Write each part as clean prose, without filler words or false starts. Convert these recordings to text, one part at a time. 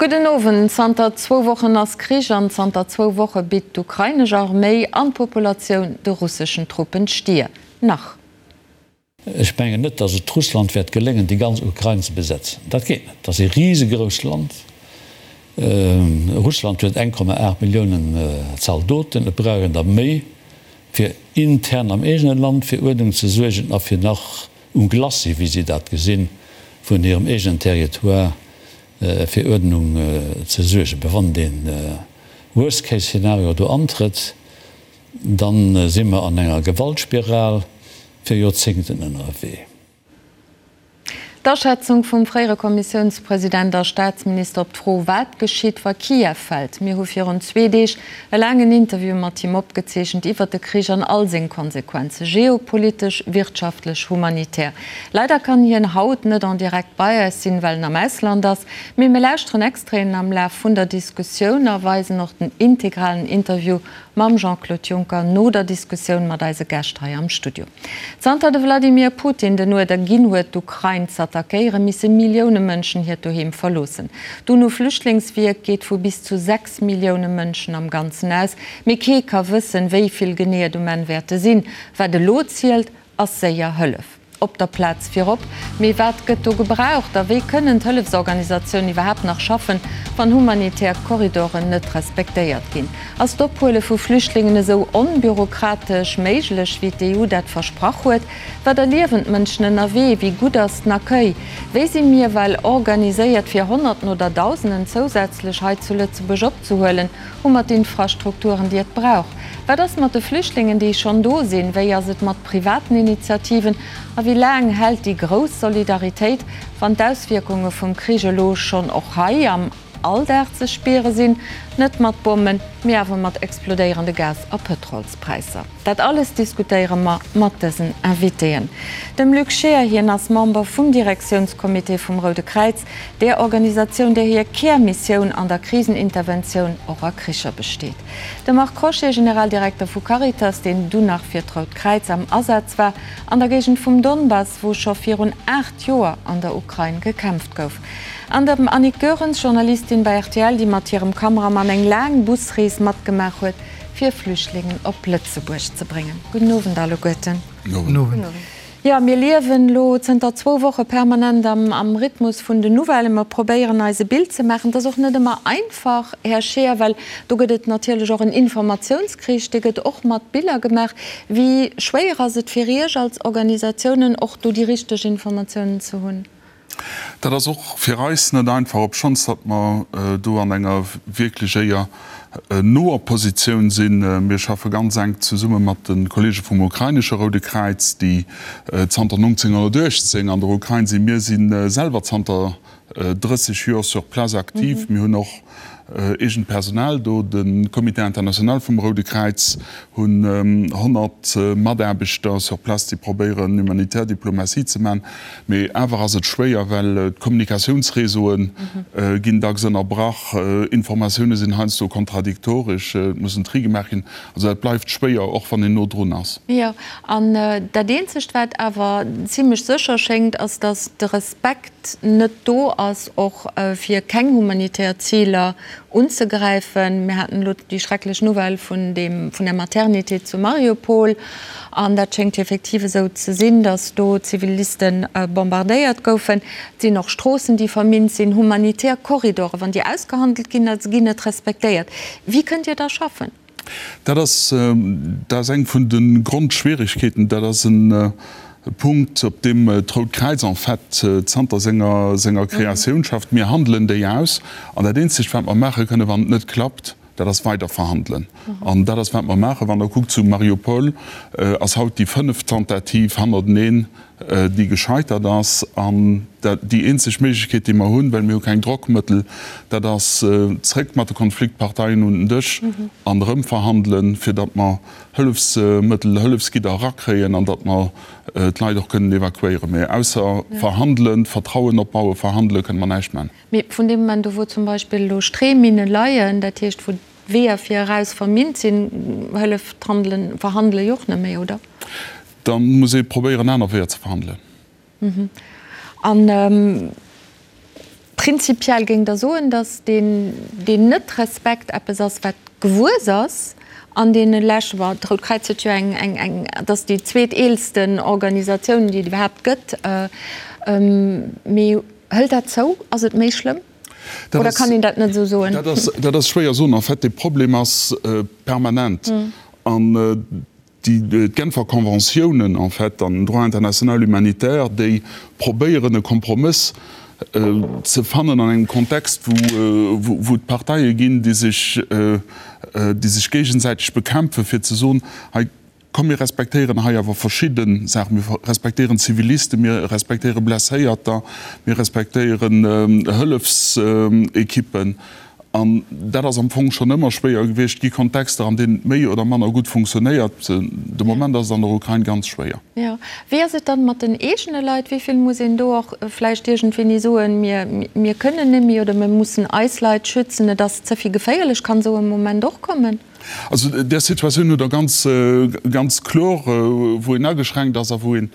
Gudden Owend. Zanter zwou Wochen ass Krich an zanter zwou Woche bitt d'ukrainesch Arméi an d'Populatioun de russeschen Truppen d'Stier. Nach. Ech mengen net, datt et Russland wäert geléngen, déi ganz Ukrain ze besetzen. Dat geet net. Dat ass ee risegrousst Land. Russland huet 1,8 Milliounen Zaldoten. Et brauch een der méi, fir intern am eegene Land fir Uerdnung ze suergen a fir nach um Glacis, wéi si dat gesinn, vun hirem eegenen Territoire fir Uerdnung ze suergen. Mä wann dee Worst-Case-Szenario do antrëtt, da si mer an enger Gewaltspiral fir Joerzéngten ënnerwee. D'Aschätzung vum fréiere Kommissiounspresident a Staatsminister op d'Fro, wat geschitt, wa Kiew fält. Mir hu virun zwee Deeg e laangen Interview mat him opgezeechent iwwer de Krich an all seng Konsequenzen, geopolitesch, wirtschaftlech, humanitär. Leider kann hien haut net en direct bei eis sinn, well en am Ausland ass, mee mir lauschteren Extraiten am Laf vun der Diskussioun a weisen och den integralen Interview Mam Jean-Claude Juncker no der Diskussioun mat eise Gäscht hei am Studio. Zanter de Wladimir Putin den Uerder ginn huet, d'Ukrain z'attackéieren, misse Millioune Mënschen hiert Doheem verloossen. D'UNO-Flüchtlingswierk geet vu bis zu 6 Millioune Mënschen am Ganzen aus, mee kee ka wëssen, wéi vill genee et um Enn wäerte sinn. Wat elo zielt, ass séier Hëllef. Op der Plaz virop. Mee wat gëtt do gebraucht a wéi kënnen d'Hëllefsorganisatiounen iwwerhaapt nach schaffen, wann humanitär Korridoren net respektéiert ginn? Ass d'Ophuele vu Flüchtlingen esou onbürokratesch méiglech, wéi d'EU dat versprach huet? Wat erliewen d'Mënschen ënnerwee? Wéi gutt ass den Accueil? Wéi si mir well organiséiert, fir Honnerten oder Dausenden zousätzlech hei zu Lëtzebuerg opzehuelen? Hu mer d'Infrastrukturen, déi et brauch? Wat ass mat de Flüchtlingen, déi schonn do sinn? Wéi ass et mat privaten Initiativen? A wéi laang hält déi grouss Solidaritéit, wann d'Auswierkunge vum Krich elo schonn och hei am Alldag ze spiere sinn? Net mat Bommen, mee awer mat explodéierende Gas a Pëtrolspräisser. Dat alles diskutéiere mer mat dësen Invitéen. Dem Luc Scheer, hien ass Member vum Direktiounscomité vum Roude Kräiz, där Organisatioun, där hir Kärmissioun an der Kriseninterventioun och a Kricher besteet. De Marc Crochet, Generaldirekter vu Caritas, deen dunn nach fir d'Rout Kräiz am Asaz war an der Géigend vum Donbass, wou scho virun 8 Joer an der Ukrain gekämpft gouf. An dem Annick Goerens, Journalistin bei rtl, déi mat hirem Kameramann eng laang Busrees matgemaach huet, fir Flüchtlingen op Lëtzebuerg ze bréngen. Gudden Owend alleguerten. Gudden Owend. Jo, mir liewen elo zënter zwou Woche permanent am Rhythmus vun den Nouvellen. Mer probéieren eis e Bild ze maachen. Et ass och net ëmmer einfach, Här Scheer, well do gëtt et natierlech och en Informatiounskrich, dee gëtt och mat Biller gemaach. Wéi schwéier ass et fir Iech als Organisatiounen, och do déi richteg Informatiounen ze hunn? Dat ass och fir eis net einfach, obschonns datt mer do an enger wierklech éier noer Positioun sinn. Mir schaffe ganz enk zesumme mat de Kollege vum ukrainesche Roude Kräiz, déi zanter 1918 an der Ukrain sinn. Mir si selwer zanter 30 Joer sur place aktiv. Mir hunn och eegent Personal do. De Comité international vum Roude Kräiz hunn 100 Mataarbechter sur place, déi probéieren, humanitär Diplomatie ze man. Mee awer ass et schwéier, well d'Kommunikatiounsreseaue ginn dacks ënnerbrach, Informatioune sinn heiansdo kontradiktoresch, et muss en Tri gemaach ginn. Also dat bleift schwéier, och wann een no drun ass. Jo, an dat eenzegt, wat awer zimlech sécher schéngt, ass, datt de Respekt net do ass, och fir keng humanitär Ziler unzegräifen. Mir haten elo déi schrecklech Nouvelle vun deem, vun der Maternité zu Mariupol, an dat schéngt effektiv esou ze sinn, datt do Ziviliste bombardéiert goufen. Et sinn och Stroossen, déi verminnt sinn, humanitär Korridoren, wann déi ausgehandelt ginn, da ginn net respektéiert. Wéi kënnt Dir da schaffen? Dat ass, dat ass eng vun de Grondschwierigkeeten. Dat ass e Punkt, op deem d'Rout Kräiz en fait zanter senger, senger Kreatioun schafft. Mir handelen déi aus. An dat Eenzegt, wat mer maache kënnen, wann et net klappt, dat ass weider verhandelen. An dat ass, wat mer maachen. Wann Der kuckt, zu Mariupol ass haut déi fënneft Tentative hannerteneen, déi gescheitert ass. An déi eenzeg Méiglechkeet, déi mer hunn, well mir hu keng Drockmëttel, dat ass zréck mat de Konfliktparteien un den Dësch an erëm verhandelen, fir datt mer Hëllefsmëttel, Hëllefsgidder erakréien an datt mer d'Leit och kënnen evakuéieren. Mä ausser verhandelen, Vertrauen opbauen, verhandelen, kënne mer näischt maachen. Mee vun deem Moment u wou zum Beispill elo Streeminne leien, dat heescht wou d'Weeër fir eraus verminnt sinn, hëlleft d'Handelen, Verhandele jo och net méi, oder? Da muss ee probéieren aner Weeër ze verhandelen. An. Prinzipiell géingt Der soen, datt deen Net-Respekt eppes ass, wat gewuess ass an deene leschte, bon, d'Rout Kräiz huet jo eng, eng, eng, et ass déi zweeteelsten Organisatioun, déi et iwwerhaapt gëtt, mee hëlt dat zou? Ass et méi schlëmm? Oder kann een dat net esou soen? Dat ass schwéier soen. En fait, de Problem ass permanent an déi d'Genfer Conventiounen en fait an den Droit international humanitaire, déi probéieren e Kompromëss ze fannen an engem Kontext, wou et Parteie ginn, déi sech, déi sech géigesäiteg bekämpfen, fir ze soen, hei komm mir respektéieren hei awer verschidde Saachen, mir respektéieren Zivilisten, mir respektéiere Blesséierter, mir respektéieren Hëllefsequippen. An dat ass am Fong schonn ëmmer schwéier gewiescht. Et gi Kontexter, an deenen et méi oder manner gutt funktionéiert. De Moment ass et an der Ukrain ganz schwéier. Jo. Wéi ass et dann mat den eegene Leit? Wéi vill muss een do och vläicht iergendwéini soen, mir, mir kënnen net méi oder mir mussen eis Leit schützen, et ass ze vill geféierlech? Kann esou e Moment och kommen? Also där Situatioun hutt Der ganz, ganz kloer, wou een ageschränkt ass a wou een,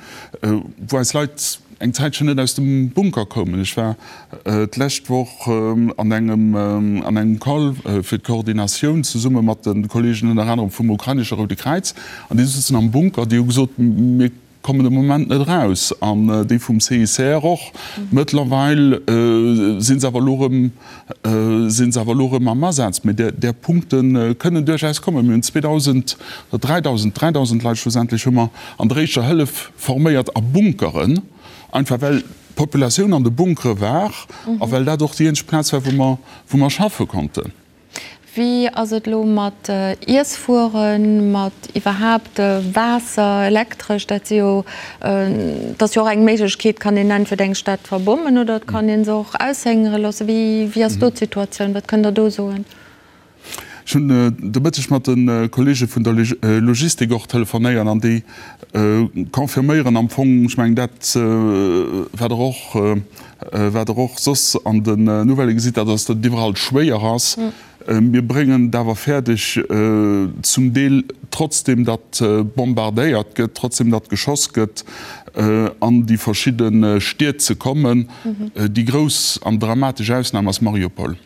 wou eis Leit eng Zäitchen net aus dem Bunker koumen. Ech war d'lescht Woch an engem an engem Call fir d'Koordinatioun zesumme mat de Kolleegen ënner anerem vum ukrainesche Roude Kräiz an déi sëtzen am Bunker, déi hu gesot, mir kommen de Moment net eraus an déi vum CICR och. Mëttlerweil si se awer elo erëm si se awer elo erëm am Asaz. Mee där där Punkte kënnen duerchaus kommen. Mir hunn 2.000 oder 3.000, 3.000 Leit schlussendlech hu mer an der éischter Hëllef forméiert a Bunkeren, einfach well d'Populatioun an de Bunkere war a well dat och déi eenzeg Plaz war, wou mer, wou mer schaffe konnten. Wéi ass et elo mat Iesswueren, mat iwwerhaapt Waasser, Elektresch? Dat si jo, dat ass jo och eng Méiglechkeet, kann een entweder eng Stad verbommen oder et kann ee se och aushéngere loossen. Wéi, wéi ass do d'Situatioun? Wat kënnt Der do soen? Ech hunn de Mëtteg mat de Kollege vun der Logistik och telefonéiert an déi confirméieren am Fong, ech mengen dat, wat Der och, wat Der och soss an den Nouvellë gesitt, dat ass, datt et iwwerall schwéier ass. Mir bréngen et awer fäerdeg, zum Deel trotzdem datt bombardéiert gëtt, trotzdem datt geschoss gëtt, an déi verschidde Stied ze kommen. Déi grouss an dramatesch Ausnam ass Mariupol.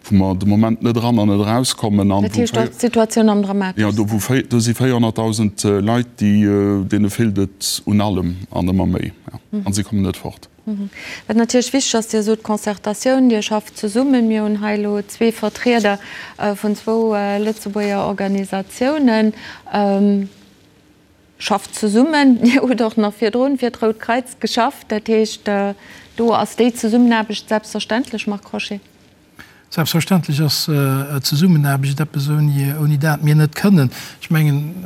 Wou mer de Moment net eran an net erauskommen. Dat heescht, do ass d'Situatioun am dramateschsten? Jo, do wou, do si 400.000 Leit, déi, deene feelt et un allem an ëmmer méi. A si kommen net fort. Wat natierlech wichteg ass, Dir sot Concertatioun, Dir schafft zesummen. Mir hunn hei elo zwee Vertrieder vun zwou Lëtzebuerger Organisatiounen. Schafft zesummen. Dir hutt och nach virdrun fir d'Rout Kreiz geschafft. Dat heescht, do ass déi Zesummenaarbecht selbstverständlech, Marc Crochet? Selbstverständlech ass Zesummenaarbecht eppes, ouni dat mir net kënnen. Ech mengen,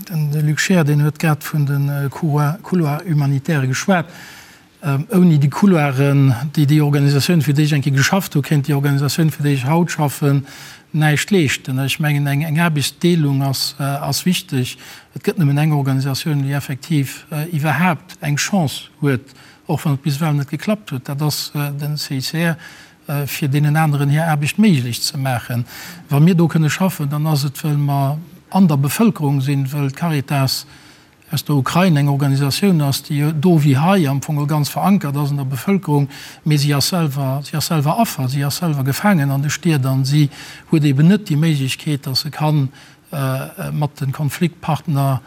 de Luc Scheer, deen huet grad vun de Couloirs humanitaires geschwat. Ouni déi Couloiren, déi déi Organisatioun, fir déi ech eng Kéier geschafft hu, kéint déi Organisatioun, fir déi ech haut schaffen, näischt leeschten. Ech mengen, eng Aarbechtsdeelung ass wichteg. Et gëtt nëmmen eng Organisatioun, déi effektiv iwwerhaapt eng Chance huet, och wann et bis ewell net geklappt huet, dat ass den CICR, fir deenen aneren hir Aarbecht méiglech ze maachen. Wa mir do kënne schaffen, dann ass et, well mer an der Bevëlkerung sinn, well d'Caritas aus der Ukrain eng Organisatioun ass, déi do wéi hei am Fong ganz verankert ass an der Bevëlkerung, mee si ass selwer, si ass selwer Affer, si ass selwer gefaangen an de Stied an si huet eeben net déi Méiglechkeet, datt se ka mat de Konfliktpartner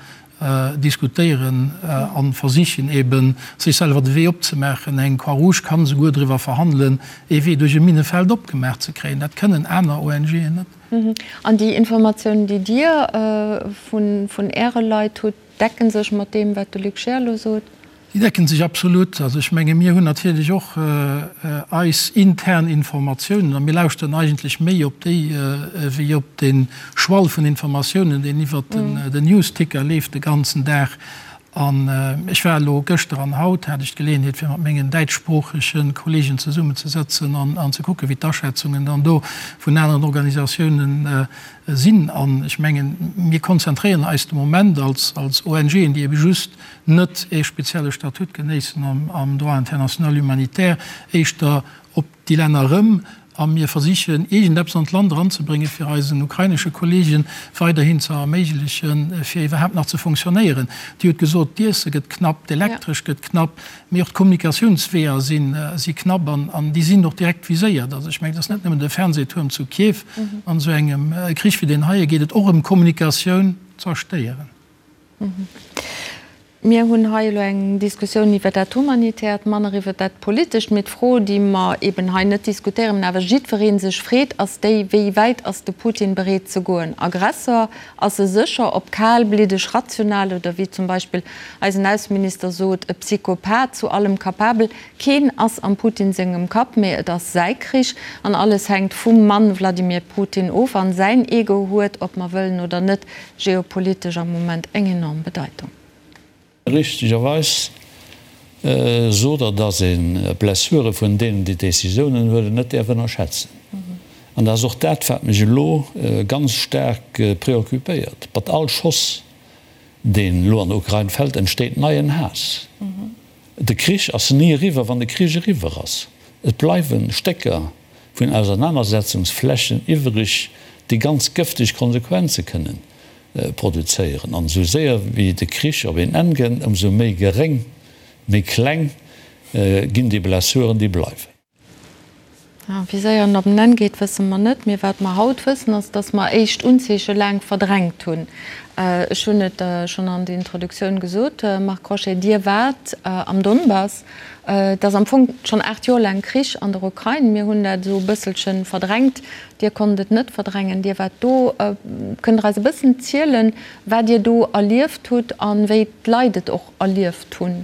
diskutéieren a versichen eeben sech selwer de Wee opzemaachen. Eng Croix-Rouge kann esouguer driwwer verhandelen, ee Wee duerch e Minnefeld opgemaach ze kréien. Dat kënnen aner ONGen net. An déi Informatiounen, déi Dir vun Äre Leit hutt, decken sech mat deem, wat de Luc Scheer elo sot? Déi decken sech absolut. Also ech menge mir hunn natierlech och eis intern Informatiounen a mir lauschteren eigentlech méi op déi wéi op de Schwall vun Informatiounen, deen iwwert den Newsticker leeft de ganzen Dag. An ech war elo gëschter an haut hat ech d'Geleeënheet fir mat mengen däitschsproochege Kollegen zesummenzesëtzen an ze kucken, wéi d'Aschätzungen dann do vun aneren Organisatiounen sinn. An ech mengen, mir konzentréieren eis de Moment als ONGen, déi ebe just net ee spezielle Statut genéissen am Droit international humanitaire, éischter op déi Länner erëm. A mir versichen, iergendeppes an d'Land eranzebréngen, fir eisen ukrainesche Kolleege weiderhin ze erméiglechen, fir iwwerhaapt nach ze fonctionnéieren. Dir hutt gesot, d'Iesse gëtt knapp, d'Elektresch gëtt knapp, mee och d'Kommunikatiounsweeër si knapp an déi sinn och direkt viséiert. Also ech mengen, et ass net nëmmen de Fernsehtuerm zu Kiew. An esou engem Krich wéi deen heie geet et och ëm Kommunikatioun zerstéieren. Mir hunn hei elo eng Diskussioun iwwer dat Humanitäert, manner iwwer dat Politescht. Mee d'Fro, déi mer eben hei net diskutéieren, mä awer jiddweree sech freet, ass déi, Wéi wäit ass de Putin bereet ze goen? Aggressor ass e sécher, ob kalbliddeg, rational oder wéi zum Beispill eisen Ausseminister sot, e Psychopath, zu allem capabel. Keen ass am Putin sengem Kapp, mee et ass säi Krich an alles hänkt vum Mann Wladimir Putin of. An säin Ego huet, ob mer wëllen oder net, geopolitesch am Moment eng enorm Bedeitung. Richtegerweis sot Der, dass ee Blessure vun deenen, déi Décisiounen huelen, net däerf ënnerschätzen. An dat ass och dat, wat mech elo ganz staark préoccupéiert. Mat all Schoss, deen elo an der Ukrain fält, entsteet neien Haass. De Krich ass ni eriwwer, wann de Krich eriwwer ass. Et bleiwe Stécker vun Ausernanersetzungsflächen iwwreg, déi ganz gëfteg Konsequenze kënnen produzéieren. An esou séier wéi de Krich op een Enn gënnt, ëmsou méi geréng, méi kleng ginn déi Blessuren, déi bleiwen. Wéi séier en op en Enn geet, wësse mer net. Mee wat mer haut wëssen, ass, datt mer éischt Unzeeche laang verdrängt hunn. Ech hunn et schonn an der Introduktioun gesot, Marc Crochet, Dir waart am Donbass. Et ass am Fong schonn 8 Joer laang Krich an der Ukrain. Mir hunn dat esou e bësselche verdrängt. Dir konnt et net verdrängen. Dir waart do. Kënnt Der eis e bëssen zielen, wat Dir do erlieft hutt a wéi d'Leit et och erlieft hunn?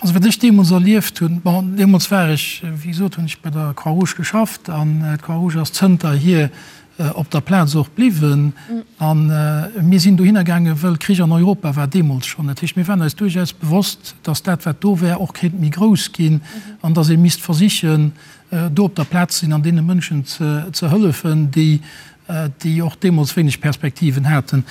Also wat ech deemools erlieft hunn, bon, deemools war ech, wéi gesot, hunn ech bei der Croix-Rouge geschafft an d'Croix-Rouge ass zënterhier op der Plaz och bliwwen. A mir sinn dohinner gaangen, wëll Krich an Europa war deemools schonn. Dat heescht, mir waren eis duerchaus bewosst, datt dat, wat do wär, och kéint méi grouss ginn an datt ee misst versichen, do op der Plaz ze sinn an deene Mënschen ze hëllefen, déi, déi och deemools wéineg Perspektiven haten.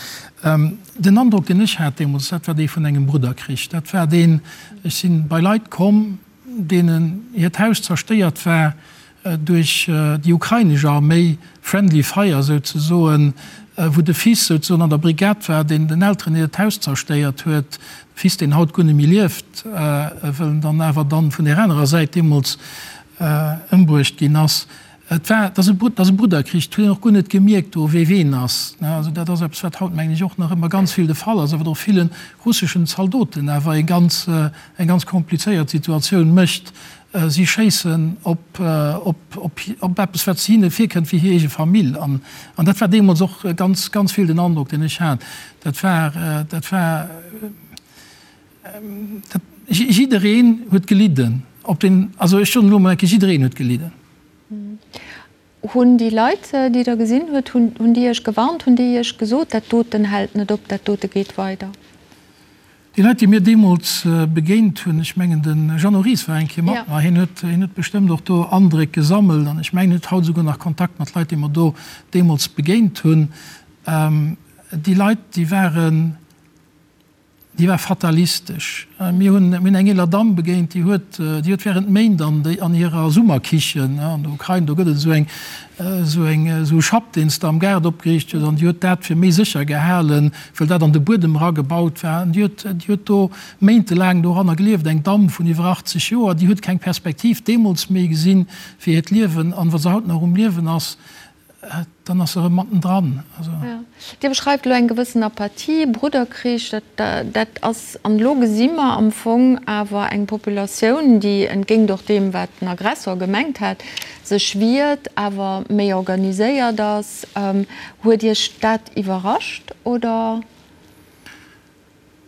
Den Androck, deen ech hat deemools, dat war dee vun engem Brudderkrich. Dat war deen, ech si bei Leit komm, deenen hiert Haus zerstéiert war duerch déi ukrainesch Arméi, friendly fire souzesoen, wou de Fils souzesoen an der Brigad war, deen den Elteren hiert Haus zerstéiert huet, de Fils, deen haut guer net méi lieft, wëll en dann awer dann vun där anerer Säit deemools ëmbruecht ginn ass. Et war, et ass e, et ass e Brudderkrich, et huet een och guer net gemierkt do, wee ween ass. Also dat ass eppes, wat haut, mengen ech, och nach ëmmer ganz vill de Fall ass a wat och ville russeschen Zaldoten awer e ganz, eng ganz komplizéiert Situatioun mécht. Si schéissen op, op, op, op eppes, wat hinne virkënnt wéi hir eege Famill. An, an dat war deemools och ganz, ganz vill den Androck, deen ech hat. Dat war, dat war, dat, jiddereen huet gelidden op den, also ech soen elo emol eng Kéier, jiddereen huet gelidden. Hunn déi Leit, déi Der gesinn hutt, hunn déi Iech gewarnt, hunn déi Iech gesot, dat doten hält net op, dat dote geet weider? Déi Leit, déi mir deemools begéint hunn, ech mengen de Jeannot Ries war eng Kéier mat mer, hien huet, hien huet bestëmmt och do Andréck gesammelt an ech mengen, hien huet haut esouguer nach Kontakt mat Leit, déi mer do deemools begéint hunn. Déi Leit, déi waren, Déi war fatalistesch. Mir hunn, mir hunn eng eeler Damm begéint, déi huet, déi huet während Méint an déi, an hirer Summerkichen, an der Ukrain, do gëtt et esou eng, esou eng, esou e Schapp, deen s de am Gaart opgeriicht hues, an déi huet dat fir méi sécher gehalen, wëll dat an de Buedem eragebaut war. An déi huet, déi huet do méintelaang doranner gelieft, eng Damm vun iwwer 80 Joer, déi huet keng Perspektiv deemools méi gesinn fir hiert Liewen. An wa se haut nach um Liewen ass, Dann ass se erëm mattendran. Also. Dir beschreift elo eng gewëssen Apathie, Brudderkrich, dat, dat ass, an elo gesi mer am Fong awer eng Populatioun, déi entgéint och deem, wat den Aggressor gemengt hat, sech wiert, awer méi organiséiert ass. Huet Iech dat iwwerrascht, oder?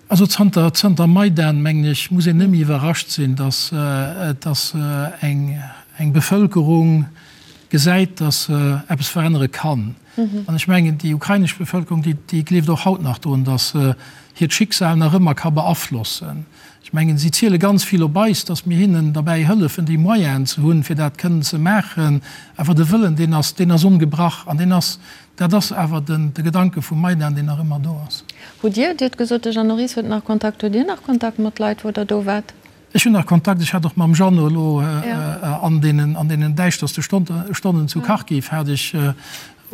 Also zanter, zanter Maidan, mengen ech, muss een net méi iwwerrascht sinn, datt, datt eng, eng Bevëlkerung gesäit, datt se eppes verännere kann. An ech mengen, déi ukrainesch Bevëlkerung, déi, déi gleeft och haut nach drun, datt se hiert Schicksal nach ëmmer ka beaflossen. Ech mengen, si ziele ganz vill op eis, datt mir hinnen derbäi hëllefen, déi Moyenen ze hunn, fir dat kënnen ze maachen. Awer de Wëllen, deen ass, deen ass ongebrach an deen ass, Dat ass awer den de Gedanke vum Maidan, deen nach ëmmer do ass. Hutt Dir, Dir hutt gesot, de Jeannot Ries huet nach Kontakt, hutt Dir nach Kontakt mat Leit, wou Der do waart? Ech hunn nach Kontakt, ech hat och mam Jeannot elo an deenen, an deenen däischterste Stonnen zu Kharkiv hat ech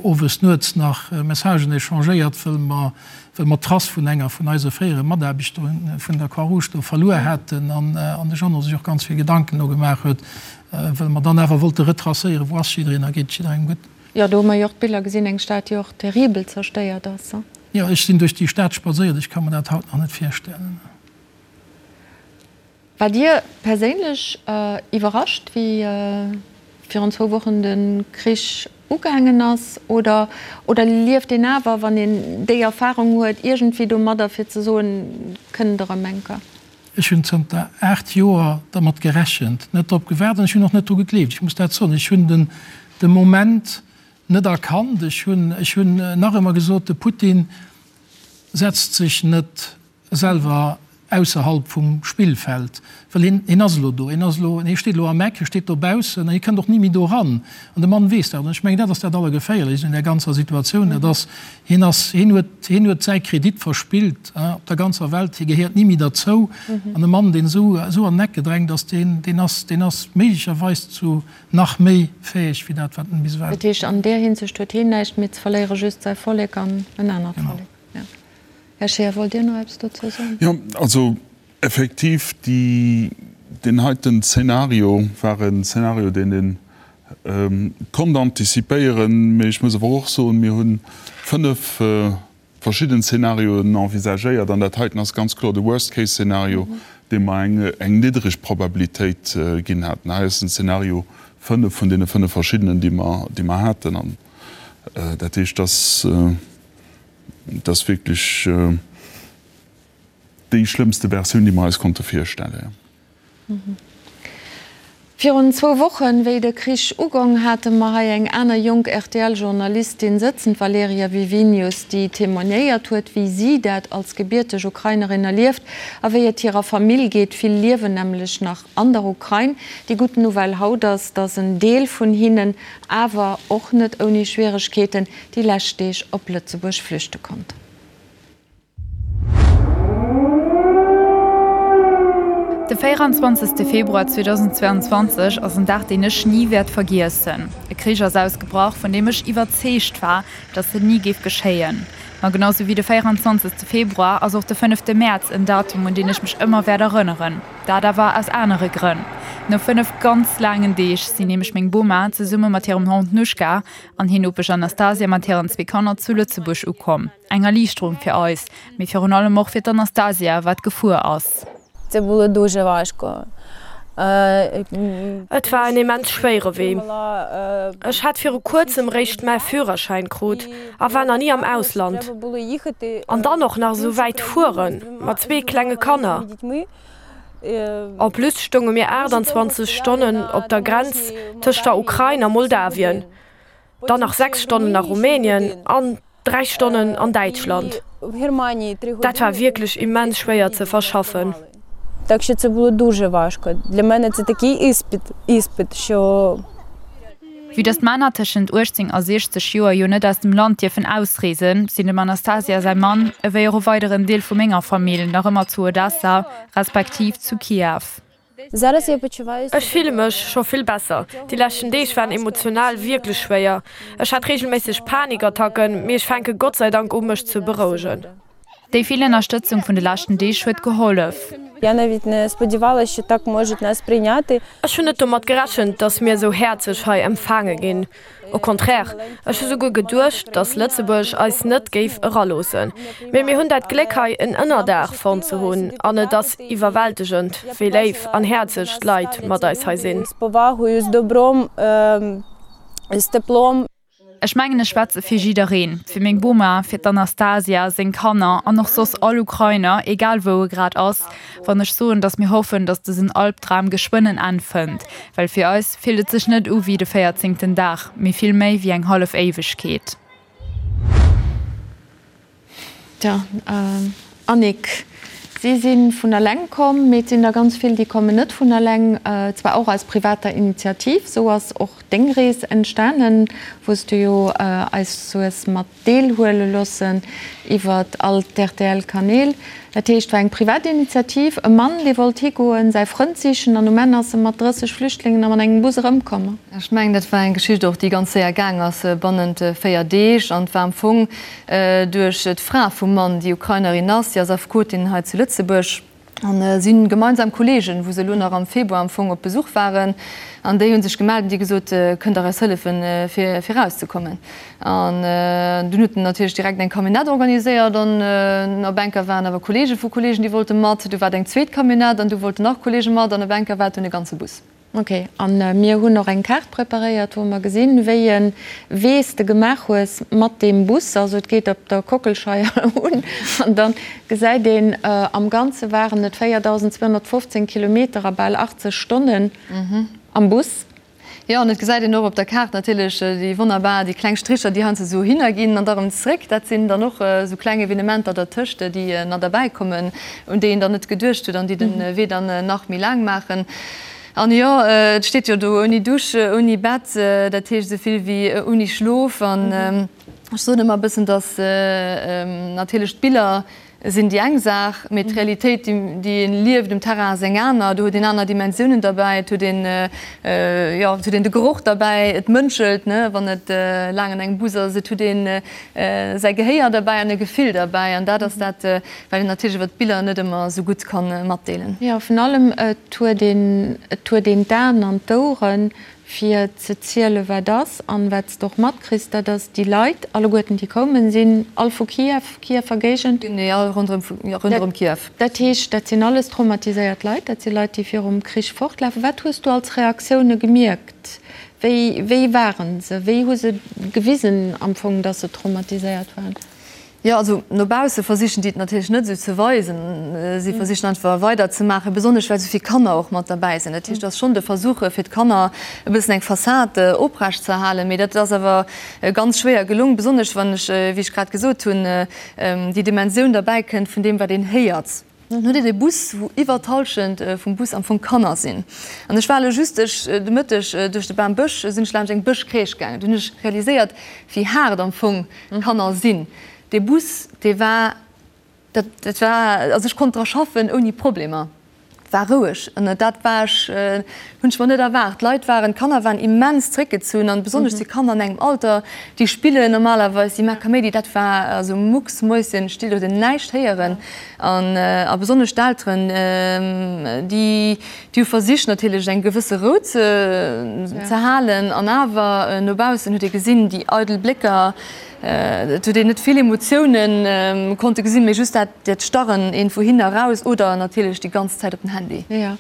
owes nuets nach Messagen échangéiert, wëll mer, wëll mer d'Trace vun enger vun eise fréiere Mataarbechter vun der Croix-Rouge do verluer haten an de Jeannot sech och ganz vill Gedanken do gemaach huet, wëll mer dann awer wollte retracéieren, wou ass jiddereen a geet et jidderengem gutt. Jo, do hu mer jo och d'Biller gesinn, eng Stad, déi och terribel zerstéiert ass. Jo, ech sinn duerch déi Stad spadséiert, ech ka mer dat haut nach net virstellen. War Dir perséinlech iwwerrascht, wéi virun zwou Wochen de Krich ugaangen ass? Oder oder lieft een awer, wann een déi Erfarung huet, iergendwéi domadder, fir ze soen, kënnt erëm eng Kéier? Ech hunn zënter 8 Joer dermat gerechent, net drop gewaart an ech hunn och net dru gegleeft. Ech muss dat soen, ech hunn den de Moment net erkannt. Ech hunn ech hunn nach ëmmer gesot, de Putin setzt sech net selwer ausserhalb vum Spillfeld, well hien, hien ass elo do, hien ass elo, hie steet elo am Eck, hie steet dobaussen an hie kënnt och ni méi do eran. An de Mann weess dat. An ech mengen, dat ass dat Allergeféierlechst un där ganzer Situatioun, dat ass, hien ass, hien huet, hien huet säi Kredit verspillt op der ganzer Welt, hie gehéiert ni méi derzou. An e Mann, deen esou, esou an den Eck gedrängt ass, deen, deen ass, deen ass méiglecherweis zu nach méi fäeg wéi dat, wat en bis ewell. Dat heescht, an där Hinsicht huet hien näischt méi ze verléieren, just säi Vollek an en anert Vollek. Här Scheer, wollt Dir nach eppes dozou soen? Jo, also effektiv, déi, deen heiten Zeenario war en Zeenario, deen ee konnt antizipéieren. Mee ech muss awer och soen, mir hu fënnf verschidden Zeenarioen envisagéiert an dat heiten ass ganz kloer de Worst-case-Szenario, deem mer eng, eng niddreg Probabilitéit ginn haten. Hei ass den Zeenario fënnf vun deene fënnf verschiddenen, déi mer, déi mer haten. An dat heescht, dass. Et ass wierklech déi schlëmmste Versioun, déi mer eis konnte virstellen. Virun zwou Wochen, wéi de Krich ugong, hate mer hei eng aner jonk RTL-Journalistin sëtzen, d'Valeria Wiwinius, déi témoignéiert huet, wéi si dat als gebierteg Ukrainerin erlieft a wéi et hirer Famill geet. Vill liewen nämlech nach an der Ukrain. Déi gutt Nouvelle haut ass, datt en Deel vun hinnen, awer och net ouni Schwieregkeeten, déi lescht Deeg op Lëtzebuerg flüchte konnt. De 24 Februar 2022 ass en Dag, deen ech ni wäert vergiessen. E Krich ass ausgebrach, vun deem ech iwwerzeegt war, datt en ni géif geschéien. Ma genau sou wéi de 24 Februar ass och de fënnefte Mäerz en Datum, un deen ech mech ëmmer wäert erënneren. Dat awer aus anere Grënn. No 5 ganz laangen Deeg sinn nämlech meng Boma zesumme mat hirem Hond Nuschka an hir Nopesch Anastasia mat hiren zwee Kanner zu Lëtzebuerg ukomm. Eng Erliichterung fir eis, mee virun allem och fir d'Anastasia, wat gefuer ass. Et war en immens schwéiere Wee. Ech hat viru kuerzem réischt mäi Führerschäin krut a war nach ni am Ausland. An dann och nach esou wäit fuere mat zwee klenge Kanner. En plus stounge mir 28 Stonnen op der Grenz tëscht der Ukrain a Moldawien, dann nach 6 Stonnen a Rumänien an 3 Stonnen an Däitschland. Dat war wierklech immens schwéier ze verschaffen. Vue dass d'Männer tëschent 18 a 60 Joer jo net aus dem Land dierfen ausreesen, sinn dem Anastasia säi Mann, ewéi och e weideren Deel vu menger Famill nach ëmmer zu Odessa, respektiv zu Kiew. Ech fille mech scho vill besser. Déi leschten Deeg waren emotional wierklech schwéier. Ech hat reegelméisseg Panikattacken, mee ech fänke Gott sei Dank u mech ze berouegen. Déi vill Ënnerstëtzung vun de leschten Deeg huet gehollef. Ech hunn net domat gerechent, datt mir esou häerzlech hei empfaange ginn. Au contraire, ech hu souguer geduecht, datt Lëtzebuerg eis net géif eraloossen. Mee mir hunn dat Gléck hei en Ënnerdaach fonnt ze hunn an et ass iwwerwältegend, wéi léif an häerzlech d'Leit mat eis hei sinn. Ech mengen ech schwätze fir jiddereen, fir meng Boma, fir d'Anastasia, seng Kanner an och soss all Ukrainer, egal wou e grad ass, wann ech soen, datt mir hoffen, datt dësen Albdram geschwënn en Enn fënnt, well fir eis fillt et sech net u wéi de véierzéngten Dag, mee vill méi wéi eng hallef Éiwegkeet. Tja, Annick, si si vun eleng komm, mee et sinn der ganz vill, déi kommen net vun eleng, zwar och aus privater Initiativ. Esou ass och deng Rees entstanen, wou s du jo eis hues mat deelhuele loossen iwwer all d'RTL-Kanäl. Dat heescht, war eng privat Initiativ, e Mann, dee wollt higoen, säi Frënd sichen an um Enn ass e mat 30 Flüchtlingen a mat engem Bus erëmkomm. Ech mengen, dat war eng Geschicht och, déi ganz séier gaang ass, bannent 4 Deeg. An et war am Fong duerch d'Fra vum Mann, déi Ukrainerin ass, déi ass Affekotin hei zu Lëtzebuerg. An si hunn gemeinsam Kolleegen, wou se elo nach am Februar am Fong op Besuch waren, an déi hu sech gemellt an déi gesot, Kënnt Der eis hëllefen, fir erauszekommen? An dunn huet en natierlech direkt eng Camionnette organiséiert an op enker waren awer Kolleege vu Kolleegen, déi wollte mat. Du war et eng zweet Camionnette an du wollten nach Kolleege mat an op enker war et dunn e ganze Bus. Ok, an mir hunn och eng Kaart preparéiert, wou mer gesinn, wéi e Wee s de gemaach hues mat deem Bus. Also et geet op der Kockelscheier un an da gesäit een, am Ganze waren et 4.215 Kilometer a bal 80 Stonnen am Bus. Jo, an et gesäit een och op der Kaart natierlech déi wonnerbar, déi kleng Stricher, déi heiansdo esou hinner ginn an da erëm zréck. Dat sinn dann och esou kleng Evenementer dertëscht, déi nach derbäikommen, un déi een dann net geduecht huet an déi de Wee dann nach méi laang maachen. An jo, et steet jo do ouni Dusch, ouni Bett, dat heescht esou vill wéi ouni Schlof. An ech soen ëmmer e bëssen, datt natierlech d'Biller sinn déi eng Saach, mee d'Realitéit, déi een lieft um Terrain, ass eng aner. Do huet een aner Dimensiounen derbäi, et huet een, jo, et huet een de Geroch derbäi, et mënschelt, ne, wann et laang an engem Bus ass, et huet een säi Gehéier derbäi an e Gefill derbäi. An dat ass dat, wat een natierlech iwwer d'Biller net ëmmer esou gutt ka matdeelen. Jo, vun allem, et huet een, et huet een d'Aen an d'Oueren, fir ze zielen, wat ass. An wat s de och matkriss, dat ass, déi Leit alleguerten, déi koumen, sinn all vu Kiew, Kiewer Géigend. Genee, all ronderëm, jo, ronderëm Kiew. Dat heescht, dat sinn alles traumatiséiert Leit, dat si Leit, déi virum Krich fortlafen. Wat hues du als Reaktioune gemierkt? Wéi, wéi waren se? Wéi hu se gewisen am Fong, datt se traumatiséiert waren? Jo, also no bausse versichen déi et natierlech net esou ze weisen. Si versichen einfach weider ze maachen, besonnesch well esou vill Kanner och mat derbäi sinn. Dat heescht, et ass schonn de Versuch, fir d'Kanner e bëssen eng Fassad oprecht ze erhalen. Mee dat ass awer ganz schwéier gelong, besonnesch wann ech, wéi ech grad gesot hunn, déi Dimensioun derbäi kënnt vun deem, wat een héiert. Dann hutt Dir de Bus, wou iwwer d'Hallschent vum Bus am Fong Kanner sinn. An ech war elo just de Mëtteg duerch de Bambësch, sinn ech laanscht eng Bëschcrèche gaangen. Do hunn ech realiséiert, wéi haart am Fong Kanner sinn. Dee Bus, dee war, dat, dat war, also ech konnt dra schaffen ouni Problemer, war roueg. An dat war ech, hunn ech mer net erwaart. D'Leit waren, d'Kanner waren immens zréckgezunn an besonnesch déi Kanner an engem Alter, déi spillen normalerweis, déi maache Kaméidi, dat war also mucksmäuschenstill, do huet een näischt héieren. An a besonnesch d'Elteren, déi, Déi hu versicht natierlech eng gewësse Rou ze halen an awer no baussen huet ee gesinn, déi eidel Blécker, et huet een net vill Emotioune konnte gesinn, mee just dat dat Starren een vu hin eraus oder natierlech déi ganz Zäit op den Handy. Jo.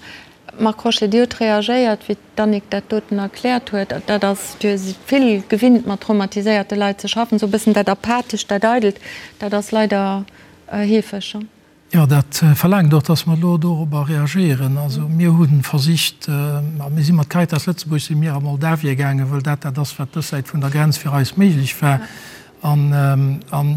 Marc Crochet, Dir hutt reagéiert, wéi d'Annick dat doten erkläert huet. Dat ass, Dir sidd vill gewinnt mat traumatiséierte Leit ze schaffen, esou e bëssen dat Apathescht, dat Eidelt, dat ass leider heefeg. Jo, dat verlaangt och, dass mer elo dorobber reagéieren. Also mir hu versicht, a mir si mat Caritas Lëtzebuerg si mir a Moldawien gaangen, wëll dat dat ass, wat dës Säit vun der Grenz fir eis méiglech war. An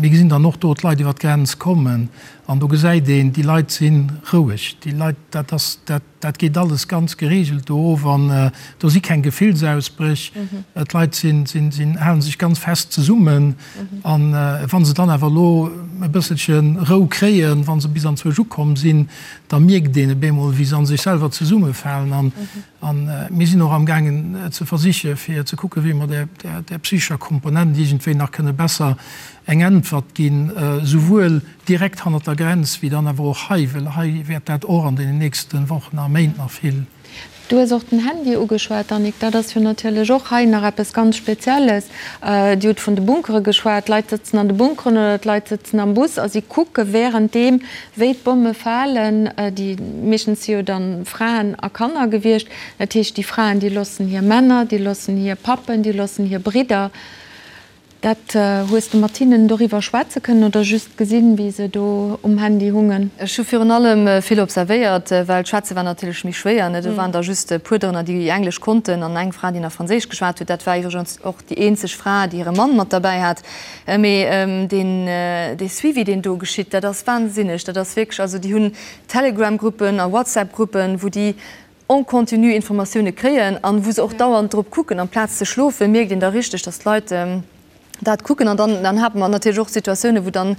mir gesinn dann och do d'Leit iwwer d'Grenz kommen an do gesäit een, déi Leit si roueg. Déi Leit, dat ass, dat Dat geet alles ganz geregelt do of an do si keng Gefillsausbréch. D'Leit sinn, sinn, sinn, hale sech ganz fest zesummen. An wa se dann awer elo e bësselche Rou kréien, wa se bis anzwousch ukomm sinn, da mierkt een op eemol, wéi se a sech selwer zesummefalen. An, an mir sinn och amgaangen ze versiche fir ze kucken, wéi mer där, där, där psychescher Komponent iergendwéi nach kënne besser eng Äntwert ginn, souwuel direkt hannert der Grenz wéi dann awer och hei, well hei wäert dat och an deenen nächste Wochen a Méint nach vill. Du hues och den Handy ugeschwat, Annick. Dat ass jo natierlech och hei nach eppes ganz Spezielles. Dir hutt vun de Bunkere geschwat. D'Leit sëtzen an de Bunkeren oder d'Leit sëtzen am Bus a si kucke wärenddeem, wéi d'Bomme falen. Déi meeschtens si jo dann Fraen a Kanner gewiescht. Dat heescht, déi Fraen, déi loossen hir Männer, déi loossen hir Pappen, déi loossen hir Bridder. Dat, hues de mat hinnen doriwwer schwätze kënnen oder just gesinn, wéi se do um Handy hungen? Ech hu virun allem vill observéiert, well d'Schwätze war natierlech méi schwéier, ne. Do waren der just e puer dorënner, déi Englesch konnten an eng Fra, déi nach Franséisch geschwat huet. Dat war iwwregens och déi eenzeg Fra, déi hire Mann mat derbäi hat. Mee deen, dee Suivi, deen do geschitt, dat ass wahnsinneg. Dat ass wierklech, also déi hunn Telegram-Gruppen a WhatsApp-Gruppen, wou déi en continu Informatioune kréien an wou se och dauernd drop kucken. Amplaz ze schlofen, mierkt een da richteg, dass d'Leit. Dat kucken. An dann, dann hate mer natierlech och Situatiounen, wou dann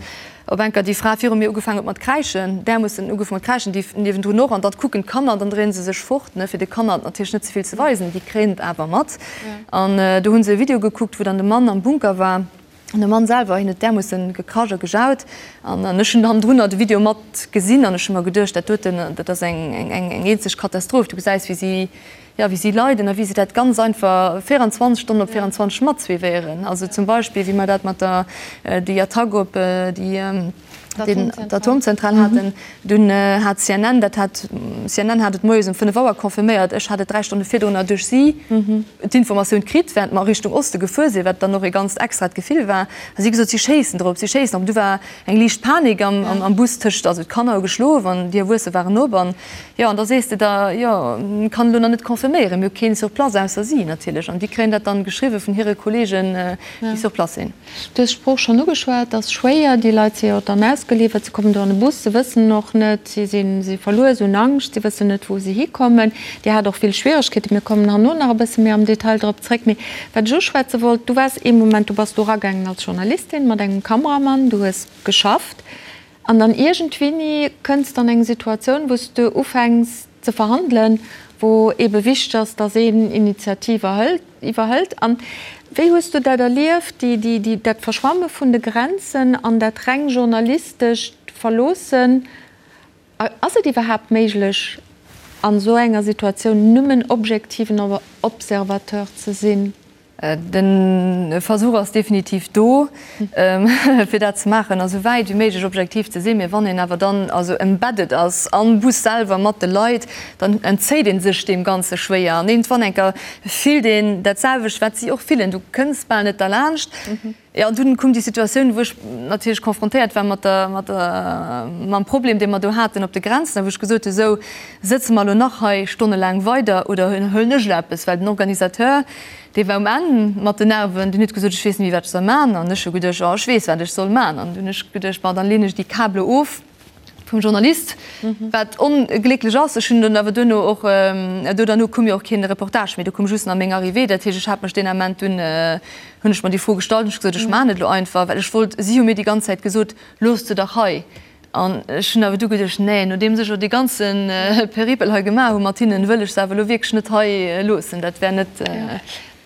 op eng Kéier déi Fra viru mir ugefaangen huet mat kräischen, därmoossen ugefaangen mat kräischen, déi niewendrun och. An dann kucken d'Kanner an dann dréie se sech fort, ne, fir de Kanner et natierlech net ze vill ze weisen. Déi kréien et awer mat. An do hu se e Video gekuckt, wou dann de Mann am Bunker war. An de Mann selwer, hien huet därmoossen gekrasch a gejaut. An ech hunn hannendrunner de Video mat gesinn an ech hu mer geduecht, dat doten, dat ass eng, eng eenzeg Katastroph. Du gesäis, wéi si, jo, wéi si leiden a wéi se dat ganz einfach 24 Stonnen op 24 matsuivéieren. Also zum Beispill, wéi mer dat mat der, déi Attack op déi, d'Atomzentral haten, dunn hat CNN, dat hat, CNN hat et moies um 5 Auer confirméiert, ech hat et 3 Stonne virdrunner duerch si d'Informatioun kritt, während mer Richtung Oste gefuer sinn, wat dann och e ganzt extrat Gefill war. A si gesot, si schéissen drop, si schéissen drop. Du war eng liicht Panik am Bus tëscht, also d'Kanner hu geschlof an déi Erwuesse waren op an jo, an da sees de der, jo, kann elo nach net confirméieren, mir hu keen sur place ausser si natierlech an déi kréien dat dann geschriwwe vun hire Kollegen, déi sur place sinn. Du hues d'Sprooch schonn ugeschwat, et ass schwéier, déi Leit si jo dann ausgeliwwert, se kommen do an de Bus, se wëssen och net, si sinn, si verluer, se hunn Angscht, si wëssen net, wou se hikommen. Dir hat och vill Schwieregkeeten, mir kommen herno nach e bësse méi am Detail drop zréck. Mee wat ech uschwätze wollt, du waars ee Moment, du bass do eragaangen als Journalistin mat engem Kameramann, du hues geschafft an dann iergendwéini kënns de an eng Situatioun, wou s de ufänks ze verhandelen, wou eebe wichteg ass, datt een Initiativ erhëlt, iwwerhëlt. An wéi hues du dat erlieft, déi, déi, déi, dat Verschwamme vun de Grenzen an dat reng journalistescht Verloossen? Ass et iwwerhaapt méiglech, an esou enger Situatioun nëmmen objektiven Observateur ze sinn? De Versuch ass definitiv do, fir dat ze maachen a sou wäit wéi méiglech objektiv ze sinn. Mee wann een awer dann also embedded ass am Bus selwer mat de Leit, dann entzéit ee sech deem Ganze schwéier. An iergendwann eng Kéier fillt een dat selwecht, wat si och fillen. Du kënns bal net derlaanscht. Jo, an dunn koum déi Situatioun, wou ech natierlech confrontéiert war mat der, mat der, mam Problem, dee mer do haten op de Grenzen, a wou ech gesot hu, Sou, sëtze mer elo nach hei stonnelaang weider oder huelen ech elo eppes? Well den Organisateur, dee war um Enn mat den Nerven, deen huet gesot, Ech weess net méi, wat ech soll man. An ech hu geduecht, Oh, ech weess, wat ech soll man. An dunn hu ech geduecht, Bon, dann leen ech déi Kabele of. Vum Journalist, wat onglécklech ass. Ech hunn dunn awer duerno och, do derno koum jo och keen Reportage méi, do koum just nach meng Arrivée. Dat heescht, ech hat mech deen Ament dunn, hunn ech mer déi Fro gestallt hunn ech gesot, ech maachen et elo einfach, well ech wollt, si hu mir déi ganz Zäit gesot, looss se dach hei. An ech hunn awer du geduecht, nee, nodeems ech elo dee ganze Peripel hei gemaach hu mat hinnen, wëll ech se awer elo wierklech net hei loossen. Dat wär net.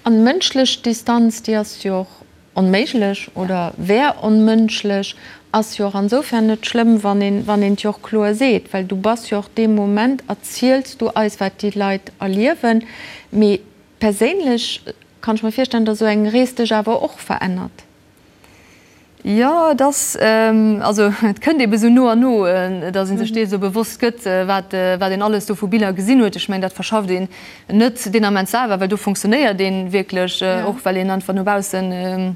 An mënschlech Distanz, déi ass jo och Onméiglech oder wär onmënschlech, ass jo och ansoufern net schlëmm, wann een, wann een et jo och kloer seet, well du bass jo och dee Moment, erziels du eis, wat déi Leit erliewen. Mee perséinlech kann ech mer virstellen, datt esou eng Rees dech awer och verännert. Jo, et ass, also et kënnt eebe sou no an no, datt ee sech dees esou bewosst gëtt, wat, wat een alles do vu Biller gesinn huet. Ech mengen, dat verschafft een Net deen Ament selwer, well do funktionéiert ee wierklech, och well een einfach no baussen,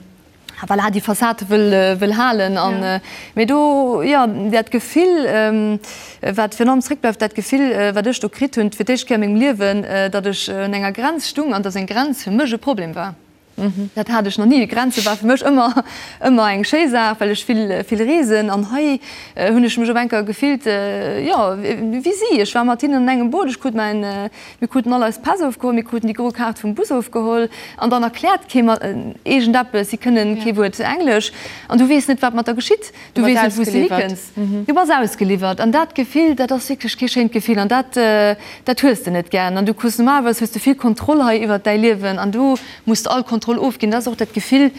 voilà, déi Fassade wëll, wëll halen. An, mee do, jo, dat Gefill, wat virun allem zréckbleift, dat Gefill, wat ech do kritt hunn, fir d'éischt Kéier a mengem Liewen, datt ech un enger Grenz stung an datt eng Grenz fir mech e Problem war. Dat hat ech nach ni. Grenze war fir mech ëmmer, ëmmer eng schéi Saach, well ech vill, vill reesen. An hei hunn ech mech op eng Kéier gefillt, jo, wéi si. Ech war mat hinnen an engem Boot. Ech krut mäin, mir kruten all eis Päss ofgeholl, mir kruten déi gro Kaart vum Bus ofgeholl. An dann erkläert kee mer iergendeppes. Si kënnen kee Wuert Englesch. An du weess net, wat mat der geschitt. Du weess net, wou s de hikënns. Du bass ausgeliwwert. An dat Gefill, dat ass wierklech kee schéint Gefill. An dat, dat hues de net gären. An du kriss normalerweis hues de vill Kontroll hei iwwert däi Liewen an do muss de all Kontroll ofginn. Dat ass och dat Gefill,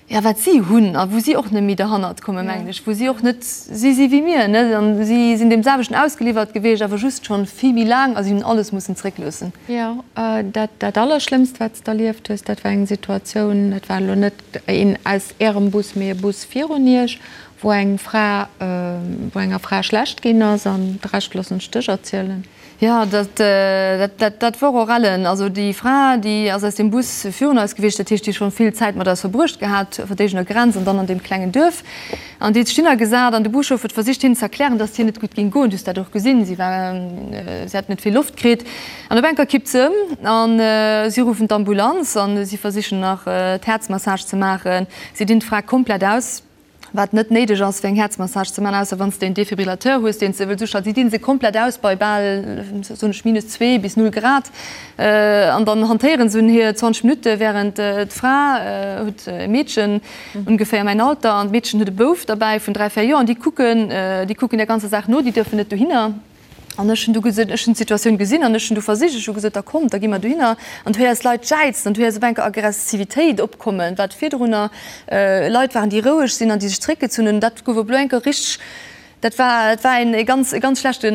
jo, wat si hunn a wou si och net méi derhannert kommen, mengen ech, wou si och net, si si wéi mir, net? An si sinn deem selwechten ausgeliwwert gewiescht, awer just schonn vill méi laang a si hunn alles mussen zréckloossen. Jo, dat, dat Allerschlëmmst, wat s de erlieft hues, dat war eng Situatioun, dat war elo net een aus Ärem Bus, mee e Bus virun Iech, wou eng Fra, wou enger Fra schlecht ginn ass an de Rescht loossen ech dech erzielen. Jo, dat, dat, dat wor och ellen. Also déi Fra, déi ass aus deem Bus virun eis gewiescht, dat heescht, déi schonn vill Zäit mat eis verbruecht gehat, op der éigener Grenz an dann an deem klengen Duerf. An déi huet sech hinnergesat an de Buschauffer huet versicht hinnen ze erklären, dass et hir net gutt géing goen. Du hues dat och gesinn, si war, si hat net vill Loft kritt. An op eng Kéier kippt se ëm an si ruffen d'Ambulanz an si versichen nach d'Häerzmassage ze maachen. Si dinn d'Fra komplett aus. Wat net néideg ass fir eng Häerzmassage ze man, ausser wann s de en Defibrillateur hues, deen s de wëlls uschalten. Si dinn se komplett aus bei bal, soen ech, minus zwee bis null Grad an dann hantéieren se un hir 20 Minutte, während d'Fra huet e Meedchen ongeféier mäin Alter an d'Meedchen huet e Bouf derbäi vun 3, 4 Joer an déi kucken, déi kucken der ganzer Saach no, déi duerfen net dohinner. An ech hunn du gesot, ech hunn d'Situatioun gesinn an ech hunn du versicht, ech hu gesot, da kommt, da gi mer dohinner. An du héiers Leit jäizen an du héiers op enker Aggressivitéit opkommen, wat virdrunner Leit waren, déi roueg sinn an déi sech zréckgezunn hunn. Dat gouf op elo enker richteg, dat war, et war een e ganz, e ganz schlechte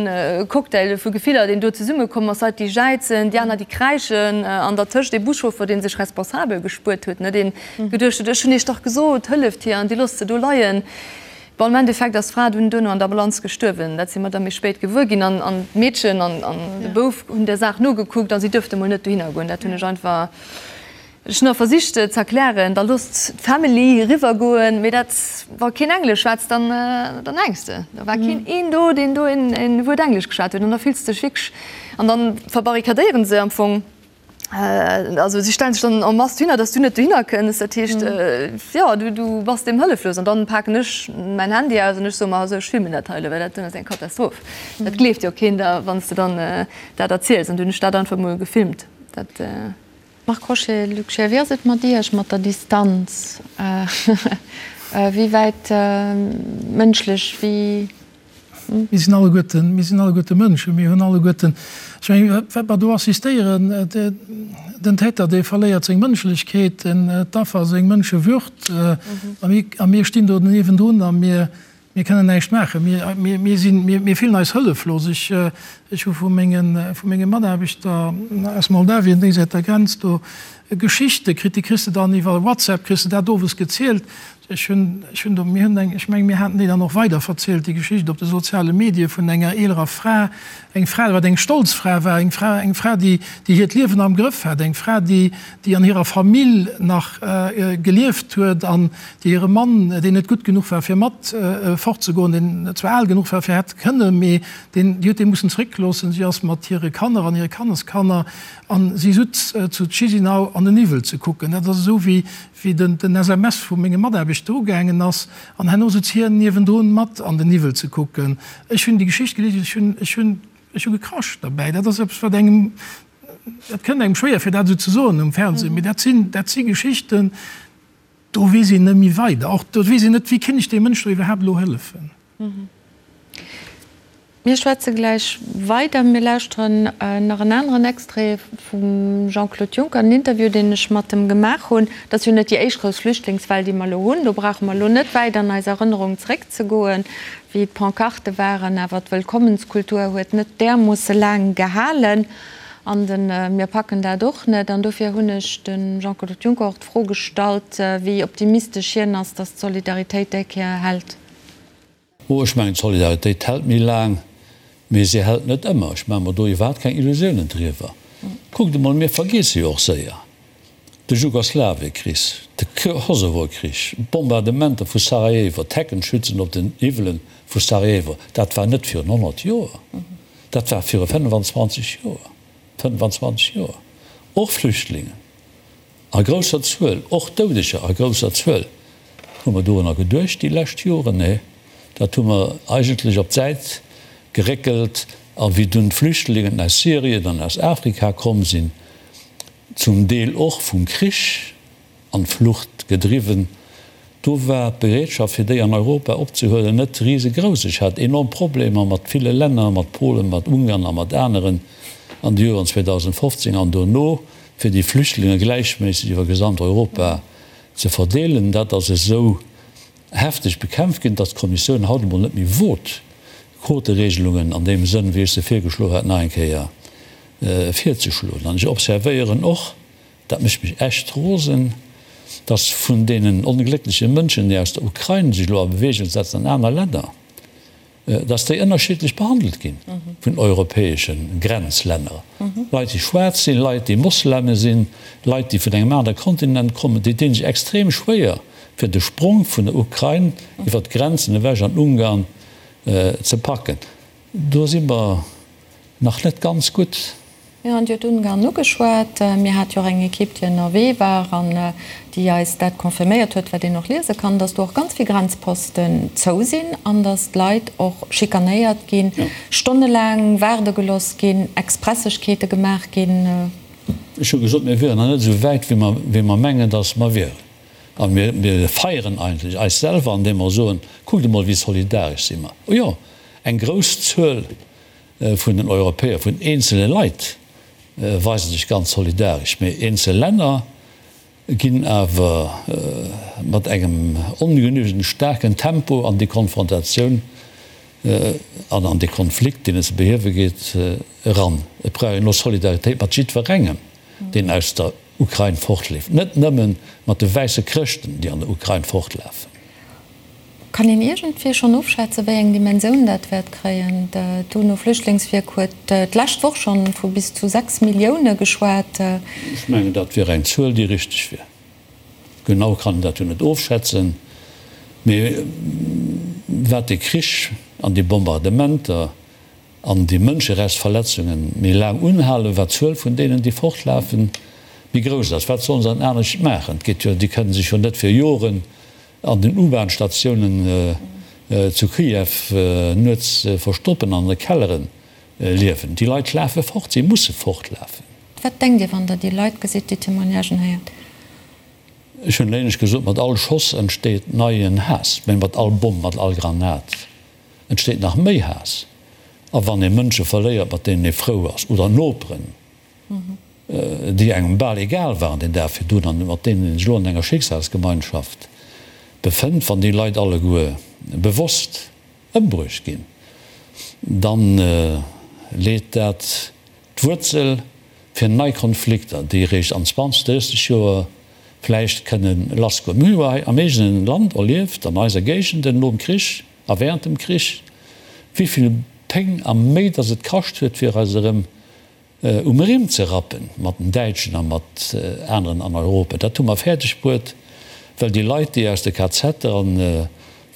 Cocktail vu Gefiller, deen do zesummekomm ass, Leit, déi jäizen, déi aner, déi kräischen an dertëscht ee Buschauffer, dee sech responsabel gespuert huet, ne, deen geduecht huet, ech hunn iech dach gesot, hëlleft hir an dir loosst se do leien. Bon, am Endeffekt ass d'Fra dunn duerno an der Ambulanz gestuerwen. Dat si mer da méi spéit gewuer ginn. An d'Meedchen an de Bouf hunn der Saach nogekuckt a si duerfte mol net dohinner goen. Dat hunn ech einfach, ech hunn och versicht ze erklären, da loosst d'Family eriwwer goen. Mee dat, wa keen Englesch schwätzt, dann, dann hänks de. Da war keen een do, deen do een Wuert Englesch geschwat huet. An da fills de dech wierklech, an dann verbarrikadéieren se am Fong. Also si stellen sech dann en masse dohinner, dass du net dohinner kënns. Dat heescht, jo, du, du bass deem hëlleflos. An dann paken ech mäin Handy aus an ech soe mer, also ech filmen dat hei elo, well dat doen ass eng Katastroph. Dat gleeft jo keen der, wann s de dann dat erziels. An du hunn ech dat einfach emol gefilmt. Dat. Marc Crochet, Luc Scheer, wéi ass et mat Iech, mat der Distanz? Wéi wäit mënschlech, wéi. Mir sinn alleguerten, mir sinn alleguerte Mënschen, mir hunn alleguerten, ech mengen, wat mer do assistéieren, den Täter, dee verléiert seng Mënschlechkeet, d'Affer seng Mënschewürd, a mir, a mir stinn do niewendrun a mir, mir kënnen näischt maachen. Mir, mir, mir sinn, mir, mir fillen eis hëlleflos. Ech, ech hu vu mengen, vu menge Mataarbechter aus Moldawien déisäit der Grenz do Geschichte kritt, déi kriss de dann iwwer WhatsApp, kriss de dat owes gezielt, Ech hunn, ech hunn do, mir hunn eng, ech mengen, mir haten déi dann och weiderverzielt, déi Geschicht op de soziale Medie vun enger eelerer Fra, eng Fra, wat eng stolz Fra war, eng Fra, eng Fra, déi, déi hiert Liewen am Grëff hat, eng Fra, déi, déi an hirer Famill nach gelieft huet an déi hire Mann, deen net gutt genuch war, fir mat fortzegoen, deen zwar al genuch war, fir hätt kënnen, mee deen, déi huet dee mussen zréckloossen. Si ass mat hire Kanner an hire Kanneskanner an si sutz zu Chisinau an den Niwwel ze kucken. Dat ass esou wéi, wéi den den SMS vu menge Mataarbechter ugaangen ass, an herno sutz hien niewendrun mat an den Niwwel ze kucken. Ech hunn déi Geschicht gelies, ech hunn, ech hunn, ech hu gekrasch derbäi. Dat ass eppes, wat engem, dat kënnt engem schwéier fir dat esou ze soen um Fernseh, mee dat sinn, dat si Geschichten, do weess een net méi weider. Och do weess een net, wéi kéint ech deem Mënsch do iwwerhaapt elo hëllefen. Mir schwätze gläich weider. Mir lauschteren nach en aneren Extrait vum Jean-Claude Juncker, en Interview, deen ech mat em gemaach hunn. Et ass jo net déi éischt grouss Flüchtlingswell, déi mer elo hunn. Do brauche mer elo net wäit an eis Erënnerung zeréckzegoen, wéi d'Pancarte waren. Awer d'Wëllkommenskultur huet net därmoosse laang gehalen. An de mir packen dat och net. An dofir hunn ech dem Jean-Claude Juncker och d'Fro gestallt, wéi optimistesch hien ass, datt d'Solidaritéit déi Kéier hält. Oh, ech mengen, d'Solidaritéit hält méi laang, mee se hält net ëmmer. Ech maache mer do iwwerhaapt keng Illusiounen driwwer. Kuckt emol, mir vergiesse jo och séier de Jugoslawiekrich, de Kosovokrich, d'Bombardementer vu Sarajevo, d'Heckenschützen op den Hiwwele vu Sarajevo. Dat war net virun 100 Joer, dat war viru 25 Joer, 25 Joer! Och Flüchtlingen. A grousser Zuel, och Doudeger a grousser Zuel. Hu mer dorunner geduecht déi lescht Joren? Nee, dat hu mer eigentlech op d'Säit geréckelt. A wéi dunn d'Flüchtlingen aus Syrien an aus Afrika komm sinn, zum Deel och vum Krich an d'Flucht gedriwwen, do war d'Bereetschaft fir déi an Europa opzehuelen net risegrouss. Ech hat enorm Problemer mat ville Länner, mat Polen, mat Ungarn a mat aneren an de Joren 2015 an dono, fir déi Flüchtlinge gläichméisseg iwwer gesamt Europa ze verdeelen. Dat ass esou hefteg bekämpft ginn, datt d'Kommissioun haut emol net méi wot, Quoteregelungen an deem Sënn, wéi ech se virgeschloen hat, nach eng Kéier virzeschloen. An ech observéieren och, dat mécht mech echt rosen, datt vun deenen ongléckleche Mënschen, déi aus der Ukrain sech elo a Bewegung setzen an aner Länner, dass déi ënnerschiddlech behandelt gi vun europäesche Grenzlänner, Leit, déi schwaarz sinn, Leit, déi Mosleme sinn, Leit, déi vun engem anere Kontinent kommen, déi dinn sech extrem schwéier, fir de Sprong vun der Ukrain iwwer d'Grenzen ewech an Ungarn ze packen. Do si mer nach net ganz gutt. Mir hunn jo d'Ungarn ugeschwat. Mir hate jo och eng Ekipp, déi ënnerwee war an déi eis dat confirméiert huet, wat een och liese kann, dass do och ganz vill Grenzposten zou sinn an dass d'Leit och schikanéiert ginn, stonnelaang waarde gelooss ginn, Expressegkeete gemaach ginn. Ech hu gesot, mir wieren nach net esou wäit, wéi mer mengen, dass mer wieren. A mir feieren eigentlech eis selwer, andeem mer soen, Kuckt emol, wéi solidaresch si mer. O jo, eng grouss Zuel vun den Europäer, vun eenzele Leit weise sech ganz solidaresch, mee eenzel Länner ginn awer mat engem ongenügend staarken Tempo an déi Konfrontatioun an an dee Konflikt, deen et ze behiewe geet, eran. Et brauch een elo Solidaritéit mat jiddwerengem, deen aus der Ukrain fortleeft, net nëmme mat de wäisse Chrëschten, déi an der Ukrain fortlafen. Kann een iergendwéi schonn ofschätzen, wéi eng Dimensioun dat wäert kréien? D'UNO-Flüchtlingswierk huet d'lescht Woch schonn vu bis zu 6 Millioune geschwat. Ech mengen, dat wier eng Zuel, déi richteg wier. Genau kann een dat jo net ofschätzen, mee wat de Krich an déi Bombardementer an déi Mënscherechtsverletzunge méi laang unhalen, wat d'Zuel vun deenen, déi fortlafen, méi grouss ass. Wat sollen se dann anescht maachen? Et geet jo, déi kënnen sech jo net fir Joren An den U-Bahn-Statiounen zu Kiew nuets verstoppen, an de Kellere liewen. Déi Leit lafe fort, si musse fortlafen. Wat denkt Dir, wann Der déi Leit gesitt, déi Témoignagen héiert? Ech hunn éinescht gesot, mat all Schoss entsteet neien Haass, mä mat all Bomm, mat all Granat entsteet nach méi Haass. A wann ee Mënsche verléiert, mat deenen ee frou ass, oder Noperen, déi engem bal egal waren deen Dag virdrun an mat deenen een sech elo an enger Schicksalsgemeinschaft befënnt, wann déi Leit alleguer bewosst ëmbruecht ginn, da leet dat d'Wuerzel fir nei Konflikter, déi eréischt an 20, 30 Joer vläicht kënne lassgoen. Mir hu jo hei am eegene Land erlieft, an eiser Géigenden nom Krich a während dem Krich, wéi vill Péng a Méi datt et kascht huet, fir eis erëm um Rimm ze rappen, mat den Däitschen a mat aneren an Europa. Dat hu mer fäerdeg bruet, well déi Leit, déi aus de KZer an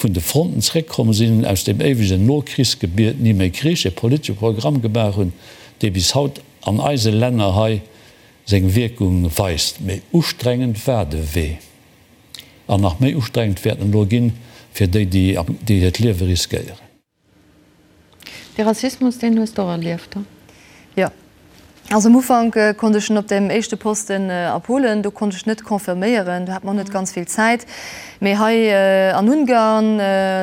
vun de Fronten zréckkomm sinn, aus deem éiwegen Nokrichsgebiet ni méi Krich, e politesche Programm gemaach hunn, dee bis haut an eise Länner hei seng Wierkung weist. Méi ustrengend war de Wee an nach méi ustrengend wäert en elo ginn fir déi, déi hiert Liewe riskéieren. De Rassismus, deen hues de och erlieft, he? Jo. Also am Ufank konnt ech en op deem éischte Posten a Polen, do konnt ech net confirméieren, do hat mer och net ganz vill Zäit. Mee hei an Ungarn,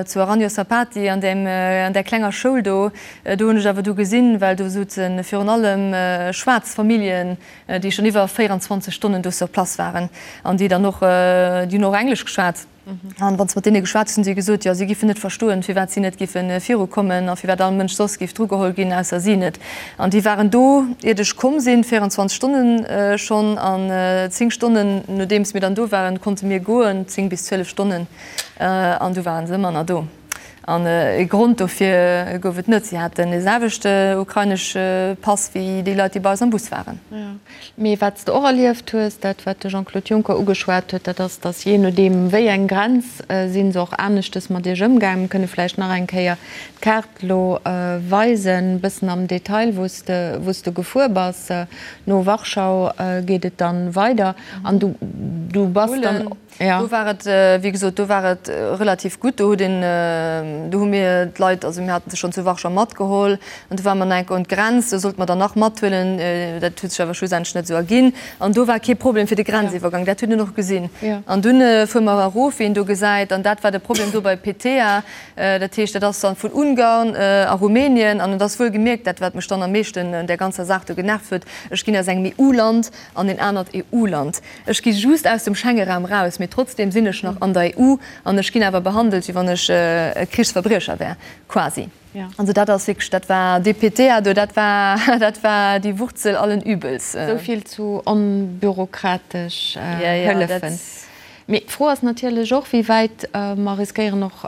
zu Aranyosapati, an deem, an där klenger Schoul do, do hunn ech awer du gesinn, well do souze virun allem schwaarz Familljen, déi schonn iwwer 24 Stonnen do sur place waren an déi dann och, déi hunn och Englesch geschwat. An wann s de mat deene geschwat hues, hunn si gesot, jo, si giffen net verstoen, firwat si net giffe virukommen a firwat all Mënsch soss giff drugeholl ginn, ausser si net. An déi waren do, iert ech komm sinn, 24 Stonnen schonn. An 10 Stonnen, nodeems mir dann do waren, konnte mir goen, 10 bis 12 Stonnen, an du waren se ëmmer nach do. An e Grond dofir gouf et net, si haten dee selwechte ukrainesche Pass wéi déi Leit, déi bei eis am Bus waren. Mee wat s de och erlieft hues, dat wat de Jean-Claude Juncker ugeschwat huet, dat ass, datt jee nodeem wéi eng Grenz, si se och aneschtes mat Iech ëmgaangen. Mir kënne vläicht nach eng Kéier d'Kaart elo weisen, e bëssen am Detail, wou s de, wou s de gefuer bass. No Warschau geet et dann weider an du, du bass dann. Jo. Do war et, wéi gesot, do war et relativ gutt. Do huet een, do hu mir d'Leit, also mir hate se schonn zu Warschau matgeholl an du ware mer nach eng Kéier un d'Grenz, do sollte mer der nach mathuelen, dat huet sech awer schlussendlech net esou erginn. An do war kee Problem fir de Grenziwwergang, dat huet een och gesinn. An dunn fuere mer erof, wéi een do gesäit, an dat war de Problem do bei Petea. Dat heescht, dat ass dann vun Ungarn a Rumänien an et ass wuel gemierkt, dat wat mech dann am meeschten un där ganzer Saach do genervt huet, ech ginn aus engem EU-Land an en anert EU-Land. Ech gi just aus dem Schengeraum raus, mee trotzdem sinn ech nach an der EU an ech ginn awer behandelt, wéi wann ech e Krichsverbriecher wär, quasi. Also dat ass wierklech, dat war dee PTA do, dat war, dat war die Wurzel allen Übels. Esou vill zu onbürokratesch Hëllefen. Mee d'Fro ass natierlech och, wéi wäit mer riskéieren och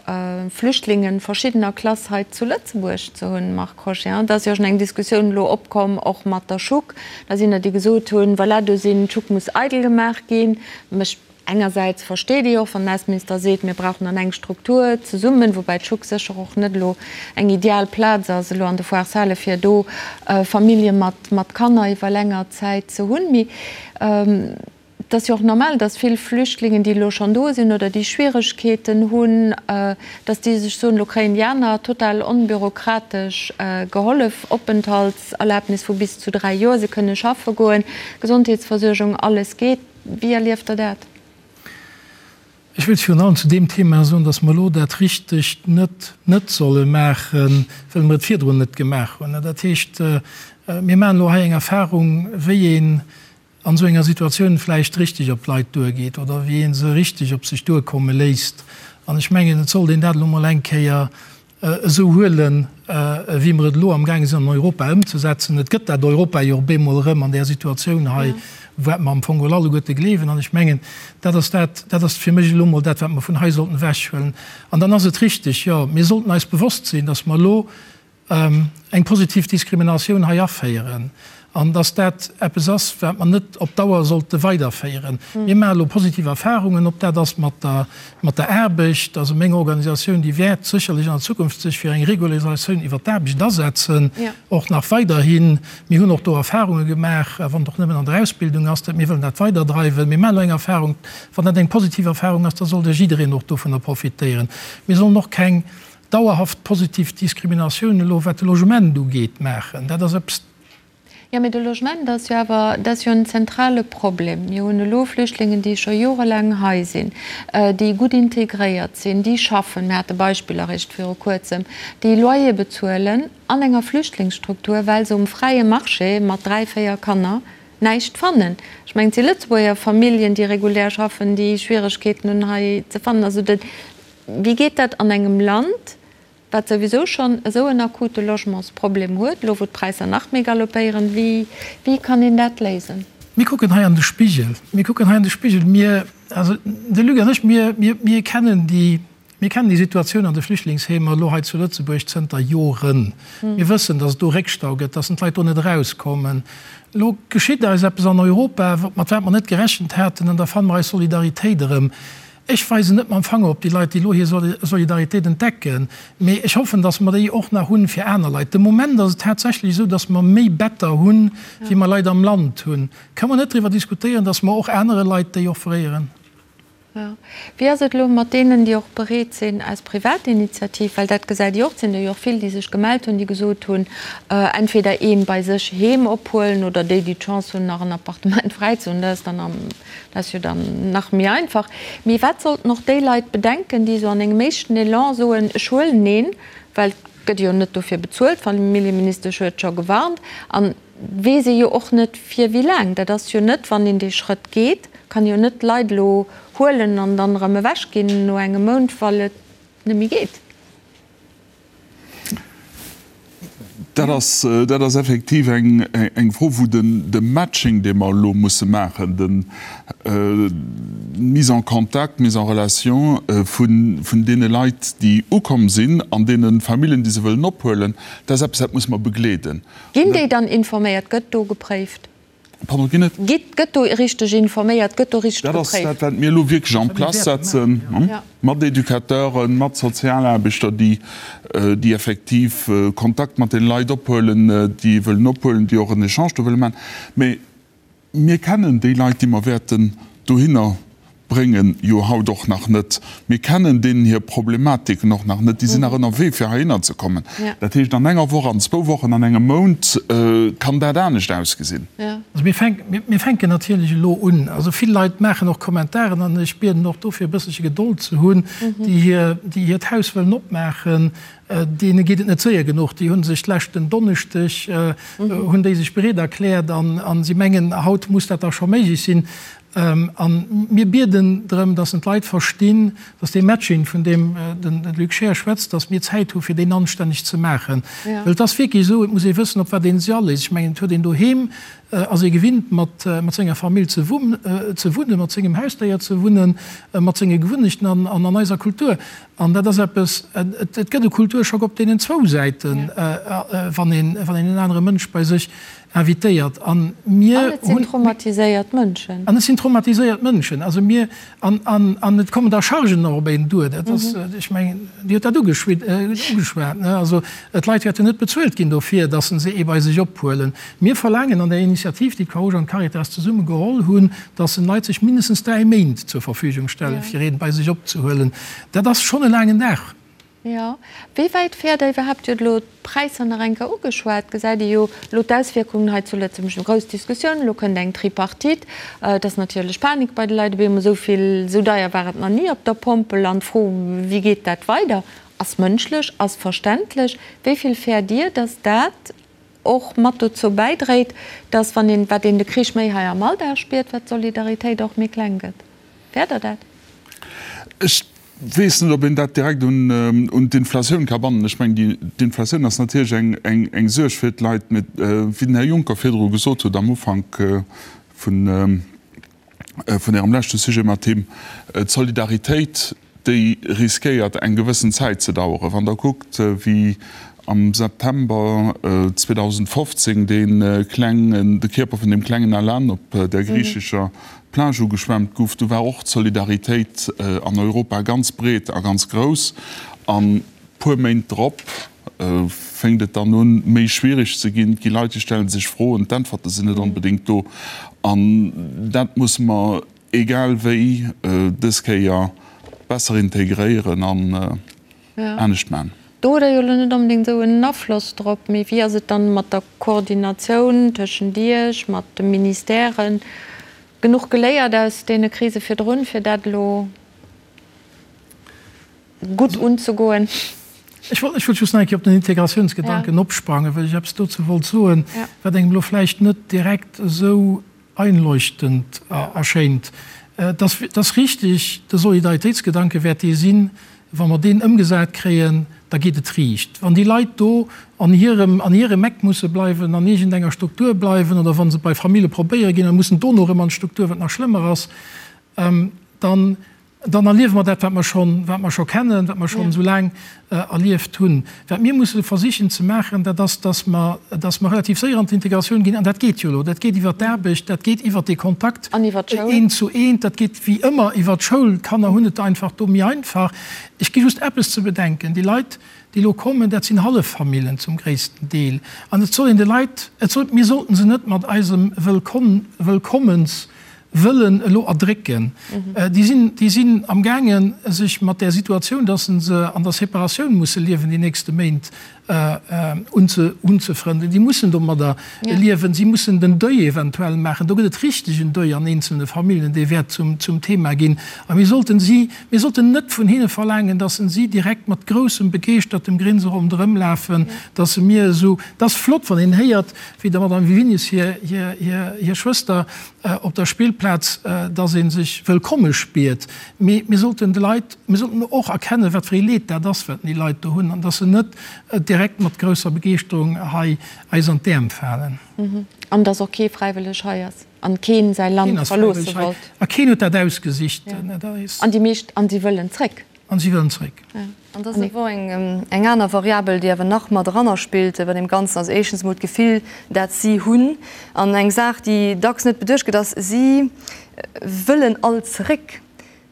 Flüchtlinge verschiddener Klass hei zu Lëtzebuerg ze hunn, Marc Crochet. Et ass jo schon eng Diskussioun elo opkomm, och mat der Schuck. Da sinn der, déi gesot hunn, voilà, do sinn, d'Schuck muss eidel gemaach ginn. Mécht. Engersäits versteet ee jo och, wann den Ausseminister seet, mir brauchen dann eng Struktur zesummen, woubäi d'Schuck sécher och net elo eng ideal Plaz ass elo an de Foires-Hale fir do Famillje mat Kanner iwwer länger Zäit ze hunn. Mee et ass jo och normal, datt vill Flüchtlingen, déi elo schonn do sinn oder déi Schwieregkeeten hunn, datt déi sech soen, elo kréien déi aner total onbürokratesch gehollef, Openthaltserlaabnis vu bis zu 3 Joer, se kënne schaffe goen, Gesondheetsversuergung, alles geet. Wéi erlieft Der dat? Ech wéilt virun allem zu deem Thema soen, dass mer elo dat Richtegt net net solle maachen, well mer et virdrun net gemaach hunn. Dat heescht, mir maachen elo hei eng Erfahrung, wéi een an esou enger Situatioun vläicht richtig op d'Leit duergeet oder wéi ee se richtig op sech duerkomme léisst. An ech mengen, et sollt een dat elo mol eng Kéier esou huelen, wéi mer et elo amgaange sinn an Europa ëmzesetzen. Et gëtt dat Europa jo op eemol erëm an där Situatioun hei, wat mer am Fong geholl alleguerte gleewen. An ech mengen, dat ass dat, dat ass fir mech elo emol dat, wat mer vun hei sollten ewechhuelen. An dann ass et richtig, jo, mir sollten eis bewosst sinn, dass mer elo eng positiv Diskriminatioun hei aféieren an dass dat eppes ass, wat mer net op Dauer sollte weiderféieren. Mir maache elo positiv Erfahrungen, ob dat ass mat der, mat der Aarbecht. Also meng Organisatioun, déi wäert sécherlech an der Zukunft sech fir eng Regularisatioun iwwert d'Aarbecht asetzen, och nach weiderhin. Mir hunn och do Erfahrunge gemaach, wann et och nëmmen an der Ausbildung ass, dat mir wëllen dat weiderdreiwen. Mir maachen elo eng Erfahrung. Wann dat eng positiv Erfahrung ass, da sollt jiddereen och dovunner profitéieren. Mir sollen och keng dauerhaft positiv Diskriminatioun elo wat de Logement ugeet maachen, dat ass eppes. Jo, mee de Logement ass jo awer, dat ass jo en zentrale Problem. Mir hunn elo Flüchtlingen, déi scho jorelaang hei sinn, déi gutt integréiert sinn, déi schaffen, mir hate Beispiller eréischt viru Kuerzem, déi Loyer bezuelen an enger Flüchtlingsstruktur, well se um fräie Marché mat 3, 4 Kanner näischt fannen. Ech mengen, et si Lëtzebuerger Familljen, déi regulär schaffen, déi Schwieregkeeten hunn hei ze fannen. Also dat. Wéi geet dat an engem Land, wat souwisou schonn esou en akute Logementsproblem huet, elo wou d'Präisser nach méi galoppéieren? Wéi, wéi kann een dat léisen? Mir kucken hei an de Spigel. Mir kucken hei an de Spigel. Mir, also de Luc an ech, mir, mir, mir kennen déi, mir kennen déi Situatioun an de Flüchtlingsheemer elo hei zu Lëtzebuerg zënter Joren. Mir wëssen, datt et do Réckstau gëtt, datt d'Leit do net erauskommen. Elo geschitt eis eppes an Europa, mat wat mer net gerechent haten, an da fanne mer eis Solidaritéit erëm. Ech weisen net mam Fanger op déi Leit, déi elo hir Solidaritéit entdecken, mee ech hoffen, datt mer déi och nach hunn fir aner Leit. De Moment ass et tatsächlech esou, datt mer méi Better hunn, wéi mer Leit am Land hunn. Kënne mer net driwwer diskutéieren, datt mer och anere Leit déi offréieren? Jo. Wéi ass et elo mat deenen, déi och bereet sinn aus Privatinitiativ, well dat gesäit Dir och, et sinn der jo och vill, déi sech gemellt hunn, déi gesot hunn, entweder ee bei sech heem ophuelen oder déi, déi d'Chance hunn, nach en Appartement fräi ze hunn, dat ass dann am Dat ass jo dann nach méi einfach. Mee wat sollten och déi Leit bedenken, déi esou an engem éischten Elan soen, ech huelen een, well et gëtt jo net dofir bezuelt, d'Familljeministesch huet scho gewarnt, an weess ee jo och net fir wéi laang. Dat ass jo net, wann een dee Schrëtt geet, kann ee jo net d'Leit elo huelen an dann erëm ewechginn no engem Mount, well et net méi geet. Dat ass, dat ass effektiv eng, eng Fro, wou den, de Matching, dee mer elo musse maachen, den, d'Mise en contact, d'Mise en relation vun, vun deene Leit, déi ukomm sinn, an deene Familljen, déi se wëllen ophuelen, dat ass eppes, dat musse mer begleeden. Ginn déi dann informéiert? Gëtt do gepréift? Pardon, ginn et? Gitt, gëtt do richteg informéiert, gëtt do richteg Dat ass dat, wat mir elo wierklech en place setzen, mat Educateuren, mat Sozialaarbechter, déi, déi effektiv Kontakt mat den Leit ophuelen, déi wëllen ophuelen, déi och en Echange do wëlle maachen. Mä mir kennen déi Leit, déi mer wäerten dohinner bréngen jo haut och nach net. Mir kennen deenen hir Problematiken och nach net. Déi sinn nach ënnerwee fir heihinner ze kommen. Dat heescht, an enger Woch, an zwou Wochen, an engem Mount kann dat anescht ausgesinn. Also mir fänken, mir fänken natierlech elo un. Also vill Leit maachen och Kommentaren an ech bieden och dofir e bësselche Gedold ze hunn, déi hir, déi hiert Haus wëllen opmaachen. Deene geet et net séier genuch. Déi hu sech d'leschten Donneschdeg hunn déi sech bereet erkläert an si mengen, haut muss dat da scho méiglech sinn. A mir bieden drëm, dass en d'Leit verstinn, dass dee Matching, vun deem de Luc Scheer schwätzt, dass mir Zäit hu fir deen anstänneg ze maachen. Well et ass wierklech esou, et muss ee wëssen, op wat ee sech aléisst. Ech mengen, et huet een doheem, ass ee gewinnt, mat senger Famill ze wunnen, mat sengem Hausdéier ze wunnen, mat senge Gewunnechten an an eiser Kultur. An dat ass eppes, et gëtt e Kulturschock op deenen zwou Säiten, wann een en anere Mënsch bei sech. Invitéiert. An mir An et sinn traumatiséiert Mënschen. An et sinn traumatiséiert Mënschen. Also mir, an, an, an et kommen da Chargen och op een duer. Dat ass, ech mengen, Dir hutt dat ugeschwat, ne? Also d'Leit wäerten net bezuelt ginn dofir, datt se ee bei sech ophuelen. Mir verlaangen an der Initiativ, déi d'Croix-Rouge an d'Caritas zesumme geholl hunn, datt den Leit sech mindestens 3 Méint zur Verfügung stellen, fir een bei sech opzehuelen. Dat ass schonn e laangen Dag. Jo. Wéi wäit fäert Der iwwerhaapt, Dir hutt elo d'Präisser nach eng Kéier ugeschwat, gesäit Dir jo elo d'Auswierkungen hei zu Lëtzebuerg, eng grouss Diskussioun, elo kënnt eng Tripartite, et ass natierlech Panik bei de Leit op eemol, esou vill, esou deier war et nach ni op der Pompel an d'Fro, wéi geet dat weider, ass mënschlech, ass verständlech. Wéi vill fäert Dir, datt dat och mat dozou bäidréit, datt, wann een, wat een de Krich méi hei am Alldag spiert, wat d'Solidaritéit och méi kleng gëtt? Fäert Der dat? Ech weess net, ob een dat direkt un d'Inflatioun ka bannen. Ech mengen, d'Inflatioun ass natierlech eng Suerg fir d'Leit. Mee wéi den Här Juncker virdru gesot huet am Ufank vun Ärem leschte Sujet mat him, d'Solidaritéit, déi riskéiert eng gewëssen Zäit ze daueren. Wann Der kuckt, wéi am September 2015 dee klengen, de Kierper vun deem klengen Alan op der griichescher Plage ugeschwemmt guff, du war och d'Solidaritéit an Europa ganz breet a ganz grouss. An puer Méint drop fénkt et dann un, méi schwierig ze ginn. Et gi Leit, déi stelle sech Froen, d'Äntwerte sinn net onbedéngt do. An dat musse mer egal wéi dës Kéier besser integréieren an anescht man. Do hutt Der jo elo net onbedéngt esou en Afloss drop, mee wéi ass et dann mat der Koordinatioun tëschent Iech, mat de Ministèren? Genuch geléiert aus deene Krise virdrun, fir dat elo gutt unzegoen? Ech wollt just nach eng Kéier op den Integratiounsgedanken opsprangen, well ech eppes dozou wollt soen, wat engem elo vläicht net direkt esou einleuchtend erschéint. Et ass richtig, de Solidaritéitsgedanke wäert dee sinn, wa mer deen ëmgesat kréien, da geet et riicht. Wann déi Leit do an hirem, an hirem Eck musse bleiwen, an iergendenger Struktur bleiwen oder wa se bei Famille probéiere ginn a mussen dono erëm an d'Struktur, wat nach schlëmmer ass, dann, Dann erliewe mer dat, wat mer schonn, wat mer scho kennen, wat mer schonn esou laang erlieft hunn. Wat mir musse versichen ze maachen, dat ass, dass mer, dass mer relativ séier an d'Integratioun ginn. An dat geet jo elo. Dat geet iwwert d'Aarbecht, dat geet iwwert dee Kontakt eent zu eent, dat geet wéi ëmmer iwwert d'Schoul. D'Kanner hunn et einfach do méi einfach. Ech gi just eppes ze bedenken, Déi Leit, déi elo kommen, dat sinn Halleffamillen zum gréissten Deel. An et soll een de Leit, et soll, mir sollten se net mat eisem Wëllkomm, Wëllkommens, wëllen elo erdrécken, déi sinn, déi sinn amgaangen, sech mat där Situatioun, dass se an der Separatioun musse liewen déi nächste Méint, unzefrënden. Déi mussen domadder liewen. Si mussen den Deuil eventuell maachen. Do gëtt et richtegen Deuil an eenzelne Familljen, dee wäert zum, zum Thema ginn. A mir sollten si, mir sollten net vun hinne verlaangen, dass si direkt mat groussem, begeeschtertem Grinse ronderëm lafen, dass se mir esou, et ass flott, wann een héiert, wéi der Madame Wiwinius hir, hir, hir, hir Schwëster, op der Spillplaz, dass ee sech wëllkomme spiert. Mee mir sollten de Leit, mir sollten och erkennen, wat fir ee Leed dat ass, wat déi Leit do hunn, an dass se net direkt mat grousser Begeeschterung hei eis an d'Äerm falen. An dass och kee fräiwëlleg hei ass an keen säi Land verloosse wollt. A keen huet dat ausgesicht. An déi meescht, an si wëllen zréck. An si wëllen zréck. An da ass awer eng aner Variabel, déi awer nach mat eranner spillt bei deem Ganzen, ass éischtens emol d'Gefill, dat si hunn. An eng Saach, déi dacks net beduecht gëtt, ass, si wëllen all zeréck.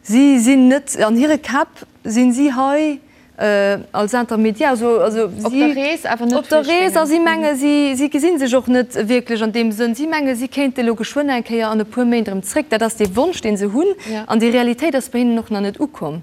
Si sinn net, an hire Käpp sinn si hei als Intermédiaire, also, also si, Op der Rees, awer net op der Rees, a si menge si, si gesi sech och net wierklech an deem Sënn, si menge si kéinte elo geschwënn eng Kéier an e puer Méint erëm zréck. Dat ass dee Wonsch, dee se hunn, an déi Realitéit ass bei hinnen och nach net ukomm.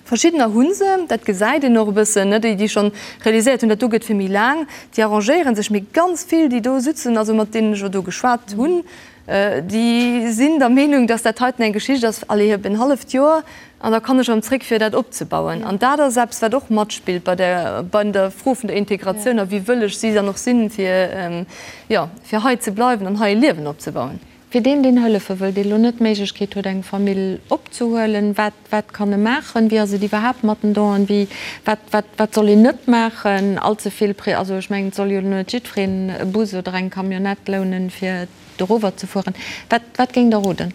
Verschiddener hu se, dat gesäit een och e bëssen, déi, déi schonn realiséiert hunn, dat do gëtt fir méi laang, déi arrangéiere sech. Mee ganz vill, déi do sutzen, also mat deenen ech elo do geschwat hunn, déi sinn der Meenung, dass dat heiten eng Geschicht ass, allez, op en halleft Joer an da kann ech erëm zréck, fir dat opzebauen. An dat ass eppes, wat och matspillt bei der, bei der Fro vun der Integratioun a wéi wëlleg si dann och sinn, fir, jo, fir hei ze bleiwen an hei e Liewen opzebauen. Fir deen, deen hëllefe wëll, dee lo net d'Méiglechkeet huet, eng Famill opzehuelen, wat, wat kann e maachen? Wéi ass et iwwerhaapt mat den Donen? Wéi, wat, wat, wat soll een net maachen? All ze vill Pré, also ech mengen, et soll jo lo net jiddwereen e Bus oder eng Camionnette lounen, fir dorower ze fueren. Wat, wat géingt Der roden?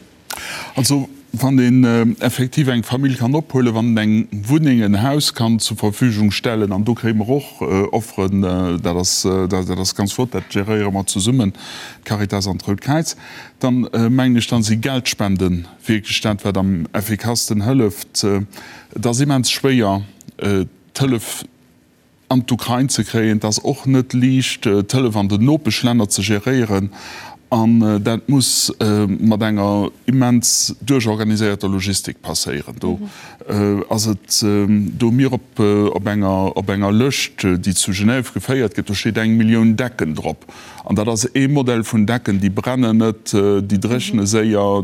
Also. Wann een effektiv eng Famill kann ophuelen, wann een eng Wunneng, en Haus kann zur Verfügung stellen, an do kréie mer och Offeren, dat ass, dat ass ganz flott, dat geréiere mer zesummen, d'Caritas an d'Rout Kräiz, dann mengen ech, dann si Geldspende wierklech dat, wat am effikassten hëlleft. Et ass immens schwéier, d'Hëllef an d'Ukrain ze kréien. Et ass och net liicht, d'Hëllef an den Nopeschlänner ze geréieren. An dat muss mat enger immens duerchorganiséierter Logistik passéieren. Do ass et, do hu mir op enger, op enger Lëscht, déi zu Genève geféiert gëtt, do steet eng Millioun Decken drop. An dat ass ee Modell vun Decken, déi brennen net, déi dréchne séier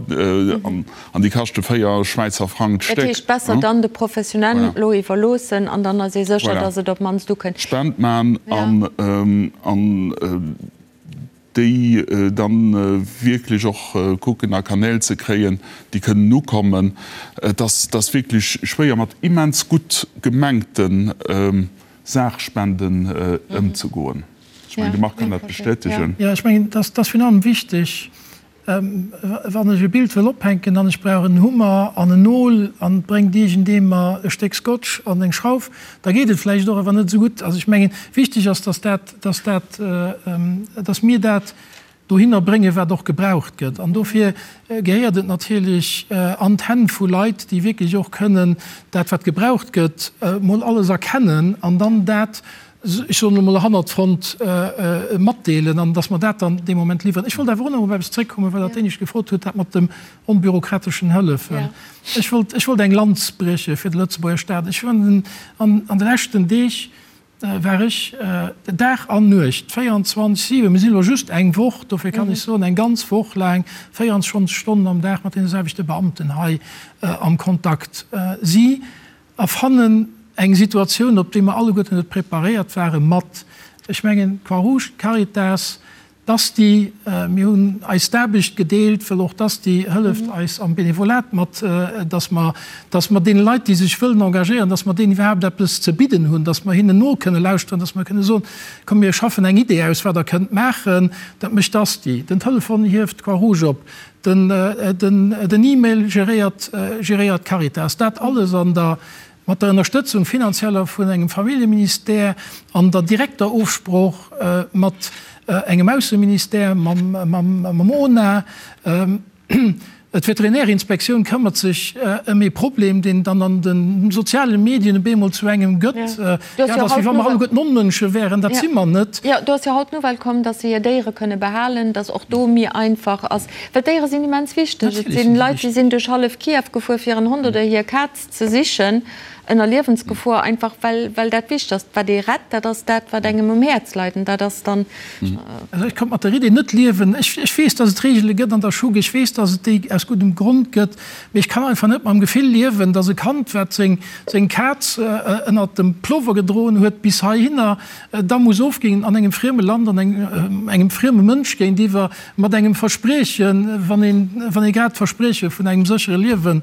an déi kaschte 4 Schwäizer Frang d'Stéck. Dat heescht, besser dann de Professionellen elo iwwerloossen an dann ass ee sécher, datt et op d'mannst ukënnt. Spend man an déi dann wierklech och kucken a Kanäl ze kréien, déi kënnen ukommen. Et ass wierklech schwéier mat immens gutt gemengte Saachspenden ëmzegoen. Ech mengen, de Marc kann dat bestätegen. Jo, ech mengen, et ass virun allem wichteg, wann ech e Bild wëll ophänken an ech brauch en Hummer an en Nol an et bréngt iergendee mer e Stéck Scotch an eng Schrauf, da geet et vläicht och, awer net esou gutt. Also ech mengen, wichteg ass, dass dat, dass dat, dass mir dat dohinner bréngen, wat och gebraucht gëtt. An dofir gehéiert et natierlech an d'Hänn vu Leit, déi wierklech och kënnen dat, wat gebraucht gëtt, mol alles erkennen an dann dat, ech soen elo mol, hannert d'Front matdeelen an dass mer dat dann dee Moment liwweren. Ech wollt awer och nach op eppes zréckkommen, well Der d'Éinescht gefrot hutt, dat mat dem onbürokrateschen Hëllefen. Ech wollt, ech wollt eng Lanz brieche fir de Lëtzebuerger Staat. Ech hunn an de leschten Deeg, war ech Dag an Nuecht, 24, 7, mir sinn elo just eng Woch, dofir kann ech soen, eng ganz Woch laang, 24 Stonnen am Dag mat deene selwechte Beamten hei am Kontakt. Si erfannen eng Situatioun, op déi mer alleguerten net preparéiert waren, mat, ech mengen, d'Croix-Rouge, d'Caritas, D'Asti, mir hunn eis d'Aarbecht gedeelt, well och d'Asti hëlleft eis am Benevolat mat, dass mer, dass mer deene Leit, déi sech wëllen engagéieren, dass mer deenen iwwerhaapt eppes ze bidden hunn, dass mer hinnen no kënne lauschteren, dass mer kënne soen, komm mir schaffen eng Idee aus, wat Der kënnt maachen. Dat mécht d'Asti. Den Telefon hieft d'Croix-Rouge op, den, den, den E-Mail geréiert, geréiert d'Caritas. Dat alles an der Mat der Ënnerstëtzung finanzieller vun engem Familljeministère an der direkter Ofsprooch mat engem Ausseministère, mam ONA. D'Veterinärinspektioun këmmert sech ëm ee Problem, deen dann an de soziale Medien op eemol zu engem gëtt. Jo, dat ass, wéi wa mer alleguerten Onmënsche wären. Dat si mer net. Jo, do ass jo haut d'Nouvelle komm, datt se hir Déiere kënne behalen, datt och do méi einfach ass. Well d'Déiere sinn immens wichteg. Et sinn Leit, déi sinn duerch hallef Kiew gefuer, fir hiren Hond oder hir Kaz ze sichen, ënner Liewensgefor, einfach well, well dat wichteg ass. Wat ee rett, dat ass dat, wat engem um Häerz leit, an dat ass dann. Also ech konnt mat der Idee net liewen. Ech, ech weess, dass et Reegele gëtt an der Schug, ech weess, dass et déi aus guddem Grond gëtt, mee ech kann einfach net mam Gefill liewen, dass e Kand, wat seng, seng Kaz ënnert dem Plover gedroen huet bis heihinner, da muss ofginn an engem frieme Land, an engem, engem frieme Mënsch géintiwwer, mat engem Verspriechen, wann een, wann ee grad d'Versprieche vun engem séchere Liewen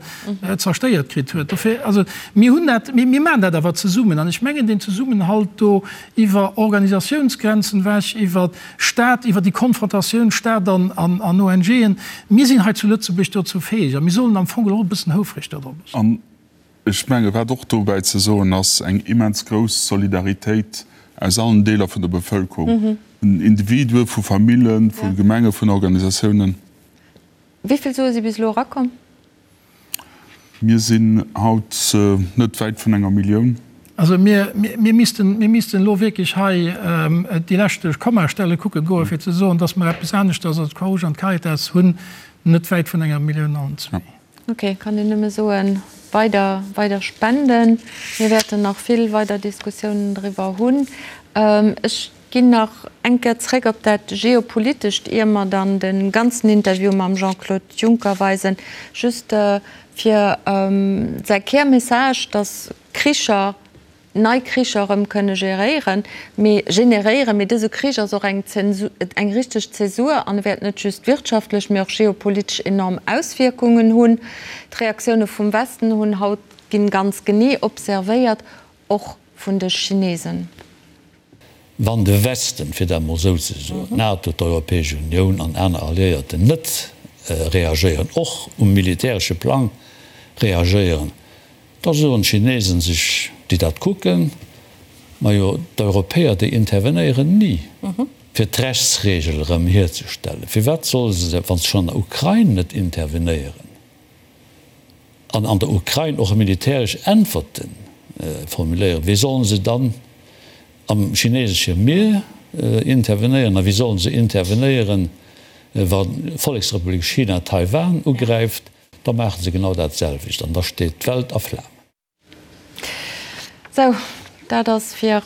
zerstéiert kritt huet. Dofir, also mir hunn dat, mir, mir maachen dat awer zesummen. An ech mengen, deen Zesummenhalt do iwwer Organisatiounsgrenzen ewech, iwwer Stat, iwwer déi Konfrontatioun Stat an, an, an ONGen, mir sinn hei zu Lëtzebuerg dozou fäeg a mir sollen am Fong och e bëssen houfreg dodrop sinn. An ech menge wat och dobäi ze soen ass, eng immens grouss Solidaritéit aus allen Deeler vun der Bevëlkerung, vun Individuen, vu Famillen, vu Gemengen, vun Organisatiounen. Wéi vill Sue si bis elo erakomm? Mir sinn haut net wäit vun enger Millioun. Also mir, mir missten, mir missten elo wierklech hei déi leschte Kommastelle kucke goen, fir ze soen, dass mer eppes aneschters als d'Croix-Rouge an d'Caritas hunn, net wäit vun enger Millioun allen zwee. Ok, kann een nëmme soen, weider, weider spenden. Mir wäerten nach vill weider Diskussiounen driwwer hunn. Ech ginn nach eng Kéier zréck op dat Geopolitescht, ier mer dann de ganzen Interview mam Jean-Claude Juncker weisen. Just fir säi Kärmessage, dass Kricher, nei Kricher erëm kënne geréieren, mee generéieren. Mee dëse Krich ass och eng Zensur, eng richteg Zäsur an e wäert net just wirtschaftlech, mee och geopolitesch enorm Auswierkungen hunn. D'Reaktioune vum Westen hunn haut ginn ganz genee observéiert, och vun de Chinesen. Wann de Westen, fir dat emol esou ze soen, d'NATO, d'Europäesch Unioun an aner Alliéierten net. reagéieren, och um militäresche Plang reagéieren, da soen d'Chinesen sech, déi dat kucken, Majo, d'Europäer, déi intervenéieren ni, fir d'Rechtsregel erëm hierzestellen. Firwat solle se, wa se schonn an der Ukrain net intervenéieren an an der Ukrain och militäresch Äntwerte formuléieren, wéi solle se dann am chinesesche Mier intervenéieren a wéi solle se intervenéieren, wa Volleksrepublik China Taiwan ugräift? Da maache se genau dat selwecht an da steet d'Welt a Flamen. Sou, dat ass fir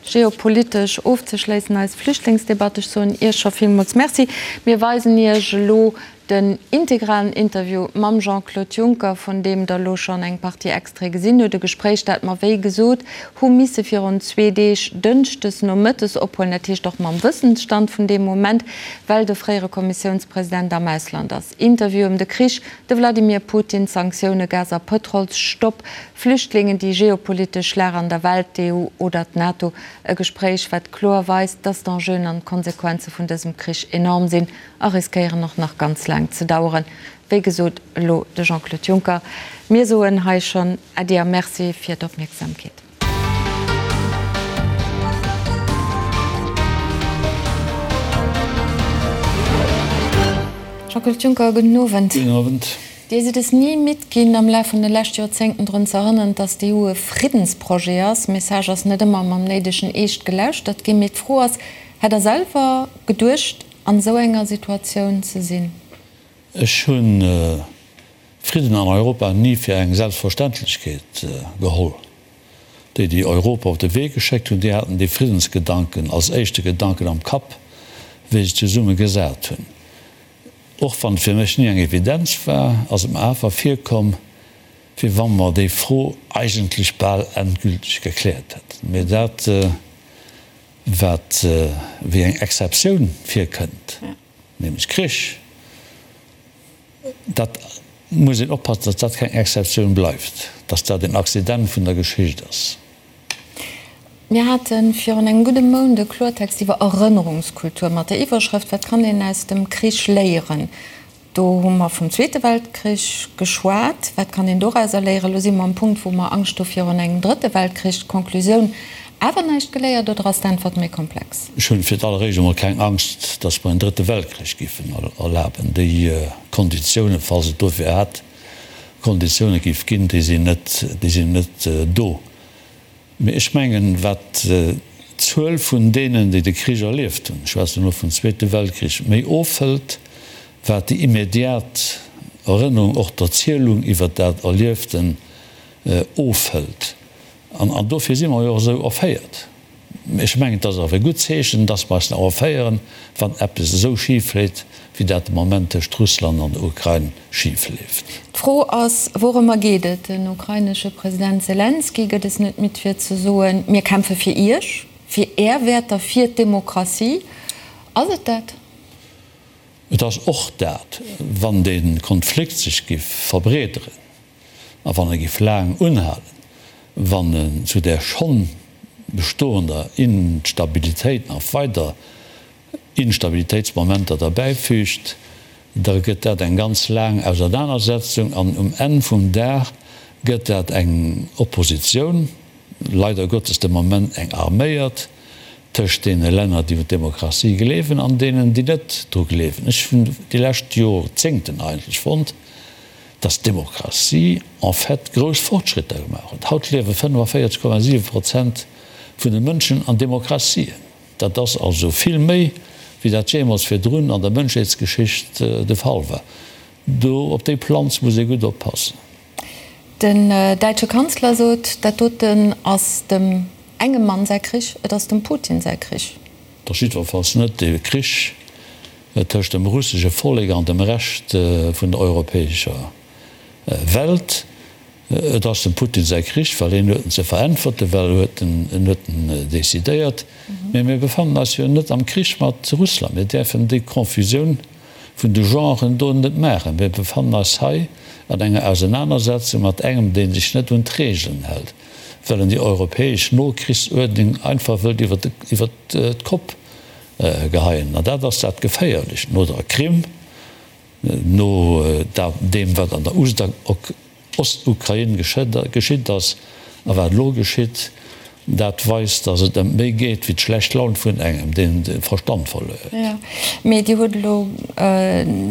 geopolitesch ofzeschléissen eis Flüchtlingsdebatt. Ech soen Iech scho villmools Merci. Mir weisen Iech elo den integralen Interview mam Jean-Claude Juncker, vun deem Der elo schonn eng Partie Extraite gesinn hutt. E Gespréich, dat mer, wéi gesot, hu misse virun zwee Deeg, dënschdes nomëttes, ophuelen. Dat heescht och mam Wëssensstand vun deem Moment, well de fréiere Kommissiounspresident am Ausland ass. Interview ëm de Krich, de Vladimir Putin, Sanktioune, Gas a Pëtrolsstopp, Flüchtlingen, déi geopolitesch Lag an der Welt, d'EU oder d'NATO. E Gespréich, wat kloer weist, dass d'Enjeuen an d'Konsequenze vun dësem Krich enorm sinn a riskéieren och nach ganz laang ze daueren. Wéi gesot, elo de Jean-Claude Juncker. Mir soen hei schonn Äddi a Merci fir d'Opmierksamkeet. Jean-Claude Juncker, gudden Owend. Gudden Owend. Dir sidd es ni midd ginn, am Laf vun de leschte Joerzéngten drun ze erënneren, datt d'EU e Friddensprojet ass. Message ass net ëmmer mam néidegen Eescht gelauschtert ginn. Mee d'Fro ass, Hätt Der selwer geduecht, an esou enger Situatioun ze sinn? Ech hunn Fridden an Europa ni fir eng Selbstverständlechkeet geholl. Déi, déi Europa op de Wee geschéckt hunn, déi haten dee Friddensgedanken als éischte Gedanken am Kapp, wéi se zesumme gesat hunn. Och wann et fir mech ni eng Evidenz war, ass et mer awer virkomm, wéi wa mer déi Fro eigentlech bal endgülteg gekläert hätten. Mee dat, wat wéi eng Exceptioun virkënnt, nämlech Krich, dat muss een oppassen, datt dat keng Exceptioun bleift, datt dat een Accident vun der Geschicht ass. Mir hate virun engem gudde Mount e Kloertext iwwer Erënnerungskultur mat der Iwwerschrëft Wat kann een aus dem Krich léieren? Do hu mer vum Zweete Weltkrich geschwat. Wat kann een dorauser léieren? Elo si mer um Punkt, wou mer Angscht hu virun engem Drëtte Weltkrich. D'Conclusioun, Awer näischt geléiert oder ass d'Äntwert méi komplex? Ech hunn fir d'alleréischt emol keng Angscht, datt mer en Drëtte Weltkrich giffen erlaben. Déi Konditiounen, falls et dofir hätt Konditioune giff ginn, déi sinn net, déi sinn net do. Mee ech mengen, wat d'Zuel vun deenen, déi de Krich erlieft hunn, ech schwätzen elo vum Zweete Weltkrich, méi ofhëlt, wat déi immediat Erënnerung, och d'Erzielung iwwert dat Erlieften ofhëlt. An dofir si mer jo och esou erféiert. Ech mengen, et ass awer e gutt Zeechen, dass mer eis nach erféieren, wann eppes esou schif leet, wéi dat de Moment tëscht Russland an der Ukrain schif leeft. D'Fro ass, Wourëmmer geet et? Den ukrainesche President Selenskyj gëtt es net midd fir ze soen, Mir kämpfe fir Iech, fir Är Wäerter, fir d'Demokratie. Ass et dat? Et ass och dat, wann dee Konflikt sech giff verbreederen a wann e giff laang unhalen, wann en zu där schonn bestoender Instabilitéit nach weider Instabilitéitsmomenter derbäifügt, da gëtt dat eng ganz laang Ausernanersetzung an um Enn vum Dag gëtt dat eng Oppositioun, leider Gottes de Moment eng arméiert, tëscht deene Länner, déi un d'Demokratie gleewen an deenen, déi net dru gleewen. Ech hunn déi lescht Jorzéngten eigentlech fonnt, dass d'Demokratie en fait grouss Fortschritter gemaach huet. Haut liewe 45,7 Prozent vun de Mënschen an Demokratien. Dat ass also vill méi, wéi dat jeemools virdrun an der Mënschheetsgeschicht de Fall war. Do op déi Planz muss ee gutt oppassen. Den däitsche Kanzler sot, dat doten ass dem engem Mann säi Krich, et ass dem Putin säi Krich. Et ass jiddwerfalls net de Krich tëscht dem russesche Vollek an dem Rescht vun der europäescher Welt. Et ass dem Putin säi Krich, well hien huet en ze veräntwerten, well huet en, en huet en decidéiert. Mee mir befannen eis jo net am Krich mat Russland. Mir däerfen déi Confusioun vun de Genren do net maachen. Mir befannen eis hei an enger Ausenanersetzung mat engem, dee sech net un d'Regeln hält, well en déi europäesch Nokrichsuerdnung einfach wëllt iwwer d'Kopp geheien. An dat ass dat Geféierlecht no der Krim. No deem, wat an der Ostukrain geschitt ass a wat elo geschitt, dat weist, datt et ëm méi geet wéi d'schlecht Laun vun engem, deen de Verstand verluer huet. Jo, mee Dir hutt elo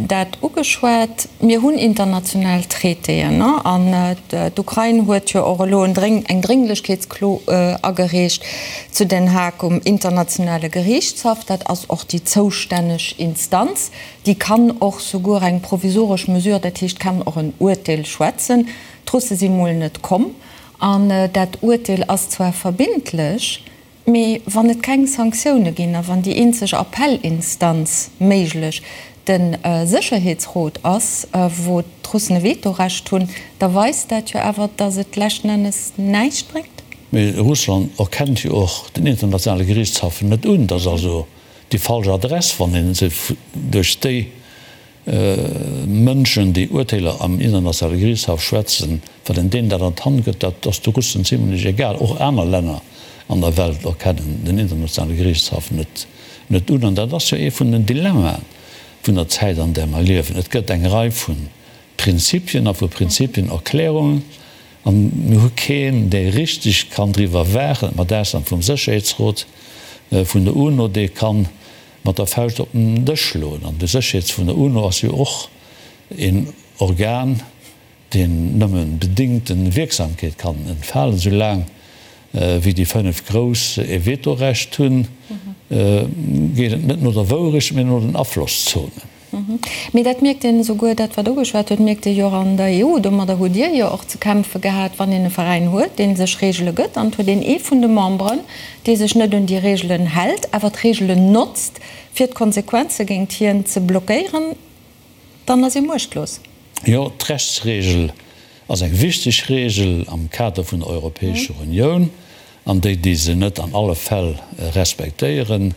dat ugeschwat. Mir hunn international Traitéen, an d'Ukrain huet jo och elo eng Drénglechkeetsklo agereecht zu Den Haag um internationale Geriichtshaff. Dat ass och déi zoustänneg Instanz. Déi kann och souguer eng provisoresch Mesure, dat heescht kann och en Uerteel schwätzen. D'Russe si mol net komm an dat Uerteel ass zwar verbindlech, mee wann et keng Sanktioune ginn a wann déi eenzeg Appellinstanz méiglech de Sécherheetsrot ass, wou d'Russen e Vetorecht hunn, da weist dat jo awer, datt et leschten Ennes näischt bréngt. Mee Russland erkennt jo och den internationale Geriichtshaff net un. Dat ass also déi falsch Adress, wann een se duerch déi Mënschen, déi Urteeler am Internationale Geriichtshaff schwätzen, wann een deenen dat an d'Hand gëtt, dat ass de Russen zimlech egal. Och aner Länner an der Welt erkennen den Internationale Geriichtshaff net net un. An dat ass jo ee vun den Dilemmaen vun der Zäit, an där mer liewen. Et gëtt eng Rei vu Prinzipien a vu Prinzipienerklärungen, an mir hu keen, dee richteg kann driwwer waachen, mat Ausnam vum Sécherheetsrot vun der UNO, dee kann mat der Fauscht op den Dësch schloen. An de Sécherheets vun der UNO ass jo och een Organ, deen nëmme bedingte Wierksamkeet kann entfalen, soulaang wéi déi 5 Grouss e Vetorecht hunn, geet et net no der Wourecht, mee no den Aflosszonen. Mee dat mierkt een esouguer, dat wat ugeschwat huet, mierkt ee jo och an der EU. Domadder hutt Dir jo och ze kämpfe gehat, wann een e Veräin huet, dee sech Reegele gëtt, an et huet een ee vun de Memberen, dee sech net un déi Reegelen hält, awer d'Reegelen notzt, fir d'Konsequenze géint hien ze blockéieren, dann ass ee muechtlos. Jo, d'Rechtsreegel ass eng wichteg Reegel am Kader vun der Europäescher Unioun, an déi, déi se net an alle Fäll respektéieren,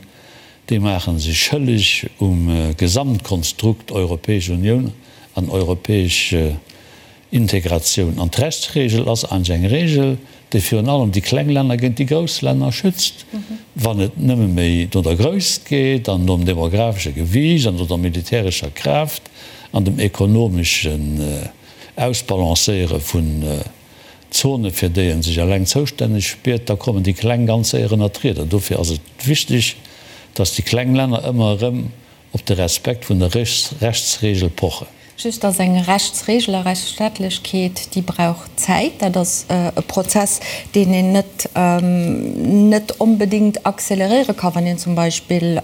déi maache sech schëlleg um Gesamtkonstrukt Europäesch Unioun an europäesch Integratioun. An d'Rechtsregel ass eigentlech eng Regel, déi virun allem déi kleng Länner géint déi grouss Länner schützt. Wann et nëmme méi no der Grösst geet an nom demographesche Gewiicht an no der militärescher Kraaft an dem ekonomeschen Ausbalancéiere vun Zone fir déi en sech eleng zoustänneg spiert, da kommen déi kleng ganz séier ënnert d'Rieder. Dofir ass et wichteg, datt déi kleng Länner ëmmer erëm op de Respekt vun der Rechtsregel pochen. Just ass eng Rechtsregel a Rechtsstaatlechkeet, déi brauch Zäit. Dat ass e Prozess, deen een net net onbedéngt acceleréiere ka wann een zum Beispill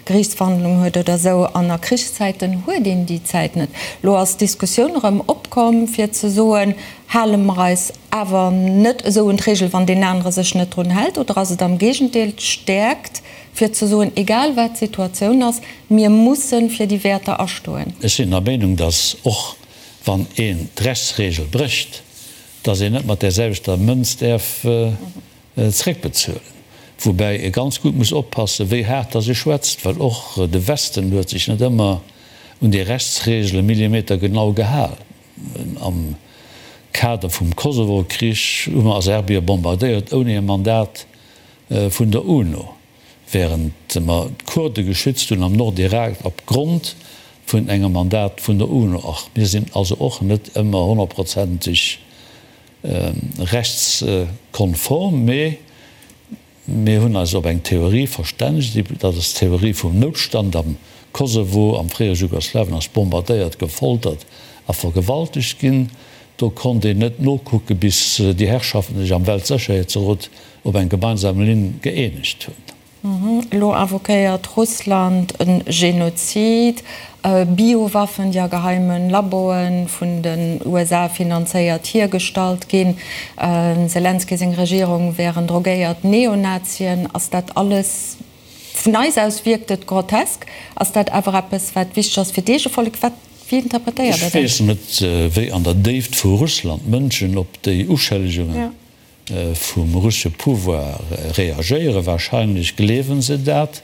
Geriichtsverhandlungen huet oder esou. An a Krichszäiten huet een déi Zäit net. Elo ass d'Diskussioun erëm opkomm, fir ze soen, Hale mer eis awer net esou un d'Regel, wann deen anere sech net drun hält? Oder ass et am Géigendeel d'Stäerkt, fir ze soen, egal wat d'Situatioun ass, mir musse fir déi Wäerter astoen? Ech sinn der Meenung, datt och wann een d'Rechtsregel brécht, datt een net mat där selwechter Mënz däerf zréckbezuelen. Woubäi ee ganz gutt muss oppassen, wéi haart datt ee schwätzt, well och de Westen huet sech net ëmmer un déi Rechtsregele millimetergenau gehal. Am Kader vum Kosovo-Krich hu mer a Serbie bombardéiert ouni e Mandat vun der UNO, wärend mer d'Kurde geschützt hunn am Nordirak op Grond vun engem Mandat vun der UNO. Och mir sinn also och net ëmmer honnertprozenteg rechtskonform, mee Mir hunn eis op eng Theorie verstännegt, dat ass d'Theorie vum Noutstand am Kosovo, am fréiere Jugoslawien ass bombardéiert, gefoltert a vergewaltegt ginn. Do konnt een net nokucke bis déi Herrschaften sech am Weltsécherheetsrot op eng gemeinsam Linn gëeenegt hunn. Elo invoquéiert Russland e Genozid, Biowaffen, déi a geheime Laboe vun den USA finanzéiert hiergestallt ginn. Dem Selenskyj seng Regierung wären drogéiert Neonazien. Ass dat alles, vun eis aus wierkt et grotesk, ass dat awer eppes, wat wichteg ass fir d'Eegevollek? Wat, wéi interpretéiert Der dat? Ech weess net, wéi an der Déift vu Russland d'Mënschen op déi Uschëllegungen vum russesche Pouvoir reagéieren. Wahrscheinlech gleewen se dat,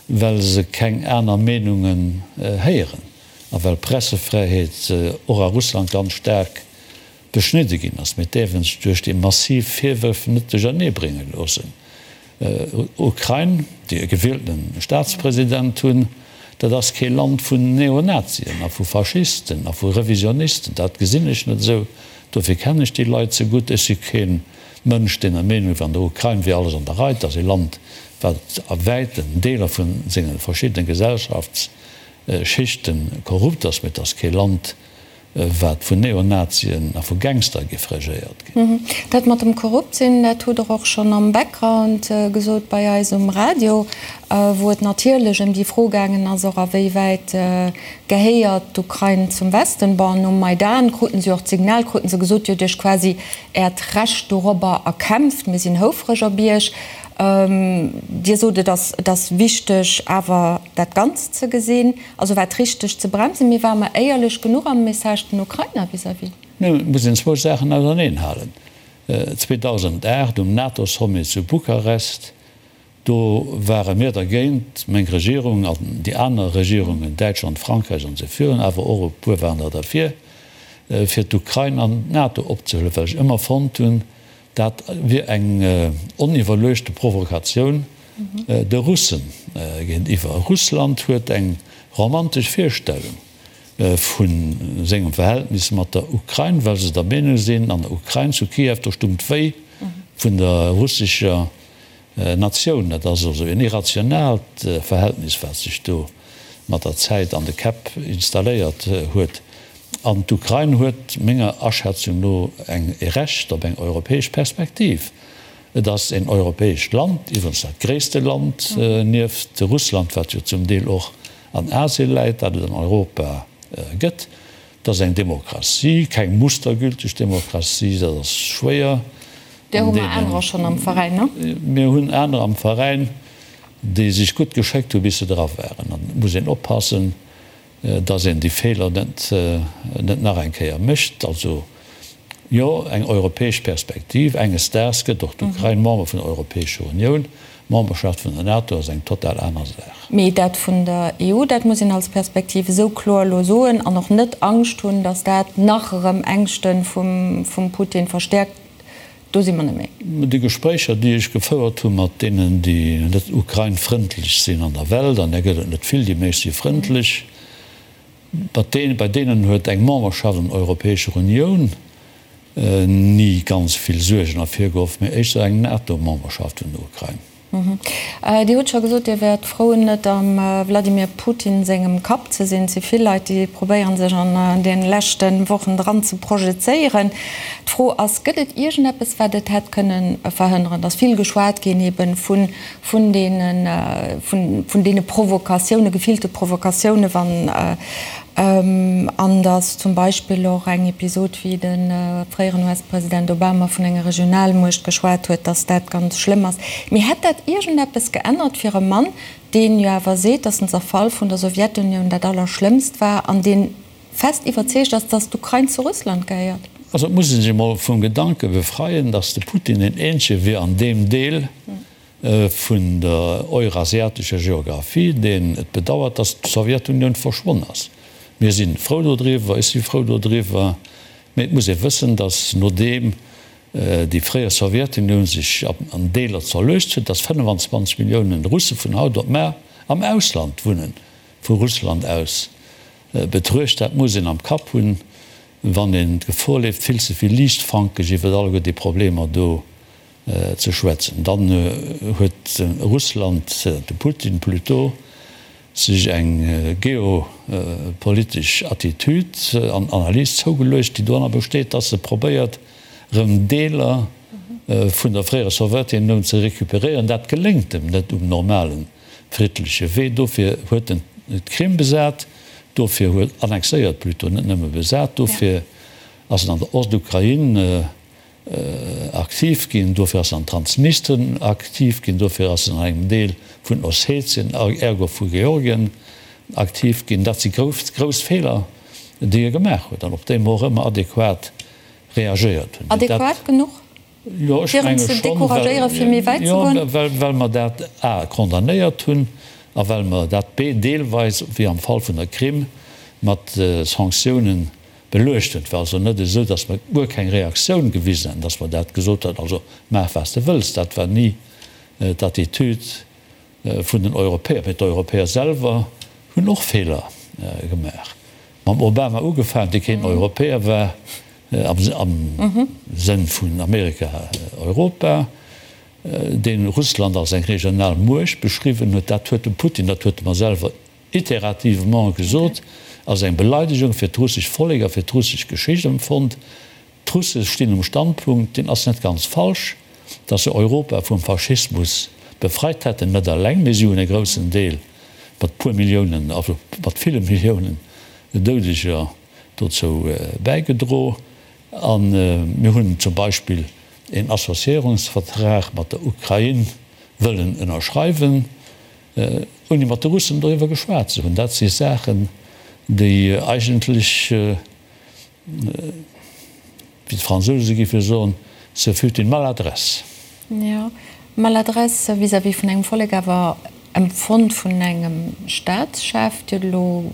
well se keng aner Meenungen héieren a well d'Pressefräiheet och a Russland ganz staark beschnidde ginn ass. Mee et däerf een sech duerch déi massiv Virwërf net duerchernee brénge loossen. Ukrain, déi e gewieltene Staatspresident hunn. Dat ass kee Land vun Neonazien a vu Faschisten a vu Revisionisten. Dat gesinn ech net esou. Dofir kennen ech déi Leit ze gutt. Ech si kee Mënsch, deen der Meenung wier, an der Ukrain wier alles an der Rei. Et ass ee Land, wat a wäiten Deeler vu senge verschiddene Gesellschaftsschichte korrupt ass, mee et ass kee Land, wat vun Neonazien a vu Gangster géif regéiert ginn. Dat mat dem korrupt sinn, dat hutt Der och schonn am Background gesot bei eis um Radio, wou et natierlech ëm déi Fro gaangen ass, och a wéi wäit gehéiert d'Ukrain zum Westen. Bon, nom Maidan kruten se jo och d'Signal, kruten se gesot, Dir hutt Iech quasi Äert Recht dorobber erkämpft, mir sinn houfreg op Iech. Dir sot, et ass, et ass wichteg awer dat Ganzt ze gesinn. Also war et richteg ze bremsen, mee ware mer éierlech genuch am Message den Ukrainer vis-à-vis? Nun, et muss een zwou Saachen auserneen halen. 2008 um NATO-Sommet zu Bukarest, do ware mir dergéint, meng Regierung an déi aner Regierungen, Däitschland, Frankräich an esou virun, awer och e puer waren der derfir, fir d'Ukrain an d'NATO opzehuelen, well ech ëmmer fonnt hunn, Dat wier eng oniwwerluechte Provokatioun de Russe géintiwwer. Russland huet eng romantesch Virstellung vu sengem Verhältnis mat der Ukrain, well se der Meenung sinn, an der Ukrain, zu Kiew, do stung d'Wéi vun der russescher Natioun. Dat ass also en irrationaalt Verhältnis, wat sech do mat der Zäit an de Käpp installéiert huet. An d'Ukrain huet menger Aschätzung no eng e Recht op eng europäesch Perspektiv. Et ass en europäescht Land, iwwerens dat gréisste Land nieft Russland, wat jo zum Deel och an Asien läit, dat et an Europa gëtt. Et ass eng Demokratie, keng mustergülteg Demokratie, dat ass schwéier. Där hu mer anerer schonn am Veräin, ne? Mir hunn anerer am Veräin, déi sech gutt geschéckt hu bis se dra waren. An et muss een oppassen, dass een déi Feeler net net nach eng Kéier mécht. Also jo, eng europäesch Perspektiv. Enges Daags gëtt och d'Ukrain Member vun der Europäescher Unioun. D'Memberschaft vun der NATO ass eng total aner Saach. Mee dat vun der EU, dat muss een als Perspektiv esou kloer elo soen an och net Angscht hunn, dass dat nach erëm Ängschte vum Putin verstäerkt. Do si mer net méi. Déi Gespréicher, déi ech gefouert hu mat deenen, déi net ukrainfrëndlech sinn an der Welt, an där gëtt et net vill, déi meescht si frëndlech, mat deenen, bei deenen huet eng Memberschaft an der Europäescher Unioun ni ganz vill Suergen ervirgeruff, mee éischter eng NATO-Memberschaft vun der Ukrain. Dir hutt scho gesot, Dir wäert frou, net am Wladimir Putin sengem Kapp ze sinn. Et si vill Leit, déi probéieren, sech an de leschte Wochen dran ze projezéieren. D'Fro ass, Gëtt et iergendeppes, wat et hätt kënne verhënneren? Et ass vill geschwat ginn eebe vun deene Provokatiounen, gefillte Provokatiounen, wann An datt zum Beispill och eng Episod, wéi de fréieren US-President Obama vun enger Regionalmuecht geschwat huet, datt dat ganz schlëmm ass. Mee hätt dat iergendeppes geännert fir e Mann, deen jo awer seet, datt den Zerfall vun der Sowjetunioun dat Allerschlëmmst war an dee fest iwwerzeegt ass, datt d'Ukrain zu Russland gehéiert? Also et muss ee sech emol vum Gedanke befreien, datt de Putin deen eenzege wier an deem Deel, vun der eurasiatescher Geographie, deen et bedauert, datt d'Sowjetunioun verschwonn ass. Mir si frou dodriwwer, ech si frou dodriwwer, mee et muss ee wëssen, datt nodeem déi fréier Sowjetunioun sech an Deeler zerluecht huet, datt 25 Milliounen Russe vun haut op mar am Ausland wunnen, vu Russland aus betruecht. Dat muss een am Kapp hunn, wann een d'Gefor leeft, vill ze vill liichtfankeg iwwer alleguer déi Problemer do ze schwätzen. Dann huet Russland, de Putin plutôt, sech eng geopolitesch Attitude an Analys zougeluecht, déi doranner besteet, dass e probéiert, erëm Deeler vun der fréierer Sowjetunioun ze recuperéieren. Dat geléngt em net um normale friddleche Wee. Dofir huet en d'Krim besat, dofir huet, annexéiert plutôt, net nëmme besat, dofir ass en an der Ostukrain aktiv ginn, dofir ass en an Transnistrien aktiv ginn, dofir ass en an engem Deel vun Ossetien, ergo vu Georgien aktiv ginn. Dat si grouss, grouss Feeler, déi e gemaach huet an op déi mer och ëmmer adequat reagéiert hunn. Adequat genuch, Jo, ech fir en menge ze schonn, decouragéieren, fir méi wäit ze jo, goen? well, well mer dat a condamnéiert hunn a well mer dat b deelweis, wéi am Fall vun der Krim, mat Sanktiounen Beluecht hunn. Et war also net esou, datt mer guer keng Reaktioun gewisen hätten, datt mer dat gesot hätten, also maach wat s de wëlls. Dat war ni d'Attitude vun den Europäer. Mee d'Europäer selwer. Hunn och Feeler gemaach. Mam Obama ugefaangen, dee keen Europäer war, am Sënn vun Amerika, Europa, dee Russland als eng regional Muecht beschriwwen huet. Dat huet de Putin, dat huet e mer selwer iterativement gesot, als eng Beleidegung fir d'russescht Vollek a fir d'russesch Geschicht empfonnt. D'Russe stinn um Standpunkt, deen ass net ganz falsch, datt se Europa vum Faschismus befreit hätten, net eleng, mee si hunn e groussen Deel mat puer Milliounen, also mat ville Milliounen Doudeger dozou bäigedro. A mir hunn zum Beispill een Associéierungsvertrag mat der Ukrain wëllen ënnerschreiwen, ouni mat de Russen doriwwer geschwat ze hunn. Dat si Saachen, déi eigentlech, Wéi d'Fransouse géife soen, ce fut une maladresse. Jo, Maladresse vis-à-vis vun engem Vollek, awer empfonnt vun engem Staatschef. Dir hutt elo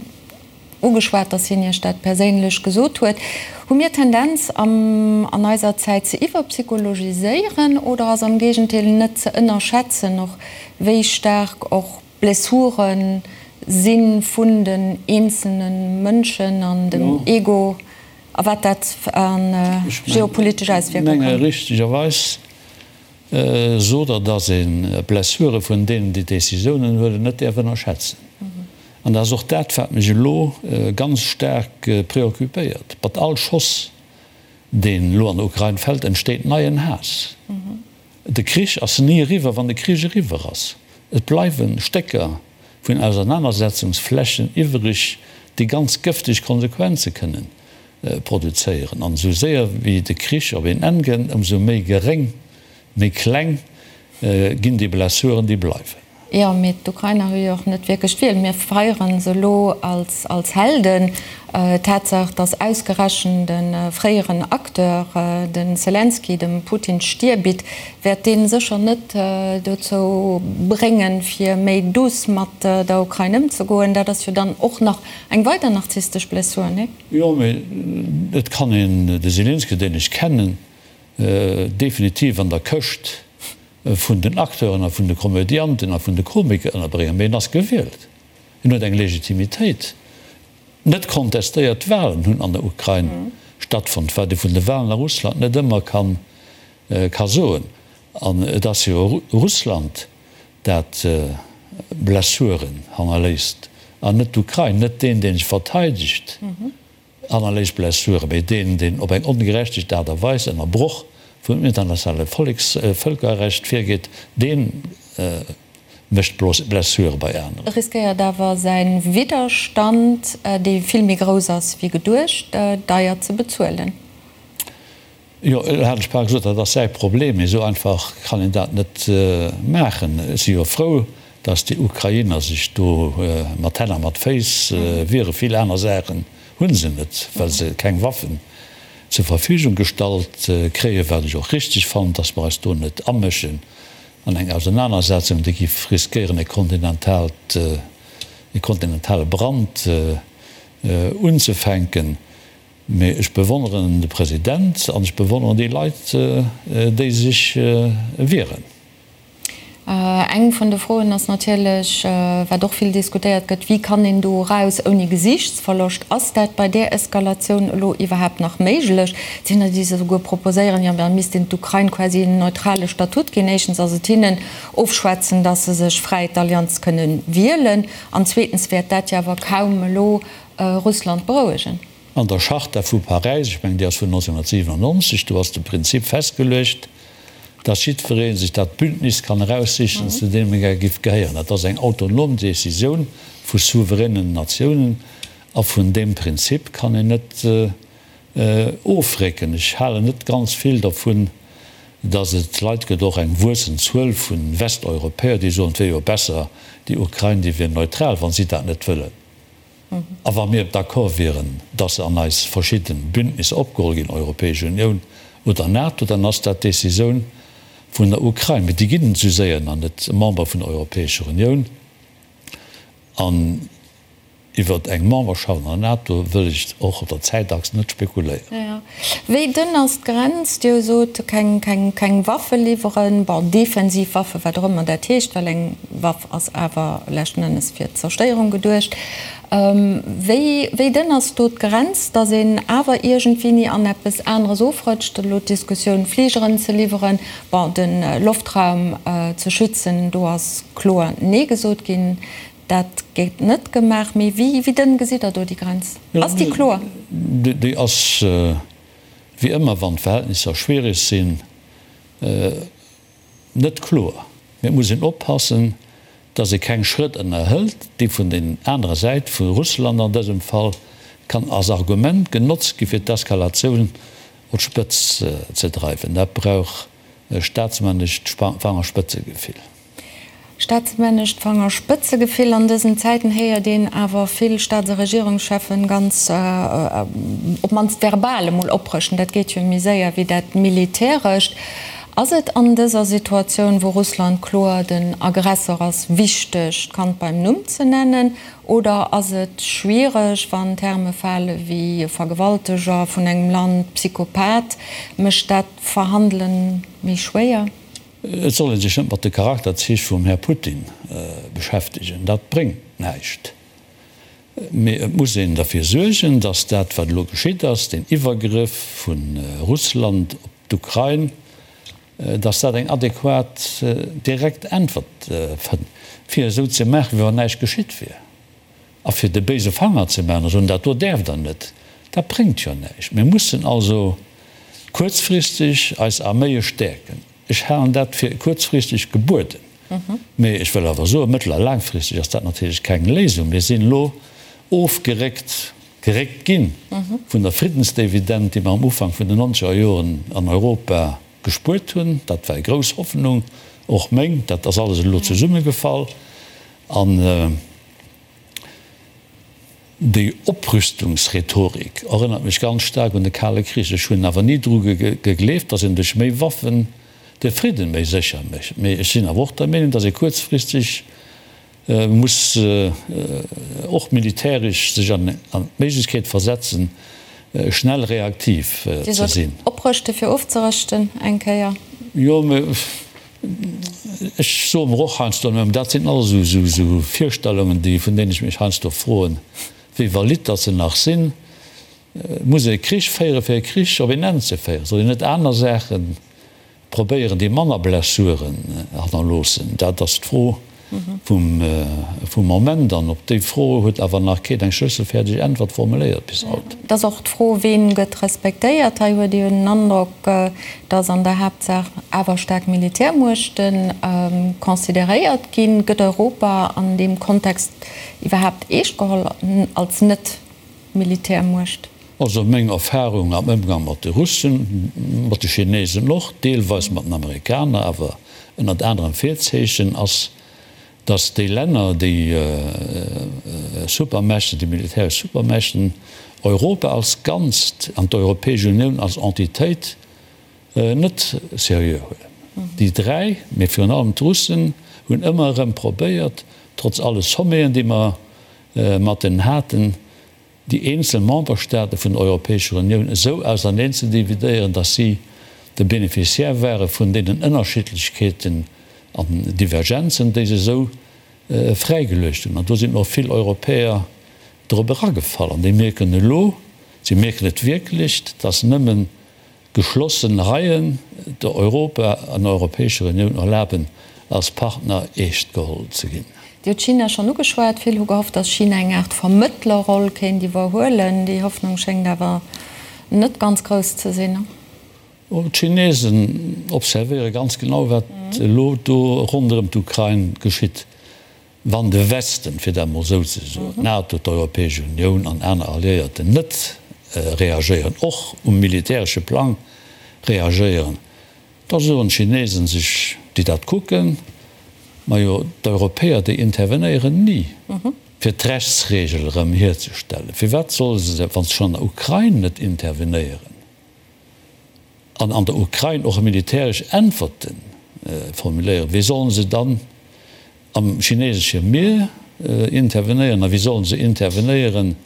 ugeschwat, datt hien Iech dat perséinlech gesot huet. Hu mir d'Tendenz an eiser Zäit ze iwwerpsychologiséieren oder ass am Géigendeel net ze ënnerschätzen och wéi staark och Blessuren si vun den eenzelne Mënschen an dem Ego a wat dat a geopolitesch Auswierkunge kann. Ech menge richtegerweis sot Der, datt ee Blessure vun deenen, déi Décisiounen huelen, net däerf ënnerschätzen. An dat ass och dat, wat mech elo ganz staark préoccupéiert. Mat all Schoss, deen elo an der Ukrain fält, entsteet neien Haass. De Krich ass ni eriwwer, wann de Krich eriwwer ass. Et bleiwe Stécker vun Ausernanersetzungsflächen iwwereg, déi ganz gëfteg Konsequenze kënnen produzéieren. An esou séier wéi de Krich op een Enn gëtt, ëmsou méi geréng, méi kleng ginn déi Blessuren, déi bleiwen. Jo, mee d'Ukrainer hu jo och net wierklech d'Wiel. Mir feiere se elo als Helden. D'Tatsaach, datt ausgerechent e fréieren Acteur, de Selenskyj, dem Putin d'Stier bitt, wäert dee sécher net dozou bréngen, fir méi douce mat der Ukrain ëmzegoen. Dat ass jo dann och nach eng weider narzisstesch Blessur, nee? Jo, mee et kann een de Selenskyj, deen ech kennen, definitiv an der Këscht vun den Acteuren a vun de Komödianten a vun de Komiker ënnerbréngen, mee en ass gewielt, en huet eng Legitimitéit. Net kontestéiert Walen hunn an der Ukrain stattfonnt, wat ee vun de Walen a Russland net ëmmer ka soen. An et ass jo Russland, dat Blessuren hannerléisst an net d'Ukrain, net deen, dee sech verteidegt. Hannerléisst Blessuren, mee deen, deen op eng ongerechtegt Aart a Weis ënner Broch vum internationale Vëlkerrecht virgeet, dee mécht Blessure bei aneren. Riskéiert awer säi Widderstand, dee vill méi grouss ass wéi geduecht, deier ze bezuelen. Jo, elo hat ech bal gesot, dat ass säi Problem, mee esou einfach kann een dat net maachen. Ech si jo frou, datt déi Ukrainer sech do mat Hänn a mat Féiss wieren. Vill aner Saachen hu se net, well se keng Waffen zur Verfügung gestallt kréien, wat ech och richteg fannen, datt mer eis do net amëschen an eng Ausenanersetzung, déi giff riskéieren e kontinentalt, e kontinentale Brand unzefänken. Mee ech bewonneren de President an ech bewonneren déi Leit, déi sech wieren. Eng vun de Froen ass natierlech, wat och vill diskutéiert gëtt, Wéi kann een do eraus ouni Gesiichtsverloscht? Ass dat bei där Eskalatioun elo iwwerhaapt nach méiglech? Et sinn der, déi souguer proposéieren, jo da misst een d'Ukrain quasi en neutrale Statut ginn. Éischtens ass et hinnen ofschwätzen, datt se sech fräi d'Allianz kënne wielen, an zweetens wäert dat jo awer kaum elo Russland berouegen. An der Charta vu Paräis, ech mengen déi ass vun 1997, do ass de Prinzip festgeluecht, dass jiddweree sech dat Bündnis kann eraussichen, zu deem e gär giff gehéieren. Dat ass eng autonom Décisioun vu souveränen Natiounen a vun deem Prinzip kann een net ofrécken. Ech halen net ganz vill dervun, dass et Leit gëtt, och eng wuessend Zuel vu Westeuropäer, déi soen, et wier jo besser, déi Ukrain, déi wier neutral, wa si dat net wëllen. A wa mir d'accord wieren, dass se an eis verschidde Bündnisser opgeholl ginn, Europäesch Unioun oder NATO, dann ass dat d'Décisioun vun der Ukrain. Mee déi ginn esou séier nach net Member vun der Europäescher Unioun. An. Iwwert eng Memberschaft an der NATO wëll ech och op der Zäitachs net spekuléieren. Wéi dënn ass d'Grenz? Dir sot, keng Waffe liwweren, bon, defensiv Waffe, wat och ëmmer dat heescht, well eng Waff ass awer leschten Ennes fir d'Zerstéierung geduecht. Wéi dënn ass do d'Grenz, datt een awer iergendwéini an eppes aneres ofrëtscht? Elo d'Diskussioun, Fligeren ze liwweren, bon, de Loftraum ze schützen, do ass kloer Nee gesot ginn. Dat gétt net gemaach. Mee wéi dënn gesitt Der do déi Grenz? Ass déi kloer? Déi ass, wéi ëmmer wann d'Verhältnisser schwierig sinn, net kloer. Mee et muss een oppassen, datt ee keng Schrëtt ënnerhëlt, déi vun den anerer Säit, vu Russland an dësem Fall, kann als Argument genotzt gi fir d'Eskalatioun op d'Spëtz ze dreiwen. Dat brauch e staatsmännescht Fangerspëtzegefill. Staatsmännescht Fangerspëtzegefill, An dësen Zäiten héiert een awer vill Staats a Regierungscheffen ganz, op d'mannst verbal emol, oprëschten. Dat geet jo méi séier wéi dat Militärescht. Ass et an dëser Situatioun, wou Russland kloer den Aggressor ass, wichteg, d'Kand beim Numm ze nennen? Oder ass et schwiereg, wann Terme fale wéi Vergewalteger vun engem Land, Psychopath? Mécht dat d'Verhandele méi schwéier? Et soll ee sech net mat de Charakterzich vum Här Putin beschäftegen, dat bréngt näischt. Mee et muss een derfir suergen, datt dat, wat elo geschitt ass, deen Iwwergrëff vu Russland op d'Ukrain, datt dat eng adequat direkt Äntwert fënnt, fir esou ze maachen, wéi wann näischt geschitt wier. A fir de béise Fanger ze maachen a soen, dat do däerft Der net, dat bréngt jo näischt. Mir mussen also kuerzfristeg eis Arméie stäerken. Ech halen dat fir kuerzfristeg gebueden. Mee ech wëll awer soen, mëttel a laangfristeg ass dat natierlech keng Léisung. Mir sinn elo ofgeréckt, geréckt gi vun der Friddensdividend, déi mer am Ufank vun den nonzeger Joren an Europa gespuert hunn. Dat war eng grouss Hoffnung, och meng. Dat ass alles elo zesummegefall. An déi Oprüstungsrhetorik erënnert mech ganz staark un de Kale Krich. Ech hunn awer ni dru gegleeft, datt een duerch méi Waffen de Fridden méi sécher mécht. Mee ech sinn awer och der Meenung, datt ee kuerzfristeg muss och militäresch sech an d'Méiglechkeet versetzen, schnell reaktiv ze sinn. Oprëschte fir ofzerëschten eng Kéier? Jo, mee Ech soe mer och heiansdo, mä dat sinn alles esou Virstellungen, déi, vun deenen ech mech heiansdo froen, wéi valid datt se nach sinn. Muss ee Krich féieren, fir e Krich op een Enn ze féieren? Soll een net aner Saache probéieren, déi manner Blessuren hannerloossen? Dat ass d'Fro vum Moment. An op déi Fro huet awer nach keen eng schlësselfäerdeg Äntwert formuléiert bis haut. Et ass och d'Fro, Ween gëtt respektéiert? Hei huet ee jo den Androck, datt an der Haaptsaach awer staark Militärmuechte consideréiert ginn. Gëtt Europa an deem Kontext iwwerhaapt eescht geholl als Net-Militärmuecht? Also meng Erfahrung am Ëmgang mat de Russen, mat de Chinesen och, deelweis mat den Amerikaner, awer ënnert anerem Virzeechen, ass, datt déi Länner, déi Supermächte, déi militäresch Supermächten, Europa als Ganzt an d'Europäesch Unioun als Entitéit net seriö huelen. Déi 3, mee virun allem d'Russen, hunn ëmmer erëm probéiert, trotz alle Sommeten, déi mer mat deenen haten, déi eenzel Memberstaate vun der Europäescher Unioun esou auserneen ze dividéieren, datt si de Bénéficiaire ware vun deenen Ënnerschiddlechkeeten an Divergenzen, déi se esou fräigeluecht hunn. An do sinn och vill Europäer drop eragefall. An déi mierken elo, si mierken et wierklech, datt nëmmen geschlossen Reien der Europa an der Europäescher Unioun erlaben, als Partner eescht geholl ze ginn. Dir hutt China schonn ugeschwat. Vill hu gehofft, datt China eng Aart Vermëttlerroll kéint iwwerhuelen. Déi Hoffnung schéngt awer net ganz grouss ze sinn. D'Chinesen observéiere ganz genau, wat elo do ronderëm d'Ukrain geschitt. Wann de Westen, fir dat emol esou ze soen, d'NATO, d'Europäesch Unioun an aner Alliéierten net reagéieren, och um militäresche Plang reagéieren, da soen d'Chinesen sech, déi dat kucken, Majo, d'Europäer, déi intervenéieren ni, fir d'Rechtsregel erëm hierzestellen. Firwat solle se, wa se schonn an der Ukrain net intervenéieren? An an der Ukrain och militäresch Äntwerte formuléieren, wéi sollen se dann am chinesesche Mier? intervenéieren a wéi sollen se intervenéieren,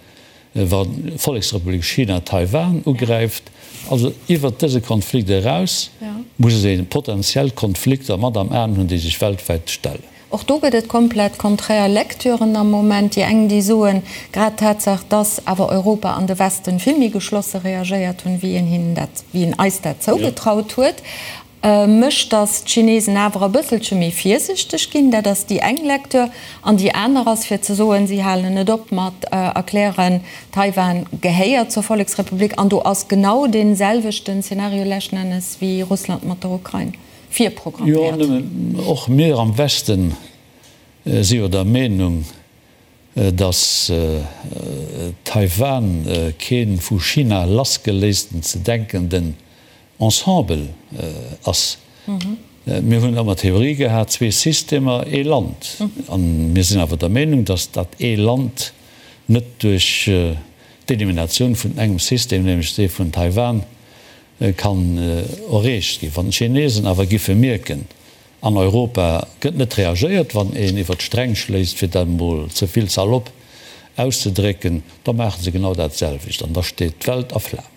wa d'Volleksrepublik China Taiwan ugräift? Also iwwert dëse Konflikt eraus muss ee potentiell Konflikter mat am Aen hunn, déi sech weltwäit stellen. Och do gëtt et komplett konträr Lecturen am Moment. Déi eng, déi soen, grad d'Tatsaach, dass awer Europa an de Westen vill méi geschlosse reagéiert hunn, wéi een hinnen dat, wéi een eis dat zougetraut huet, mécht, dass d'Chinesen awer e bësselche méi virsichteg ginn. Dat ass déi eng Lecture. An déi aner ass, fir ze soen, si halen net op mat erklären, Taiwan gehéiert zur Volleksrepublik. An do ass genau dee selwechten Szenario leschten Ennes wéi Russland mat der Ukrain. Jo, virprogramméiert. nëmmen och mir am Westen si jo der Meenung, datt Taiwan kee vu China lassgeléisten ze denkenden Ensemble ass. Mir hunn ëmmer d'Theorie gehat, zwee Systemer, ee Land. A mir sinn awer der Meenung, datt dat ee Land net duerch d'Eliminatioun vun engem System, nämlech dee vun Taiwan, kann erreecht ginn. Wann d'Chinesen awer giffe mierken, an Europa gëtt net reagéiert, wann een iwwer d'Sträng schléisst, fir dat emol ze vill salopp auszedrécken, da maache se genau dat selwecht an da steet d'Welt a Flamen.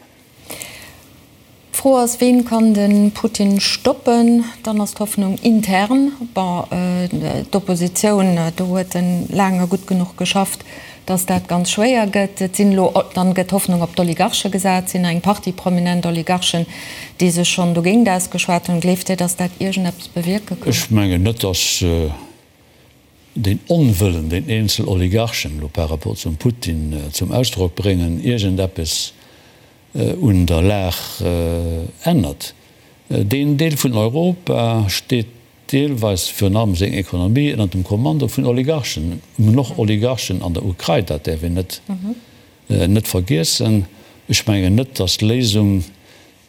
D'Fro ass, Ween kann de Putin stoppen? Dann ass d'Hoffnung intern. Bon, d'Oppositioun, do huet en laang a gutt genuch geschafft, dass dat ganz schwéier gëtt. Et sinn elo, dann gëtt Hoffnung op d'Oligarche gesat, et sinn eng Partie prominent Oligarchen, déi sech schonn dogéint ausgeschwat hunn. Gleeft Dir, dass dat iergendeppes bewierke kann? Ech mengen net, dass deen Onwëllen, deen eenzel Oligarchen elo par rapport zum Putin zum Ausdrock bréngen, iergendeppes un der Lag ännert. Deen Deel vun Europa steet deelweis virun allem seng Ekonomie ënner dem Kommando vun Oligarchen. Mir hunn och Oligarchen an der Ukrain, dat däerf een net net vergiessen. Ech mengen net, datt d'Léisung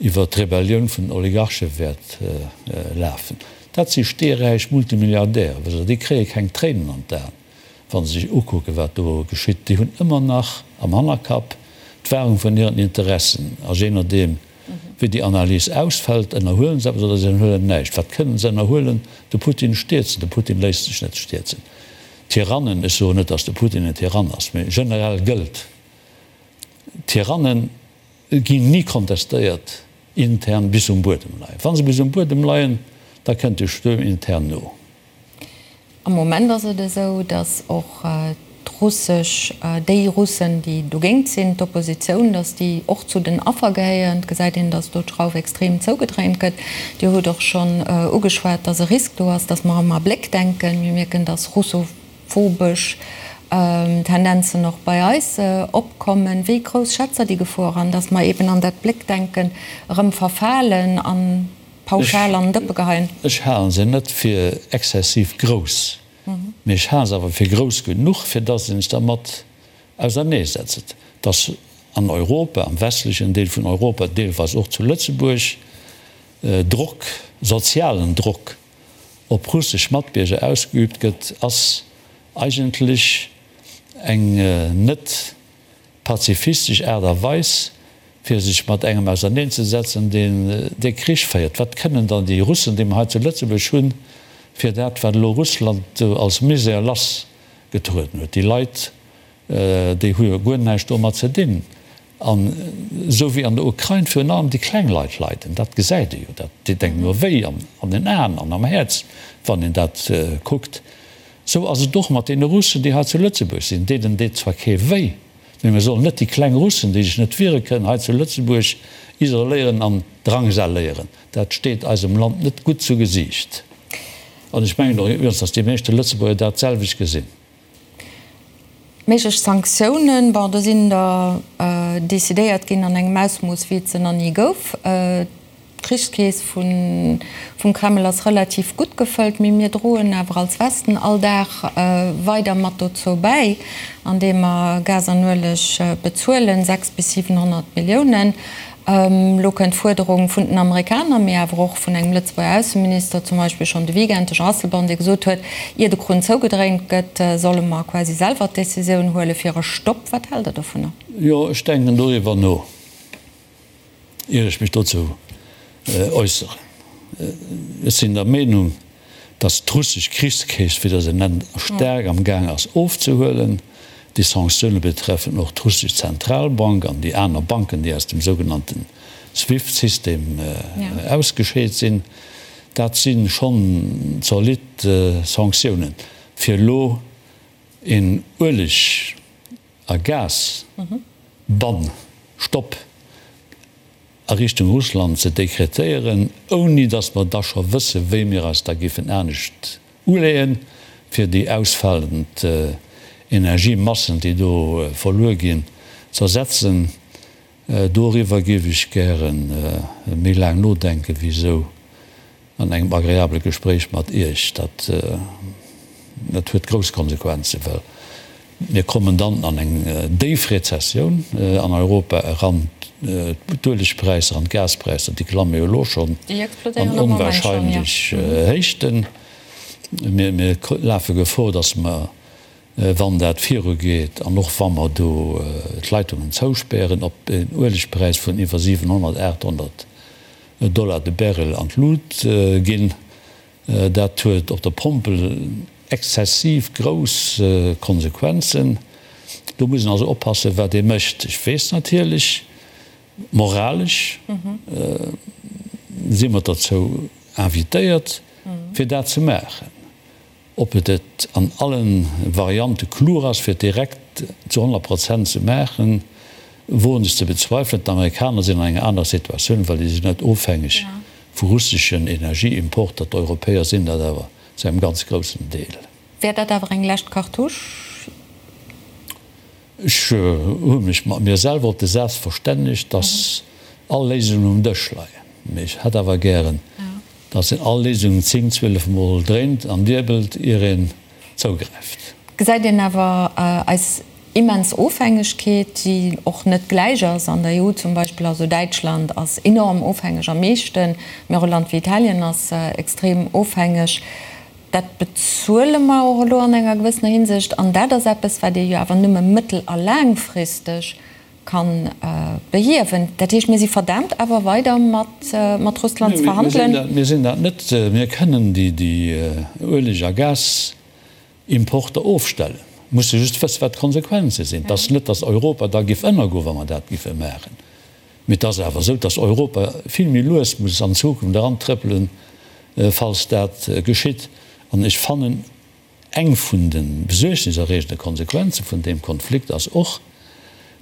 iwwer d'Rebellioun vun den Oligarche wäert lafen. Dat si steeräich Multimilliardäre, wësst Der, déi kréie keng Tréinen an d'Aen, wa se sech ukucken, wat do geschitt. Déi hunn ëmmer nach am Hannerkapp d'Wahrung vun hiren Interessen a jee nodeem, Wéi déi Analys ausfält, ënnerhuelen se eppes oder se ënnerhuelen näischt. Wat kënnen se ënnerhuelen? De Putin stierzen. De Putin léisst sech net stierzen. Tyrannen, ech soen net, datt de Putin en Tyrann ass, mee generell gëllt, Tyranne ginn ni kontestéiert intern bis se um Buedem leien. Wa se bis um Buedem leien, da kënnt de Stuerm intern no. Am Moment ass et esou, datt och d'russesch, déi Russen, déi dogéint sinn, d'Oppositioun, datt déi och zu den Affer gehéieren. Et gesäit een, datt do d'Schrauf extrem zougedréint gëtt. Dir hutt och schonn ugeschwat, datt e Risk do ass, datt mer ëmmer a Bléck denken. Mir mierken, datt russophobesch Tendenzen och bei eis opkommen. Wéi grouss schätzt Der déi Gefor an, datt mer eeben an dat Bléckdenken erëm verfalen an pauschal an den Dëppe geheien? Ech halen se net fir exzessiv grouss, mee ech hale se awer fir grouss genuch, fir dass een sech dermat auserneesetzt, dass an Europa, am westlechen Deel vun Europa, deelweis och zu Lëtzebuerg, Drock, sozialen Drock op russesch Matbierger ausgeübt gëtt, ass eigentlech eng net pazifistesch Aart a Weis, fir sech mat engem auserneenzesetzen, deen dee Krich féiert. Wat kënnen dann déi Russen, déi mer hei zu Lëtzebuerg hunn, fir dat, wat elo Russland do als Misär lassgetrueden huet? Déi Leit, déi hu jo guer näischt domat ze dinn. An esou wéi an der Ukrain virun allem déi kleng Leit leiden, dat gesäit ee jo, dat deet engem jo wéi an den Aen an am Häerz, wann een dat kuckt. Esou ass et och mat deene Russen, déi hei zu Lëtzebuerg sinn. Deenen deet zwar kee wéi, mee mir sollen net déi kleng Russen, déi sech net wiere kënnen, hei zu Lëtzebuerg isoléieren an drangsaléieren. Dat steet eisem Land net gutt zu Gesiicht. An ech mengen och iwwregens, datt déi meeschte Lëtzebuerger dat selwecht gesinn. Méiglech Sanktiounen, bon, do sinn der decidéiert ginn an engem Ausmooss, wéi et se nach ni gouf. D'Krichskeess vum Kreml ass relativ gutt gefëllt, mee mir droen awer als Westen all Dag weider mat dozou bäi, andeem mer Gas an Ueleg bezuelen, 6 bis 700 Milliounen. Elo kënnt d'Fuerderung vun den Amerikaner, mee awer och vun engem Lëtzebuerger Ausseminister, zum Beispill schonn de Weekend, de Jean Asselborn, dee gesot huet, ier de Krunn zougedréint gëtt, solle mer quasi selwer d'Decisioun huele fir e Stopp. Wat haalt Der dovunner? Jo, ech denken doriwwer no. Ier ech mech dozou äusseren, ech sinn der Meenung, Datt d'russesch Krichskeess, wéi Der se nennt, staark am Gaang ass ofzehuelen. Déi Sanktioune betreffen och d'russesch Zentralbank an déi aner Banken, déi aus dem sougenannte Swift-System ausgescheet sinn. Dat si schonn zolidd Sanktiounen. Fir elo een Ueleg a Gas-Bann, Stopp, a Richtung Russland ze dekretéieren, ouni datt mer da scho wësse wéi mir eis da géifen anescht uleeën, fir déi ausfalend Energiemassen, déi do verluer ginn, z'ersetzen. Doriwwer géif ech gäre méi laang nodenken, wéi esou an engem agreabele Gespréich mat Iech. Dat, dat huet grouss Konsequenzen, well mir kommen dann an eng déif Rezessioun an Europa eran. D'Uelegpräisser an d'Gaspräisser, déi klamme jo elo schonn an onwahrscheinlech Héichten. Mir, mir lafe Gefor, datt mer, wann dat virugeet an och wa mer do d'Leitungen zouspären, op en Uelegpräis vun iwwer 700, 800 Dollar de Barrel an d'Lut ginn. Dat huet op der Pompel exzessiv grouss Konsequenzen. Do muss een also oppassen, wat ee mécht. Ech weess natierlech, moralesch si mer derzou invitéiert, fir dat ze maachen. Ob et et an allen Variante klug ass, fir et direkt zu 100 Prozent ze maachen, woen ech ze bezweifelen. D'Amerikaner sinn an enger anerer Situatioun, well déi sinn net ofhängeg vu russeschen Energieimporter. D'Europäer sinn dat awer zu engem ganz groussen Deel. Wär dat awer eng lescht Cartouche? Ech hu mech mat mir selwer op de Saz verstännegt, dass all Léisungen um Dësch leien. Mee ech hätt awer gären, dass een all Léisungen 10, 12 Mol dréint an diebelt, ier een zougräift. Gesäit een awer eis immens Ofhängegkeet, déi och net gläich ass an der EU zum Beispill. Also Däitschland ass enorm ofhängeg am meeschten, mee och e Land wéi Italien ass extrem ofhängeg. Dat bezuele mer och elo an enger gewëssener Hinsicht. An dat ass eppes, wat ee jo awer nëmme mëttel a laangfristeg ka behiewen. Dat heescht, mir si verdaamt awer weider mat Russland ze verhandelen. Mir sinn dat net. Mir kënnen déi Ueleg a Gasimporter ofstellen. Mir musse just wëssen, wat d'Konsequenze sinn. Et ass net, datt Europa da géif ënnergoen, wa mer dat géife maachen. Mee et ass awer esou, dass Europa vill méi lues muss an Zukunft erantrëppelen, falls dat geschitt. An ech fannen, eng vun de besuergniserreegende Konsequenze vun deem Konflikt ass och,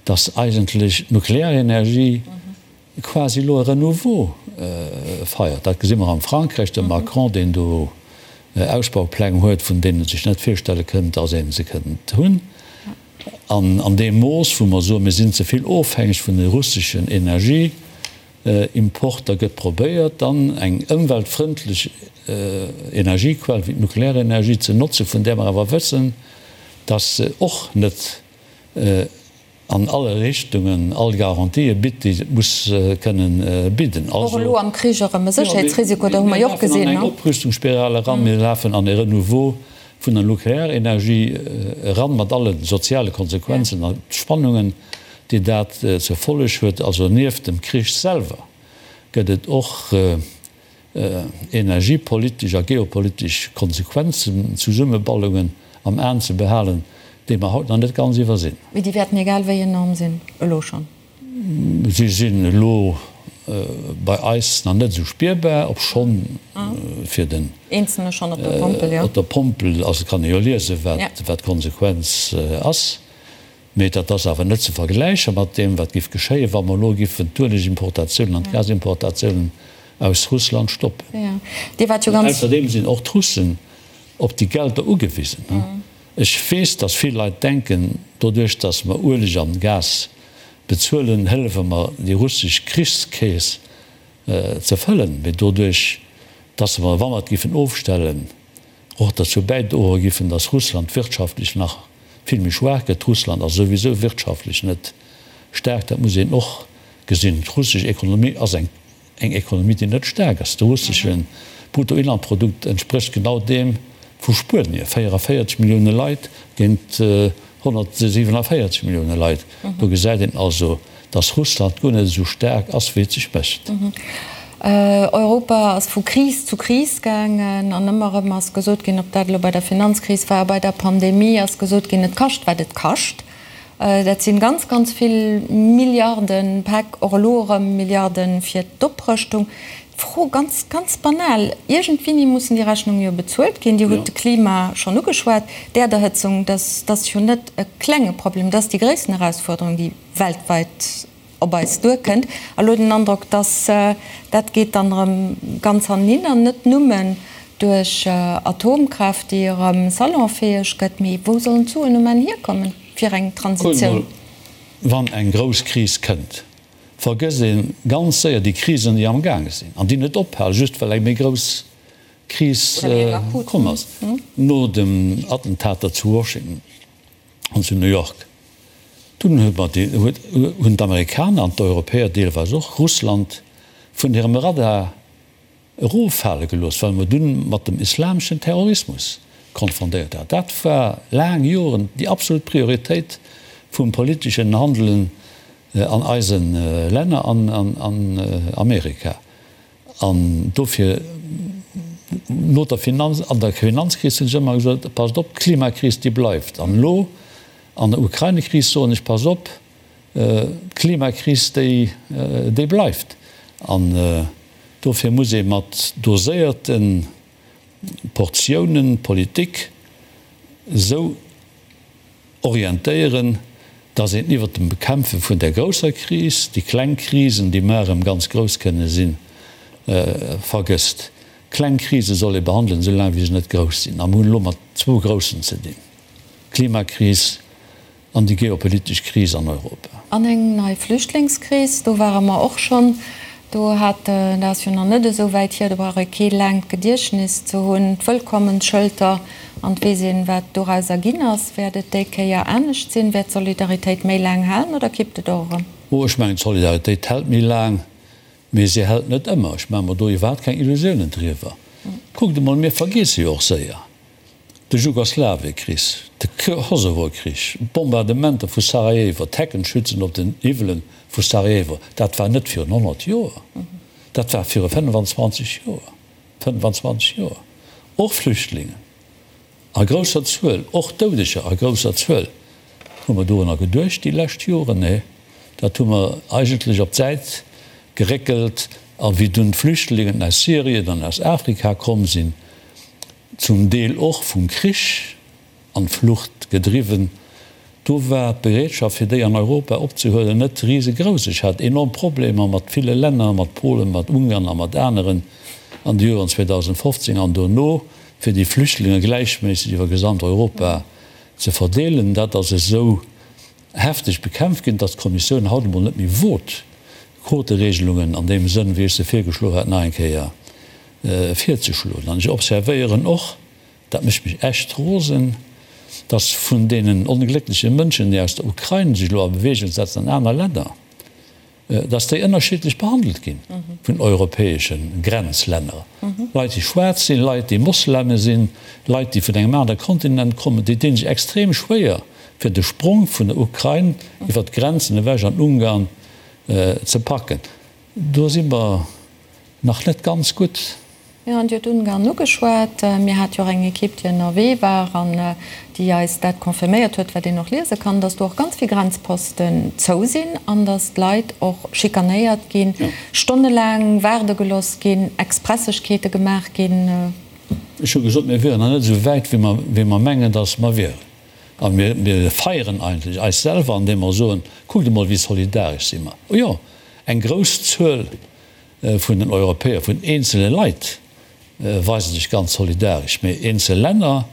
dass eigentlech d'Nuklearenergie quasi elo e Renouveau feiert. Dat gesi mer am Frankräich, de Macron, deen do Ausbaupläng huet, vun deenen e sech net virstelle kënnt, dass ee se kënnt hunn. An an deem Mooss, wou mer soen, mir sinn ze vill ofhängeg vun de russeschen Energieimporter, gëtt probéiert, dann eng ëmweltfrëndlech Energiequell wéi d'Nuklearenergie ze notzen, vun där mer awer wëssen, dass se och net an alle Richtungen all Garantië bitt, déi se muss kënnen bidden. Och elo am Krich erëm e Sécherheetsrisiko, dat hu mer jo och gesinn. Mir lafen an eng Oprüstungsspiral eran, mir lafen an e Renouveau vun der Nuklearenergie eran, mat alle soziale Konsequenzen a Spannungen, déi dat zur Folleg huet. Also nieft dem Krich selwer gëtt et och energiepolitesch a geopolitesch Konsequenzen, Zesummeballungen am Aen ze behalen, déi mer haut nach net ganz iwwersinn. Mee déi wäerten egal wéi enorm sinn, elo schonn. Si sinn elo bei eis nach net esou spierbar, obschonn fir den Eenzelne schonn op der Pompel, jo. Op der Pompel, also kann ee jo liesen, wat d'Konsequenz ass. Mee dat ass awer net ze vergläiche mat deem, wat géif geschéien, wa mer elo géifen d'Uelegimportatiounen an d'Gasimportatiounen aus Russland stoppen. Ausserdeem sinn och d'Russen op déi Gelder ugewisen. Ech weess, datt vill Leit denken, doduerch datt mer Ueleg an Gas bezuelen, hëllefe mer déi russesch Krichskeess ze fëllen. Mee doduerch datt mer, wa mer et géifen ofstellen, och derzou bäidroe giffen, datt Russland wirtschaftlech nach vill méi schwaach gëtt. Russland ass souwisou wirtschaftlech net staark, dat muss een och gesinn. D'russesch Ekonomie ass eng Ekonomie, déi net staark ass. De russesche Bruttoinlandprodukt entsprécht genau deem vu Spuenie, 44 Millioune Leit géint 147 Millioune Leit. Do gesäit een also, datt Russland guer net esou staark ass, wéi et sech mécht. Europa ass vu Kris zu Kris gaangen an ëmmer erëm ass gesot ginn, ob dat elo bei der Finanzkris war, bei der Pandemie, ass gesot ginn, et kascht wat et kascht. Dat sinn ganz, ganz vill Milliarden, Päck, och elo erëm Milliarden fir d'Oprëschtung. D'Fro, ganz, ganz banal, Iergendwéini mussen déi Rechnunge jo bezuelt ginn. Dir hutt de Klima schonn ugeschwat, d'Äerderhëtzung, dat ass jo net e klenge Problem, dat ass déi gréissten Erausfuerderung, déi weltweit op eis duerkënnt. A lo den Androck, dass dat geet dann erëm ganz hannenin an net nëmmen duerch Atomkraaft, déi erëm salonfäeg gëtt, mee wou sollen d'Suen um Enn hierkommen fir eng Kuckt Transitioun? emol, wann eng grouss Kris kënnt, vergësst ee ganz séier déi Krisen, déi amgaange sinn an déi net ophalen, just well eng méi grouss Kris komm ass. No den Attentater zu Washington an zu New York, dunn hunn d'Amerikaner an d'Europäer deelweis och Russland vun hirem Radar eroffale gelooss, well mer dunn mat dem islameschen Terrorismus konfrontéiert waren. Dat war laang Joren déi absolut Prioritéit vum politeschen Handelen an eise Länner an an Amerika. An dofir, no der Finanz, an der Finanzkris hunn ech ëmmer gesot, passt op, d'Klimakris, déi bleift. An elo an der Ukraine-Kris soen ech, passt op, d'Klimakris, déi, déi bleift. An dofir muss ee mat doséierte Portiounen d'Politik esou orientéieren, dass een iwwert dem Bekämpfe vun där grousser Kris déi kleng Krisen, déi mar erëm ganz grouss kënne sinn, vergësst. Kleng Krise soll ee behandelen, esou laang wéi se net grouss sinn. A mir hunn elo mat zwou groussen ze dinn, d'Klimakris an déi geopolitesch Kris an Europa. An eng nei Flüchtlingskris, do ware mer och schonn. Do hat, dat ass jo nach net esou wäit hier, do brauch ee kee laangt Gediechtnes ze hunn, d'Wëllkommensschëlter an et weess een, wat dorauser ginn ass. Wäert et déi Kéier anescht sinn? Wäert d'Solidaritéit méi laang halen oder kippt et och erëm? Oh, ech mengen, d'Solidaritéit hält méi laang, mee se hält net ëmmer. Ech maache mer do iwwerhaapt keng Illusiounen driwwer. Kuckt emol, mir vergiesse jo och séier de Jugoslawiekrich, de Kosovokrich, d'Bombardementer vu Sarajevo, d'Heckenschützen op den Hiwwelen vu Sarajevo. Dat war net virun 100 Joer, dat war viru 25 Joer. 25 Joer, och Flüchtlingen a grousser Zuel, och Doudeger a grousser Zuel. Hu mer dorunner geduecht déi lescht Joren? Nee, dat hu mer eigentlech op d'Säit geréckelt. A wéi dunn d'Flüchtlingen aus Syrien an aus Afrika komm sinn, zum Deel och vum Krich an d'Flucht gedriwwen, do war d'Bereetschaft fir déi an Europa opzehuelen net risegrouss. Ech hat enorm Problemer mat ville Länner, mat Polen, mat Ungarn a mat aneren an de Joren 2015 an dono, fir déi Flüchtlinge gläichméisseg iwwer gesamt Europa ze verdeelen. Dat ass esou hefteg bekämpft ginn, datt d'Kommissioun haut emol net méi wot, Quoteregelungen an deem Sënn, wéi ech se virgeschloen hat, nach eng Kéier virzeschloen. An ech observéieren och, dat mécht mech echt rosen, dass vun deenen ongléckleche Mënschen, déi aus der Ukrain sech elo a Bewegung setzen an aner Länner, dass déi ënnerschiddlech behandelt gi vun europäesche Grenzlänner. Leit, déi schwaarz sinn, Leit, déi Mosleme sinn, Leit, déi vun engem anere Kontinent kommen, déi dinn sech extrem schwéier, fir de Sprong vun der Ukrain iwwer d'Grenzen ewech an Ungarn ze packen. Do si mer nach net ganz gutt. Jo, an Dir hutt Ungarn ugeschwat. Mir hate jo och eng Ekipp, déi ënnerwee war an déi eis dat confirméiert huet, wat een och liese kann, dass do och ganz vill Grenzposten zou sinn an dass d'Leit och schikanéiert ginn, stonnelaang waarde gelooss ginn, Expressegkeete gemaach ginn. Ech hu gesot, mir wieren nach net esou wäit, wéi mer mengen, dass mer wieren. A mir feieren eigentlech eis selwer, andeem mer soen, Kuckt emol, wéi solidaresch si mer. Jo, eng grouss Zuel vun den Europäer, vun eenzele Leit weise sech ganz solidaresch, mee eenzel Länner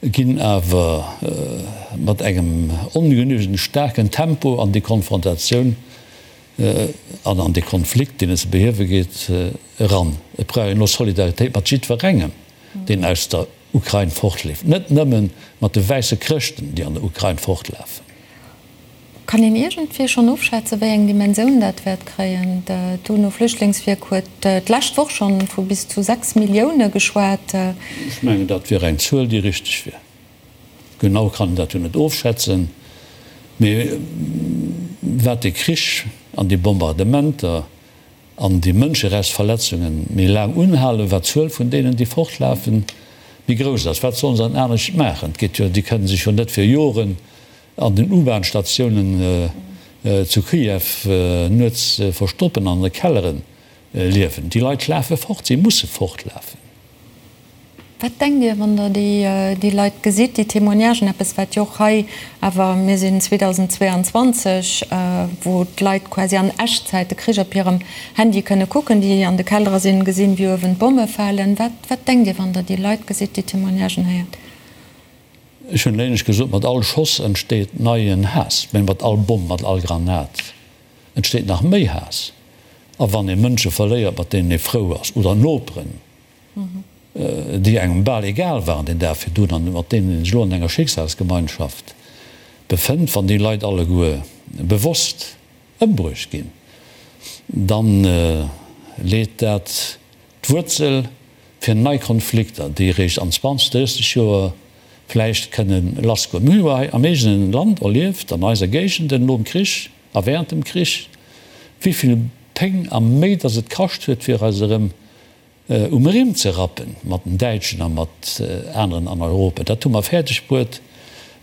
ginn awer mat engem ongenügend staarken Tempo an déi Konfrontatioun an an dee Konflikt, deen et ze behiewe geet, eran. Et brauch een elo Solidaritéit mat jiddwerengem, deen aus der Ukrain fortleeft, net nëmme mat de wäisse Chrëschten, déi an der Ukrain fortlafen. Kann een iergendwéi schonn ofschätzen, wéi eng Dimensioun dat wäert kréien? D'UNO-Flüchtlingswierk huet d'lescht Woch schonn vu bis zu 6 Millioune geschwat. Ech mengen, dat wier eng Zuel, déi richteg wier. Genau kann een dat jo net ofschätzen, mee wat de Krich an déi Bombardementer. An déi Mënscherechtsverletzunge méi laang unhalen, wat d'Zuel vun deenen, déi fortlafen, méi grouss ass. Wat sollen se dann anescht maachen? Et geet jo, déi kënnen sech jo net fir Joren an den U-Bahn-Statiounen zu Kiew nuets verstoppen an an de Kellere liewen. Déi Leit lafe fort, si musse fortlafen. Wat denkt Dir, wann Der déi Leit gesitt, déi Témoignagen, eppes wat jo och hei awer, mir sinn 2022, wou d'Leit quasi an Echtzäit de Krich op hirem Handy kënne kucken, déi an de Kellere sinn, gesinn, wéi uewen d'Bomme falen. Wat, wat denkt Dir, wann Der déi Leit gesitt, déi Témoignagen héiert? Ech hunn éinescht gesot, mat all Schoss entsteet neien Haass, mä mat all Bomm, mat all Granat entsteet nach méi Haass. A wann ee Mënsche verléiert, mat deenen ee frou ass, oder Noperen, déi engem bal egal waren deen Dag virdrun an mat deenen een sech elo an enger Schicksalsgemeinschaft befënnt, wann déi Leit alleguer bewosst ëmbruecht ginn, da leet dat d'Wuerzel fir nei Konflikter, déi eréischt an 20, 30 Joer vläicht kënne lassgoen. Mir hu jo hei am eegene Land erlieft, an eiser Géigenden nom Krich a während dem Krich, wéi vill Péng a Méi datt et kascht huet, fir eis erëm um Rimm ze rappen mat den Däitschen a mat aneren an Europa. Dat hu mer fäerdeg bruet,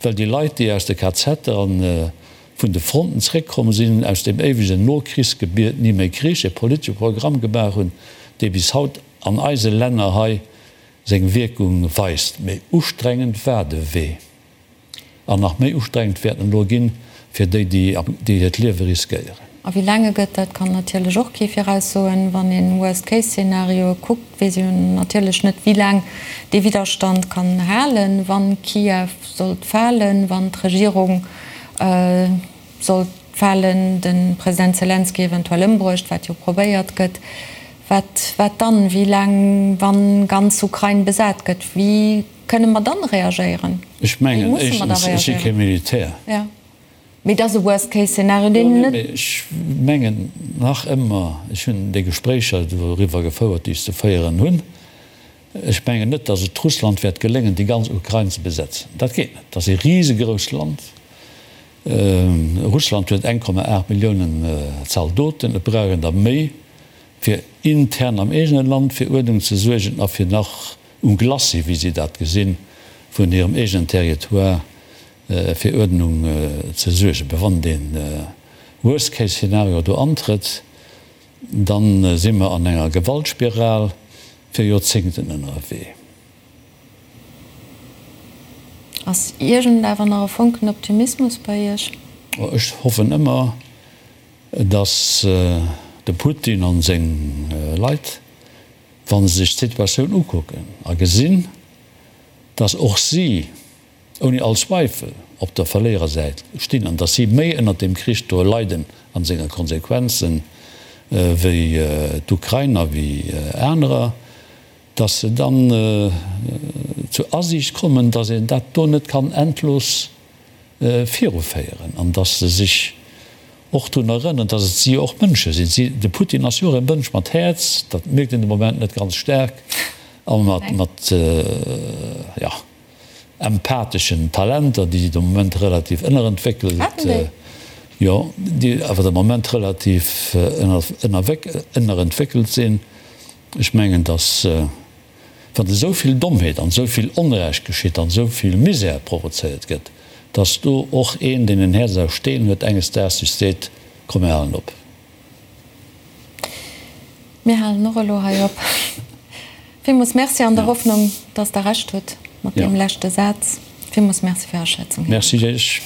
well déi Leit, déi aus de KZer an vun de Fronten zréckkomm sinn, aus deem éiwegen Nokrichsgebiet ni méi Krich, e politesche Programm gemaach hunn, dee bis haut an eise Länner hei seng Wierkung weist. Méi ustrengend war de Wee. An nach méi ustrengend wäert en elo ginn fir déi, déi hiert Liewe riskéieren. A wéi laang e gëtt, dat kann natierlech och kee viraussoen. Wann een Worst-Case-Szenarioe kuckt, weess een natierlech net, wéi laang dee Widderstand kann halen, wann Kiew sollt falen, wann d'Regierung sollt falen, de President Selenskyj eventuell ëmbruecht, wat jo probéiert gëtt. Wat, wat dann? Wéi laang, wann ganz Ukrain besat gëtt? Wéi Kënne mer dann reagéieren? Ech mengen, éischtens, ech si kee Militär. Jo, mee et ass e Worst-Case-Szenario, deen net. Jo, mee ech mengen nach ëmmer, ech hunn déi Gespréicher doriwwer gefouert, déi ech ze féieren hunn, ech mengen net, datt et Russland wäert geléngen, déi ganz Ukrain ze besetzen. Dat geet net. Dat ass e risegrousst Land. Russland huet 1,8 Milliounen Zaldoten. Et brauch een der méi, fir intern am eegene Land fir Uerdnung ze suergen a fir nach um Glacis, wéi si dat gesinn, vun hirem eegenen Territoire fir Uerdnung ze suergen. Mä wann dee Worst-Case-Szenario do antrëtt, da si mer an enger Gewaltspiral fir Joerzéngten ënnerwee. Ass iergend awer nach e Fonken Optimismus bei Iech? Ech hoffen ëmmer, datt de Putin an seng Leit, wa se sech d'Situatioun ukucken a gesinn, datt och si ouni all Zweifel op der Verléierersäit stinn an datt si méi ënnert deem Krich do leiden a senge Konsequenzen wéi d'Ukrainer, wéi anerer, datt se dann zur Asiicht kommen, datt een dat do net kann endlos viruféieren an datt se sech och drun erënneren, datt et si jo och Mënsche sinn. Si, de Putin ass jo och e Mënsch mat Häerz, dat mierkt een de Moment net ganz staark, a mat, mat, jo, empatheschen Talenter, déi de Moment relativ ënnerentwéckelt, jo, déi awer de Moment relativ ënnerentwéckelt sinn. Ech mengen, datt wann esou vill Dommheet an esou vill Onrecht geschitt an esou vill Misär provozéiert gëtt, datt do och een, deen en Häerz aus Steen huet, enges Daags sech seet, Komm mir halen op. Mir halen och elo hei op. Villmools Merci an der Hoffnung, datt Der Recht hutt mat deem leschte Saz. Villmools Merci fir Är Aschätzung, Här Merci Iech.